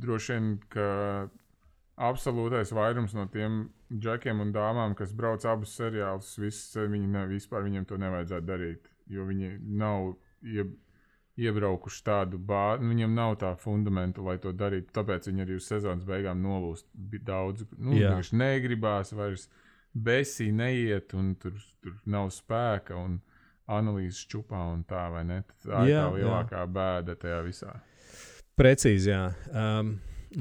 Speaker 2: droši vien, ka absolūtais vairums no tiem džekiem un dāmām, kas brauc abus seriālus, vispār viņiem to nevajadzētu darīt, jo viņi nav iebraukuši tādu bāzi, viņam nav tā fundamenta, lai to darītu, tāpēc viņi arī uz sezonas beigām nolūst daudz. Viņš negribās vairs besī neiet, un tur nav spēka, un analīzes čupā, un tā, vai ne? Tā ir tā lielākā bēda tajā visā.
Speaker 1: Precīzi, jā.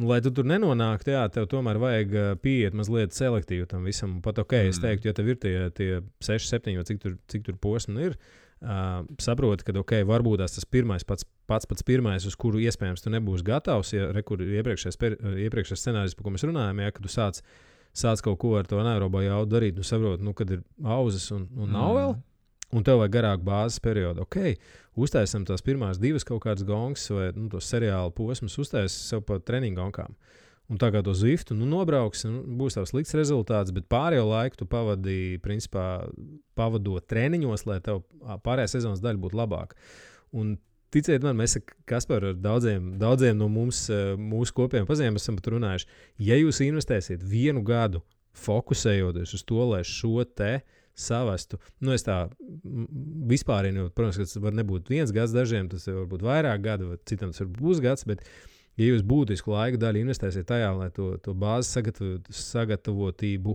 Speaker 1: Lai tu tur nenonāktu, tev tomēr vajag pieiet mazliet selektīvi tam visam. Pat es teiktu, ja tev ir tie 6, 7, vai cik tur posmi ir, saproti, ka varbūt tas pats pirmais, uz kuru iespējams tu nebūsi gatavs, ja iepriekšējais scenārijs, par ko mēs runājam, ja, kad tu sāc kaut ko ar to anaerobo jaudu darīt, saproti, kad ir auzas un nav vēl, un tev vajag garāku bāzes periodu. Uztaisam tās pirmās 2 kaut kādas gongas vai tos seriālu posmus, uztaisam sev pa treniņu gongām. Un tā kā to Zwiftu nobrauks, būs tavs slikts rezultāts, bet pārējo laiku tu pavadīji, principā, pavadot treniņos, lai tev pārējā sezonas daļa būtu labāka. Un ticiet man, mēs Kaspar ar daudziem no mūsu kopiem pazīmēm esam pat runājuši. Ja jūs investēsiet 1 gadu fokusējoties uz to, lai šo te savestu, es tā vispārinu, protams, ka tas var nebūt 1 gads dažiem, tas var būt vairāk gadu, vai citam tas var būt pusgads, bet ja jūs būtisku laika daļu investēsiet tajā, lai to bāzes sagatavotību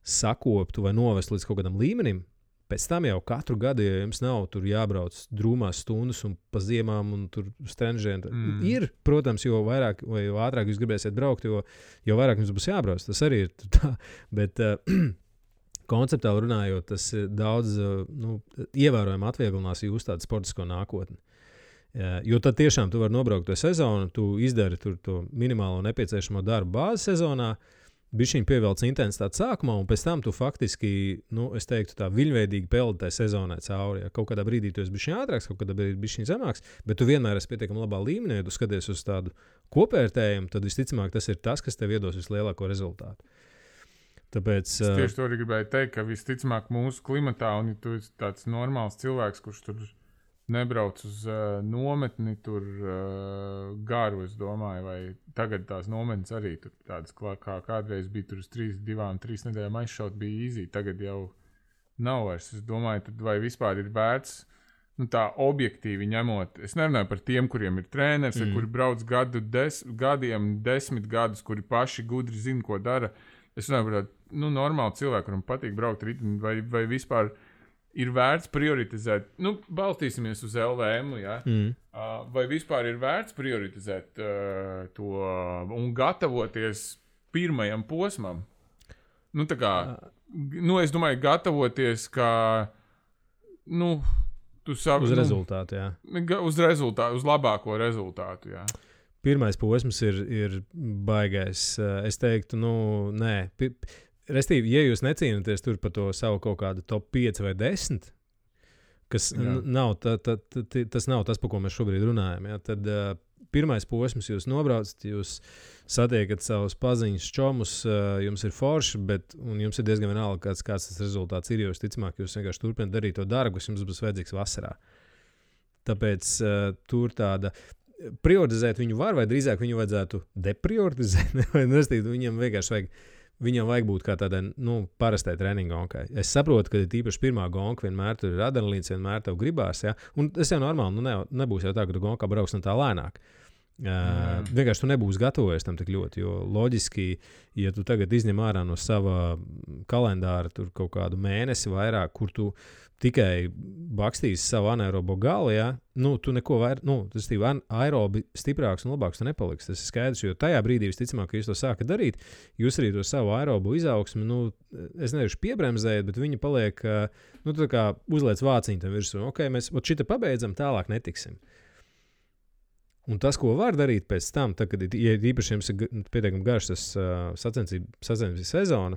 Speaker 1: sakoptu vai novestu līdz kaut kādam līmenim, pēc tam jau katru gadu, ja jums nav tur jābrauc drūmās stundas un pa ziemām un tur strenžiem, ir, protams, jo vairāk vai jo ātrāk jūs gribēsiet braukt, jo vairāk jums būs jābrauc. Tas arī ir tā, bet konceptuāli runājot, tas daudz ievērojami atvieglinās jūsu tādu sportisko nākotni. Jo tad tiešām tu vari nobraukt to sezonu, tu izdari tur to minimālo nepieciešamo darbu bāzes sezonā, bišķiņ pievelc intensitāti sākumā, un pēc tam tu faktiski, es teiktu tā viļņveidīgi peldi tai sezonai cauri. Ja kaut kādā brīdī tu esi bišķiņ ātrāks, kaut kādā brīdī bišķiņ zemāks, bet tu vienmēr esi pietiekami labā līmenī, ja tu skaties uz tādu kopvērtējumu, tad visticamāk tas ir tas, kas tev iedos vislielāko rezultātu. Tāpēc,
Speaker 2: es tieši to arī gribēju teikt, ka visticamāk mūsu klimatā, un ja tu esi tāds normāls cilvēks, kurš tur nebrauc uz nometni tur garu, es domāju, vai tagad tās nometnes arī tur tādas, kā kādreiz bija tur uz 3 nedēļām aizšaut, bija easy, tagad jau nav vairs. Es domāju, tad vai vispār ir vērts, tā objektīvi ņemot, es nerunāju par tiem, kuriem ir treneris, kuri brauc gadiem, 10 gadus, kuri paši gudri zina, ko dara. Es runāju par tādu, normālu cilvēku, kuram patīk braukt ritmi, vai vispār ir vērts prioritizēt, balstīsimies uz LVM, ja? Vai vispār ir vērts prioritizēt to un gatavoties pirmajam posmam? Es domāju, gatavoties, kā,
Speaker 1: uz rezultātu, jā.
Speaker 2: Uz rezultātu, uz labāko rezultātu, jā.
Speaker 1: Pirmais posms ir baigais. Es teiktu, nē. Restīvi, ja jūs necīnaties tur par to savu kaut kādu top 5 vai 10, kas nav, tas nav tas, par ko mēs šobrīd runājam, ja? Tad pirmais posms jūs nobraucat, jūs satiekat savus paziņas čomus, jums ir forši, un jums ir diezgan vienalga, kāds tas rezultāts ir, jo visticamāk, jūs vienkārši turpināt darīt to darbu, kas jums būs vajadzīgs vasarā. Tāpēc tur tāda prioritizēt viņu var, vai drīzāk viņu vajadzētu deprioritizēt, vai viņam vienkārši viņam vajag būt kā tādai, parastai treniņa gonkai. Es saprotu, ka tīpaši pirmā gonka vienmēr tur ir adrenalīns, vienmēr tev gribās, ja? Un tas jau normāli, nebūs jau tā, ka tu gonkā brauks tā lēnāk. Vienkārši tu nebūsi gatavojies tam tik ļoti, jo loģiski, ja tu tagad izņem ārā no sava kalendāra tur kaut kādu mēnesi vairāk, kur tu tikai bakstīsi savu anaerobo galu, ja? Tu neko vairāk, tas ir aerobi stiprāks un labāks tu nepaliks. Tas ir skaidrs, jo tajā brīdī visticamāk, ka jūs to sākat darīt, jūs arī to savu aerobu izaugsmi, es nevaru piebremzēt, bet viņi paliek, tā kā uzliec vāciņu tam virsū. Ok, mēs šita pabeidzam, tālāk netiksim. Un tas, ko var darīt pēc tam, tad, kad īpaši jums ir pietiekami garš tas sacensību sezona,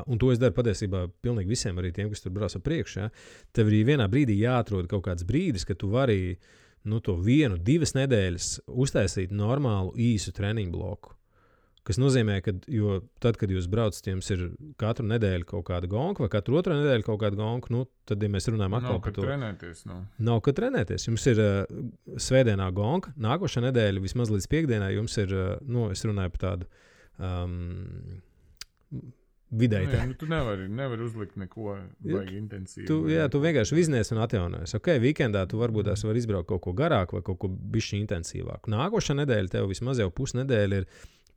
Speaker 1: un to es daru patiesībā pilnīgi visiem, arī tiem, kas tur brauc priekšu, ja? Tev arī vienā brīdī jāatrod kaut kāds brīdis, ka tu vari to 1-2 nedēļas uztaisīt normālu īsu treniņu bloku. Kas nozīmē, ka tad, kad jūs braucat, jums ir katru nedēļu kaut kāda gonka vai katru otru nedēļu kaut kāda gonka, tad, ja mēs runājam atkal par to. Nav, kad trenēties. Jums ir svētdienā gonka, nākošā nedēļa vismaz līdz piekdienai jums ir, es runāju par tādu vidēji.
Speaker 2: Tu nevari uzlikt neko vajag intensīvi.
Speaker 1: Tu vienkārši viznies un atjaunojies. Ok, weekendā tu varbūt var izbraukt kaut ko garāk vai kaut ko bišķi intensīvāk. Nākošā nedēļa tev vismaz jau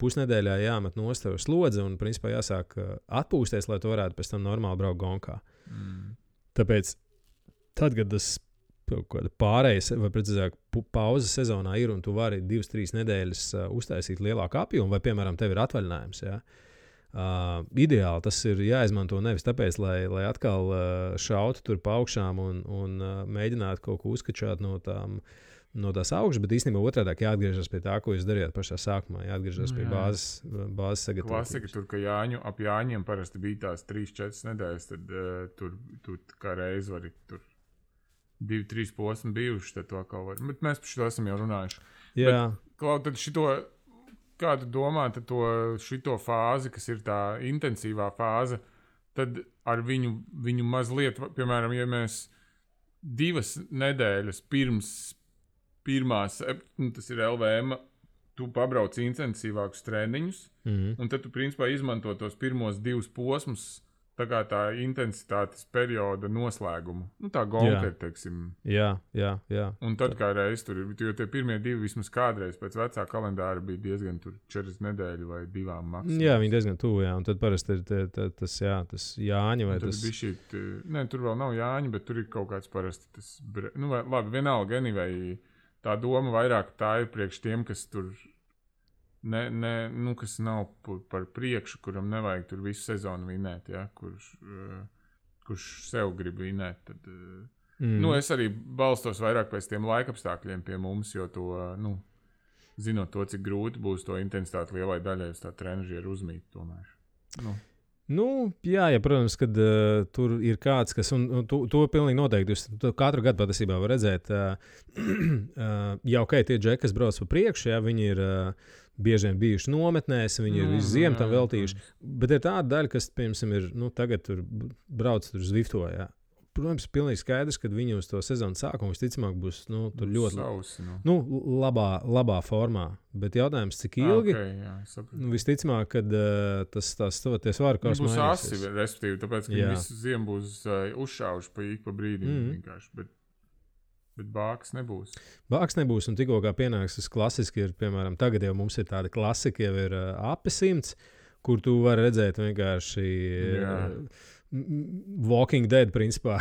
Speaker 1: pusnedēļā jāmet nost tev slodze un principā jāsāk atpūsties, lai tu varētu pēc tam normāli braukt gonkā. Tāpēc tad, kad tas pārējais, vai precīzāk pauzes sezonā ir un tu vari 2-3 nedēļas uztaisīt lielāku apjomu, vai piemēram tev ir atvaļinājums, ja? Ideāli tas ir jāizmanto nevis tāpēc, lai atkal šautu tur pa augšām un mēģinātu kaut ko uzkačāt no tās augšas, bet īstenībā otrādāk jāatgriežas pie tā, ko jūs darījāt pašā sākumā, jāatgriežas pie bāzes sagatavotības.
Speaker 2: Klasika tur, ka ap Jāņiem parasti bija tās 3-4 nedēļas, tad tur kā reiz vari tur 2-3 posmi bijuši, tad to atkal var. Bet mēs par šito esam jau runājuši.
Speaker 1: Jā.
Speaker 2: Bet, tad šito, kā tu domā, tad šito fāzi, kas ir tā intensīvā fāze, tad ar viņu mazliet, piemēram, ja mēs 2 nedēļas pirms pirmās, tas ir LVM, tu pabrauc intensīvākus treniņus, un tad tu principā izmanto tos pirmos 2 posmus, tā kā tā intensitātes perioda noslēgumu. Tā gonka ir, teiksim.
Speaker 1: Jā.
Speaker 2: Un tad kā reiz tur ir, jo tie pirmie 2 vismaz kādreiz pēc vecā kalendāra bija diezgan tur 4 nedēļu vai 2 maksimums. Jā,
Speaker 1: viņi diezgan tuvu, jā, un tad parasti ir tas Jāņa vai tas...
Speaker 2: Tur vēl nav Jāņa, bet tur ir kaut kāds parasti tas... labi, vienalga, anyway, tā doma vairāk tā ir priekš tiem, kas tur kas nav par priekšu, kuram nevajag tur visu sezonu vinēt, ja? Kurš sev grib vinēt. Tad, es arī balstos vairāk pēc tiem laikapstākļiem pie mums, jo to, zinot to, cik grūti būs to intensitāti lielai daļai uz tā trenažieru uzmīt tomēr.
Speaker 1: Jā, protams, kad tur ir kāds, kas, un to pilnīgi noteikti, jūs katru gadu patiesībā var redzēt, tie džeki, kas brauc pa priekšu, viņi ir bieži vien bijuši nometnēs, viņi ir visu ziemu tam veltījuši, bet ir tāda daļa, kas, piemēram, ir, tagad tur brauc tur Zwifto, protams, pilnīgi skaidrs, ka viņi uz to sezonu sākumu visticamāk būs tur ļoti
Speaker 2: sausi,
Speaker 1: labā formā. Bet jautājums, cik ilgi? Visticamāk, kad tas svaru kaus
Speaker 2: būs
Speaker 1: mainīsies.
Speaker 2: Asi, respektīvi, tāpēc, ka viņi visu ziemu būs uzšāvuši pa brīdim vienkārši. Bet bāks nebūs.
Speaker 1: Bāks nebūs, un tikko kā pienāks tas klasiski ir, piemēram, tagad jau mums ir tāda klasika, jau ir api 100, kur tu vari redzēt vienkārši Walking Dead, principā.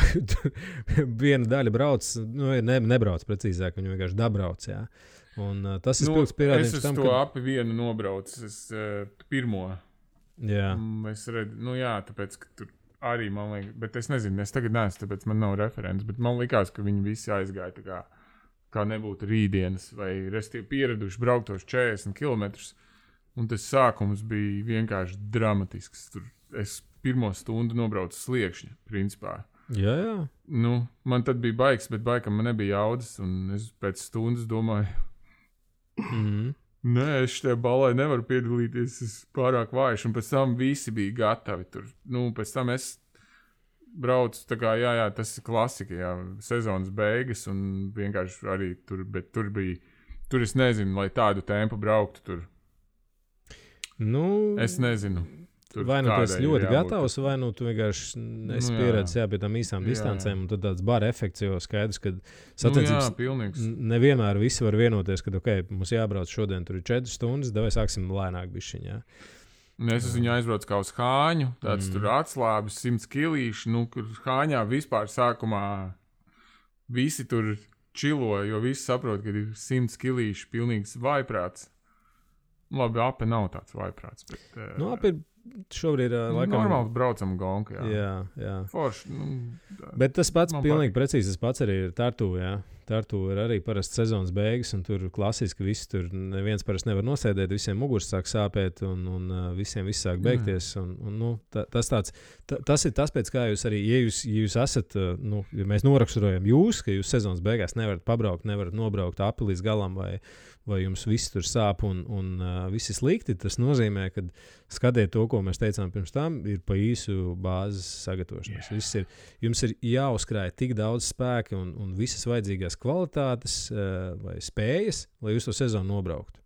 Speaker 1: Viena daļa brauc, nebrauc precīzāk, viņa vienkārši dabrauc, jā. Un tas ir spilgts pierādījums tam,
Speaker 2: ka... Es to api vienu nobraucu, pirmo.
Speaker 1: Jā.
Speaker 2: Es redzu, tāpēc, ka tur arī man liekas, bet es nezinu, es tagad neesmu, tāpēc man nav referents, bet man likās, ka viņi visi aizgāja tā kā nebūtu rītdienas, vai restīvi pieraduši brauktos 40 kilometrus, un tas sākums bija vienkārši dramatisks. Tur es pirmo stundu nobraucu sliekšņa, principā.
Speaker 1: Jā.
Speaker 2: Man tad bija baigs, bet baigam man nebija jaudas, un es pēc stundas domāju, nē, es šajā balē nevaru piedalīties, es pārāk vājš, un pēc tam visi bija gatavi tur. Pēc tam es braucu, tā kā, tas ir klasika, sezonas beigas, un vienkārši arī tur, bet tur es nezinu, lai tādu tempu brauktu tur. Es nezinu. Tur
Speaker 1: vai tu esi ļoti gatavs, vai tu vienkārši esi pieredzējis pie tām īsām distancēm, un tad tāds bara efekts, jo skaidrs, ka sacensības nevienmēr visi var vienoties, ka, mums jābrauc šodien, tur ir 4 stundas, vai sāksim lēnāk bišķiņā.
Speaker 2: Es viņu aizbraucu kā uz Hāņu, tāds tur atslābis 100 kilīši, kur Hāņā vispār sākumā visi tur čilo, jo visi saprot, ka ir 100 kilīši pilnīgs vaiprāts. Labi, ape nav tāds vaiprāts, bet...
Speaker 1: Ape ir šobrīd laikam...
Speaker 2: Normāli braucam gonku,
Speaker 1: jā.
Speaker 2: Forši,
Speaker 1: Bet tas pats pilnīgi precīzi, tas pats arī ir Tartu, jā. Tartu ir arī parasti sezonas beigas, un tur klasiski visi tur neviens parasti nevar nosēdēt, visiem muguras sāk sāpēt, un visiem viss sāk beigties, tas ir tas, pēc kā jūs arī, ja jūs esat, ja mēs noraksturojam jūs, ka jūs sezonas beigās nevarat pabraukt, nevarat nobraukt api līdz galam, vai jums viss tur sāp un viss ir slikti, tas nozīmē, ka skatiet to, ko mēs teicām pirms tam, ir pa īsu bāzes sagatavošanās. Jums ir jāuzkrāj tik daudz spēka un visas vajadzīgās kvalitātes vai spējas, lai jūs to sezonu nobrauktu.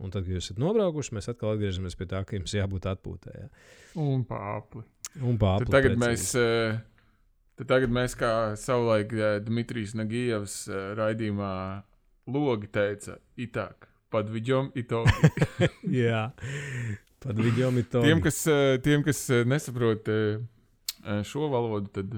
Speaker 1: Un tad, kad jūs esat nobraukuši, mēs atkal atgriežamies pie tā, ka jums jābūt atpūtē. Jā.
Speaker 2: Un pāpli.
Speaker 1: Tad
Speaker 2: tagad mēs kā savulaik Dmitrijs Nagijevs raidījumā Logi teica, itāk, padvidjom itogi.
Speaker 1: Jā, padvidjom itogi.
Speaker 2: Tiem, kas nesaprot šo valodu, tad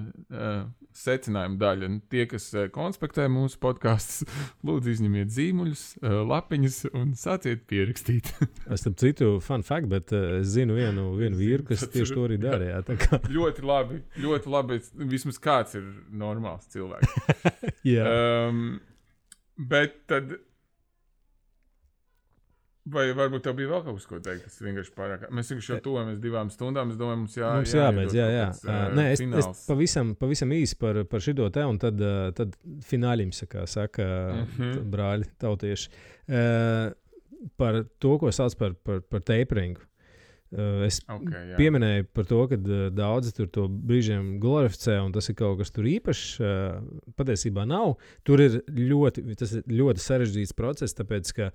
Speaker 2: secinājuma daļa. Tie, kas konspektē mūsu podkastus, lūdzu izņemiet zīmuļus, lapiņus un sāciet pierakstīt.
Speaker 1: Es tam citu fun fact, bet es zinu vienu vīru, kas tieši to arī darīja.
Speaker 2: Ļoti labi. Vismaz kāds ir normāls cilvēks.
Speaker 1: Jā.
Speaker 2: Bet tad, vai varbūt tev bija vēl kaut kas, ko teikt, tas vienkārši pārāk. Mēs vienkārši jau tuvojamies 2 stundām, es domāju, mums
Speaker 1: jābeidz, jā. Nē, es pavisam īsi par šito te, un tad fināļims, kā saka brāļi tautieši, par to, ko sauc par taperingu. Es pieminēju par to, ka daudzi tur to brīžiem glorificē, un tas ir kaut kas tur īpašs. Patiesībā nav. Tas ir ļoti sarežģīts process, tāpēc, ka,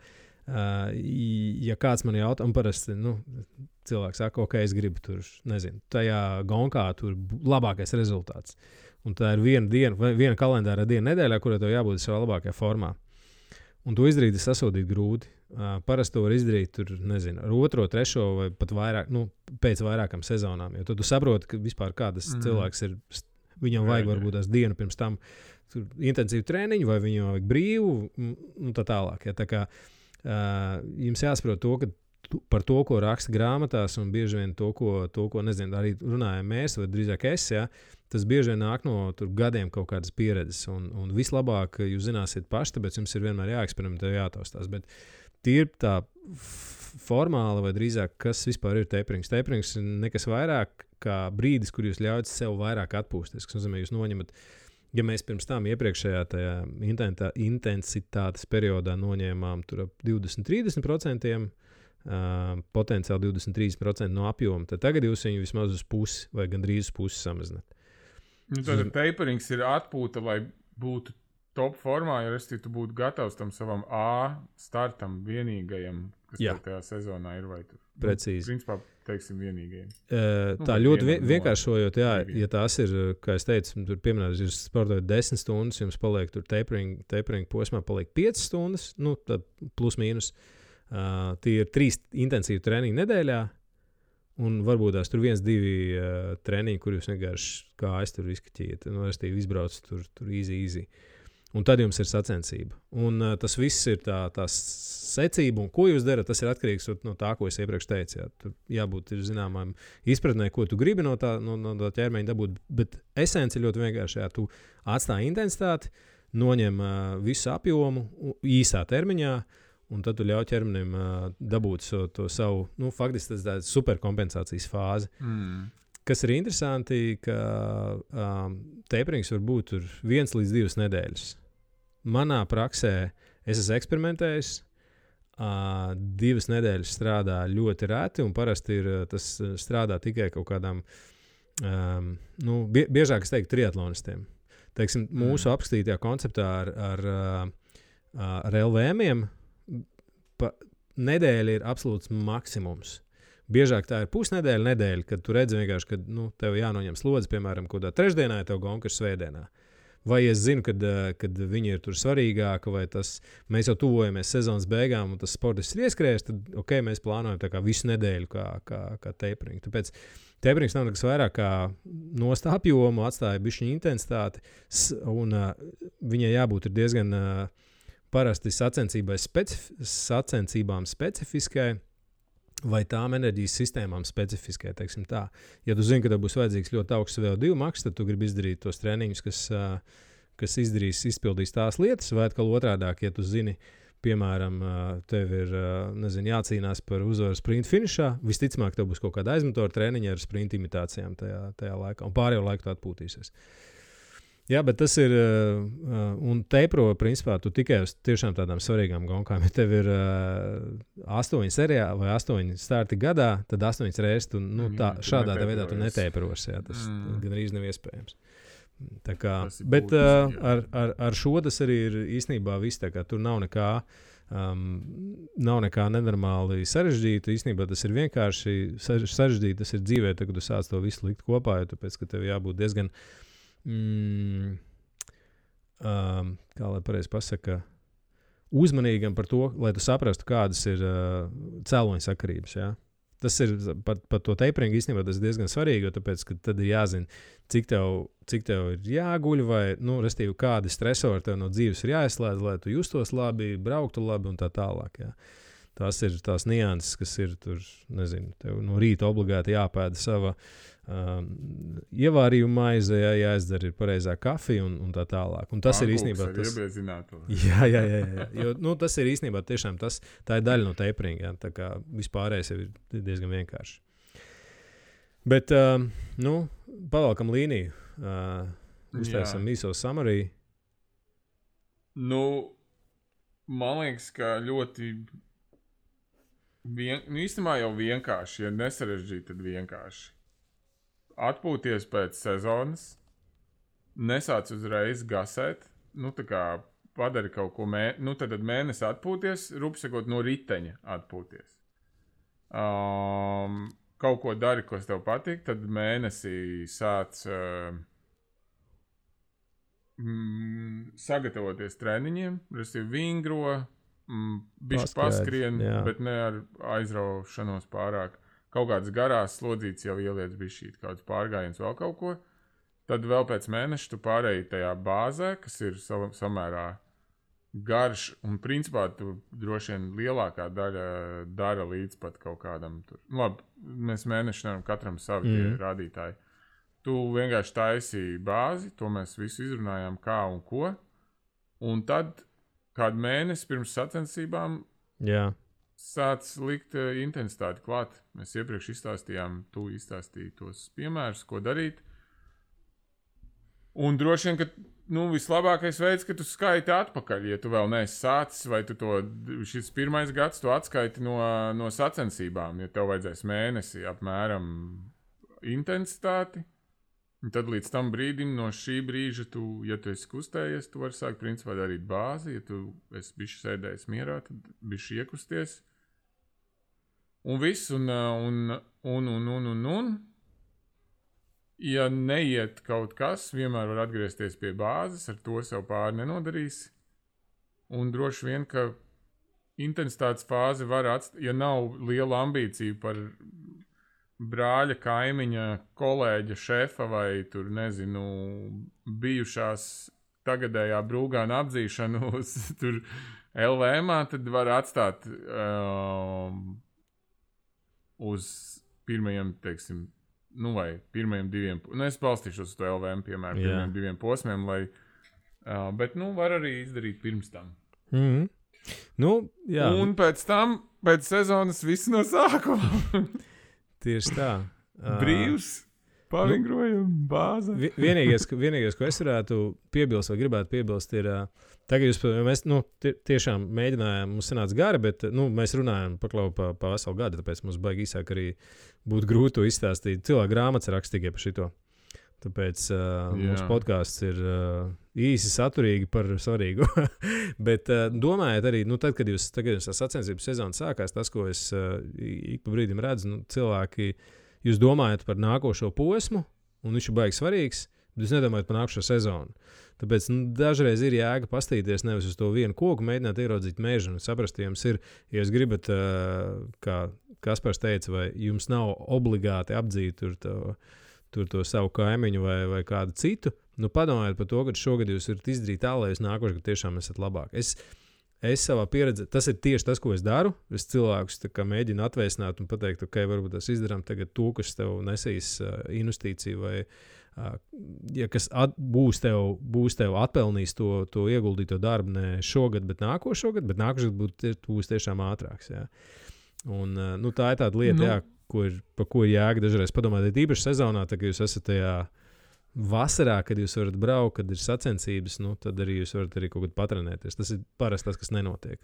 Speaker 1: ja kāds man jautā, un parasti cilvēks saka, ok, es gribu tur, nezinu, tajā gonkā tur labākais rezultāts. Un tā ir viena kalendāra diena nedēļā, kurā tev jābūt savā labākajā formā. Un to izdarīt ir sasodīt grūti. Parasti to var izdarīt tur, nezinu, ar 2., 3. vai pat vairāk, pēc vairākām sezonām. Jo tu saproti, ka vispār kādas cilvēks ir, viņam vajag varbūt tās dienu pirms tam intensīvu treniņu, vai viņam vajag brīvu, un tā tālāk. Ja? Tā kā jums jāsaprot to, ka par to, ko raksta grāmatās, un bieži vien to, ko nezinu, arī runājam mēs, vai drīzāk es, ja, tas bieži vien nāk no gadiem kaut kādas pieredzes, un vislabāk jūs zināsiet paši, tāpēc jums ir vienmēr jāeksperimentē, jātaustās, bet tīri tā formāli, vai drīzāk, kas vispār ir taperings. Taperings ir nekas vairāk kā brīdis, kur jūs ļaujat sev vairāk atpūsties, kas nozīmē, jūs noņemat, ja mēs pirms tam iepriekšējā tajā intensitātes periodā noņēmām tur ap 20-30%, potenciāli 23% no apjoma, tad tagad jūs viņu vismaz uz pusi vai gandrīz uz pusi samazināt.
Speaker 2: Tad taperings ir atpūta, lai būtu top formā, ja tu būtu gatavs tam savam A startam vienīgajam, kas tajā sezonā ir, vai tu?
Speaker 1: Precīzi.
Speaker 2: Principā, teiksim, vienīgajiem.
Speaker 1: Tā ļoti vienkāršojot, ja tās ir, kā es teicu, tur pieminēt, jūs sportojat 10 stundas, jums paliek tur tapering posmā paliek 5 stundas, plus mīnus. Tie ir 3 intensīvi treniņi nedēļā, un varbūt tās tur 1-2 treniņi, kur jūs vienkārši kā es tur izkaķiet, izbrauc tur easy. Un tad jums ir sacensība. Un tas viss ir tā secība, un ko jūs darat, tas ir atkarīgs no tā, ko es iepriekš teicu. Jā. Tur jābūt zināmām izpratnē, ko tu gribi no tā ķermeņa dabūt, bet esence ir ļoti vienkārši. Jā, tu atstāji intensitāti, noņem visu apjomu īsā termiņā, un tad tu ļauj ķermenim dabūt to savu, faktiski tas tāds superkompensācijas fāzi. Kas ir interesanti, ka taperings var būt 1 līdz 2 nedēļas. Manā praksē es esmu eksperimentējis. 2 nedēļas strādā ļoti reti, un parasti tas strādā tikai kaut kādām, biežāk es teiktu, triatlonistiem. Teiksim, mūsu apskatītajā konceptā ar LVM-iem nedēļa ir absolūts maksimums. Biežāk tā ir pusnedēļa, kad tu redzi vienkārši, ka tev jānoņem slodzi, piemēram, kādā trešdienā, ja tev gonka ir svētdienā. Vai es zinu, kad viņi ir tur svarīgāki, vai mēs jau tuvojamies sezonas beigām, un tas sportists ir ieskrējis, tad mēs plānojam tā kā visu nedēļu kā tapering. Tāpēc taperings nav nekas vairāk kā nost apjomu, atstāja bišķiņu intensitāti, un viņai jābūt ir diezgan parasti sacensībām specifiskai, vai tām enerģijas sistēmām specifiskai, teiksim tā. Ja tu zini, ka tev būs vajadzīgs ļoti augsts VO2 maks, tad tu gribi izdarīt tos treniņus, kas izpildīs tās lietas, vai atkal otrādāk, ja tu zini, piemēram, tev ir jācīnās par uzvaru sprint finišā, visticamāk, tev būs kaut kāda aizmotora treniņa ar sprint imitācijām tajā laikā, un pārējo laiku tu atpūtīsies. Jā, bet tas ir, un tepro, principā, tu tikai uz tiešām tādām svarīgām gonkām. Ja tev ir 8 serijā vai 8 starti gadā, tad 8 reizes tu, šādā veidā tu netepros. Jā, tas gan arī nav iespējams. Tā kā, bet ar šo tas arī ir īstenībā viss. Tur nav nekā nenormāli sarežģīta. Īstenībā tas ir vienkārši sarežģīti. Tas ir dzīvē, kad tu sāc to visu likt kopā, jo tāpēc, ka tev jābūt diezgan kā lai pareizi pasaka, uzmanīgam par to, lai tu saprastu, kādas ir cēloņa sakarības. Ja? Tas ir par to taperingu īstenībā tas ir diezgan svarīgi, jo tāpēc, ka tad ir jāzina, cik tev ir jāguļ, vai, restīvi, kādi stresori tev no dzīves ir jāizslēdz, lai tu justos labi, brauktu labi un tā tālāk. Ja? Tās ir tās nianses, kas ir tur, nezinu, tev no rīta obligāti jāpēda sava ievārījuma maize, jāizdara ir pareizā kafija un tā tālāk. Un tas ir īstenībā tas. Jā. Jo, tas ir īstenībā tiešām tā ir daļa no taperinga. Ja? Tā kā vispārējais ir diezgan vienkārši. Bet, pavalkam līniju. Uztaisam īso summary.
Speaker 2: Man liekas, ka ļoti īstenībā jau vienkārši, ja nesarežģīt, tad vienkārši. Atpūties pēc sezonas, nesāc uzreiz gasēt, tā kā padari kaut ko, tad mēnesi atpūties, rupsakot no riteņa atpūties. Kaut ko dari, kas tev patīk, tad mēnesī sāc sagatavoties treniņiem, restīvi vingro, bišķi paskrien, bet ne ar aizraušanos pārāk. Kaut kādas garās slodzītes jau ieliec bišķīt, kāds pārgājiens vēl kaut ko. Tad vēl pēc mēneša tu pārēji tajā bāzē, kas ir samērā garš, un principā tu droši vien lielākā daļa dara līdz pat kaut kādam tur. Labi, mēs mēneši nevaram katram savi rādītāji. Tu vienkārši taisīji bāzi, to mēs visu izrunājām kā un ko, un tad kādu mēnesi pirms sacensībām sāc likt intensitāti klāt. Mēs iepriekš izstāstījām, tu izstāstīji tos piemērus, ko darīt. Un droši vien, ka vislabākais veids, ka tu skaiti atpakaļ, ja tu vēl neesi sācis, vai tu šis pirmais gads tu atskaiti no sacensībām, ja tev vajadzēs mēnesi apmēram intensitāti. Un tad līdz tam brīdim, no šī brīža, ja tu esi kustējies, tu vari sākt principā darīt bāzi. Ja tu esi bišķi sēdējis mierā, tad bišķi iekusties. Un viss, un. Ja neiet kaut kas, vienmēr var atgriezties pie bāzes, ar to sev pāri nenodarīs. Un droši vien, ka intensitātes fāzi var atstāt, ja nav liela ambīcija par brāļa, kaimiņa, kolēģa, šefa vai tur, nezinu, bijušās tagadējā brūgāna apdzīšanu uz tur LVM-ā, tad var atstāt uz pirmajiem, teiksim, vai pirmajiem 2, es balstīšos uz to LVM, piemēram, pirmajiem 2 posmiem, lai, bet, var arī izdarīt pirms tam.
Speaker 1: Mm-hmm. Jā.
Speaker 2: Un pēc tam, pēc sezonas viss no sākuma.
Speaker 1: Tieši tā.
Speaker 2: Brīvs, pavingrojam, bāze.
Speaker 1: Vienīgais, ko es varētu piebilst vai gribētu piebilst, ir, tagad mēs tiešām mēģinājām, mums sanāca gari, bet mēs runājam pa veselu gadu, tāpēc mums baigi īsāk arī būtu grūti to izstāstīt. Cilvēku grāmatas raksta tikai par šito. Tāpēc mūsu podkāsts ir īsi saturīgi par svarīgu. Bet domājiet arī, tad, kad jūs sacensību sezona sākās, tas, ko es ik pa brīdim redzu, cilvēki, jūs domājat par nākošo posmu, un viņš ir baigi svarīgs, bet jūs nedomājat par nākošo sezonu. Tāpēc dažreiz ir jēga pastīties nevis uz to vienu koku, mēģināt ieraudzīt mežu un saprast, ja jums ir, ja jūs gribat, kā Kaspars teica, vai jums nav obligāti apdzīt tur to savu kaimiņu vai kādu citu, padomājiet par to, ka šogad jūs varat izdarīt tā, lai jūs nākošais gadu tiešām esat labāk. Es savā pieredzē, tas ir tieši tas, ko es daru. Es cilvēkus mēģinu atvēsināt un pateikt, ok, varbūt tas izdarām tagad to, kas tev nesīs investīciju vai ja kas būs tev atpelnījis to ieguldīto darbu ne šogad, bet nākošais gadu būs tiešām ātrāks. Jā. Un, tā ir tāda lieta, par ko ir jēga dažreiz padomāt. Ir īpaši sezonā, kad jūs esat tajā vasarā, kad jūs varat braukt, kad ir sacensības, tad arī jūs varat arī kaut kad patrenēties. Tas ir parasti tas, kas nenotiek.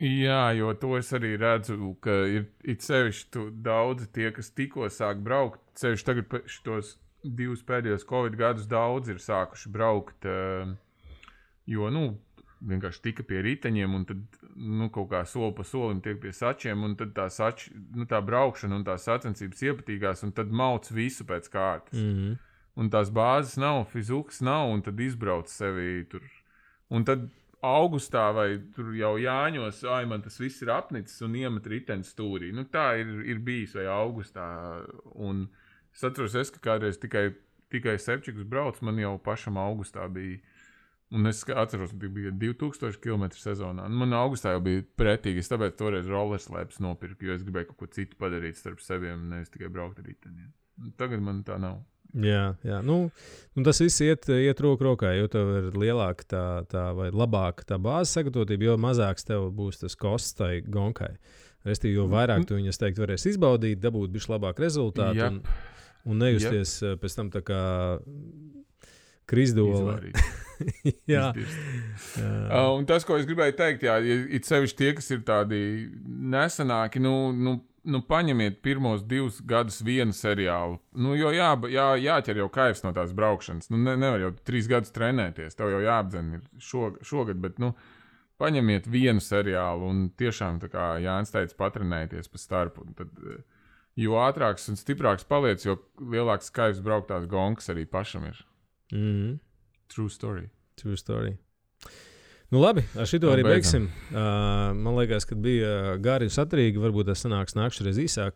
Speaker 2: Jā, jo to es arī redzu, ka ir sevišķi daudzi tie, kas tikko sāk braukt. Sevišķi tagad šitos 2 pēdējos Covid gadus daudz ir sākuši braukt, jo, vienkārši tika pie riteņiem un tad, kaut kā soli pa solim tiek pie sačiem un tad tā braukšana un tās sacensības iepatīgās un tad mauc visu pēc kārtas.
Speaker 1: Mm-hmm.
Speaker 2: Un tās bāzes nav, fizukas nav un tad izbrauc sevi tur. Un tad augustā vai tur jau Jāņos, man tas viss ir apnicis un iemet riteni stūrī. Tā ir bijis vai augustā. Un es atceros, ka kādreiz tikai sepčikus brauc, man jau pašam augustā bija. Un es atceros, ka bija 2000 km sezonā. Man augustā jau bija pretīgi, es tāpēc toreiz rollerslēpes nopirku, jo es gribēju kaut ko citu padarīt starp seviem, nevis tikai braukt ar riteniem. Tagad man tā nav.
Speaker 1: Jā. Tas viss iet roku rokā, jo tev ir lielāka tā vai labāka tā bāzes sagatavotība, jo mazāks tev būs tas kosts tai gonkai. Restīvi, jo vairāk tu viņas, teikt, varēs izbaudīt, dabūt bišķi labāku rezultātu un nejusties pēc tam tā kā Krisdola. Jā.
Speaker 2: Un tas, ko es gribēju teikt, ir sevišķi tie, kas ir tādi nesenāki, paņemiet pirmos 2 gadus vienu seriālu. Jo jāķer jau kaivs no tās braukšanas. Nevar jau 3 gadus trenēties, tev jau jāapdzen ir šogad, bet, paņemiet vienu seriālu un tiešām, tā kā Jānis teica, patrenēties pa starpu. Un tad, jo ātrāks un stiprāks paliec, jo lielāks kaivs brauktās gonkas arī pašam ir.
Speaker 1: Mm-hmm.
Speaker 2: True story.
Speaker 1: Labi, ar šito arī beigsim. Man liekas, ka bija gari un saturīgi. Varbūt tas sanāks nākšreiz īsāk.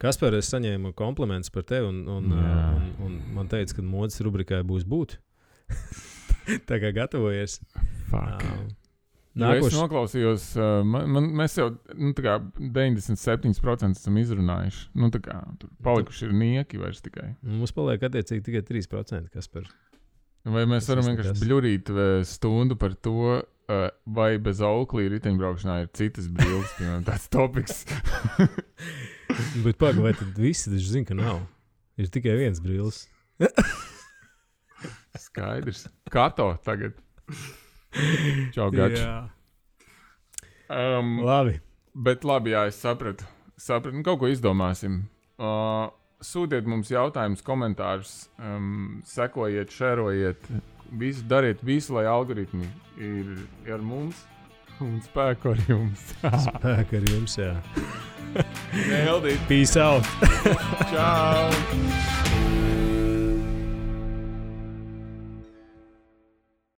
Speaker 1: Kaspar, es saņēmu komplimentus par tevi un man teica, ka modes rubrikai būs būt. Tā kā gatavojies.
Speaker 2: Es noklausījos, mēs jau 97% esam izrunājuši. Tur palikuši ir nieki vairs tikai.
Speaker 1: Mums paliek attiecīgi tikai 3%, Kaspar.
Speaker 2: Vai mēs varam vienkārši bļurīt stundu par to, vai bez auklī riteņbraukšanā ir citas brilles, piemēram, tāds topiks?
Speaker 1: Bet pagaidi, vai tad visi taču zina, ka nav? Ir tikai viens brilles.
Speaker 2: Skaidrs. Kato tagad. Čau, gači.
Speaker 1: Labi.
Speaker 2: Bet labi, jā, es sapratu. Kaut ko izdomāsim. Sūtiet mums jautājumus, komentārus, sekojiet, šerojiet, dariet visu, lai algoritmi ir ar mums un spēku ar jums.
Speaker 1: Spēku ar jums, jā.
Speaker 2: Neldīt.
Speaker 1: Peace out.
Speaker 2: Čau.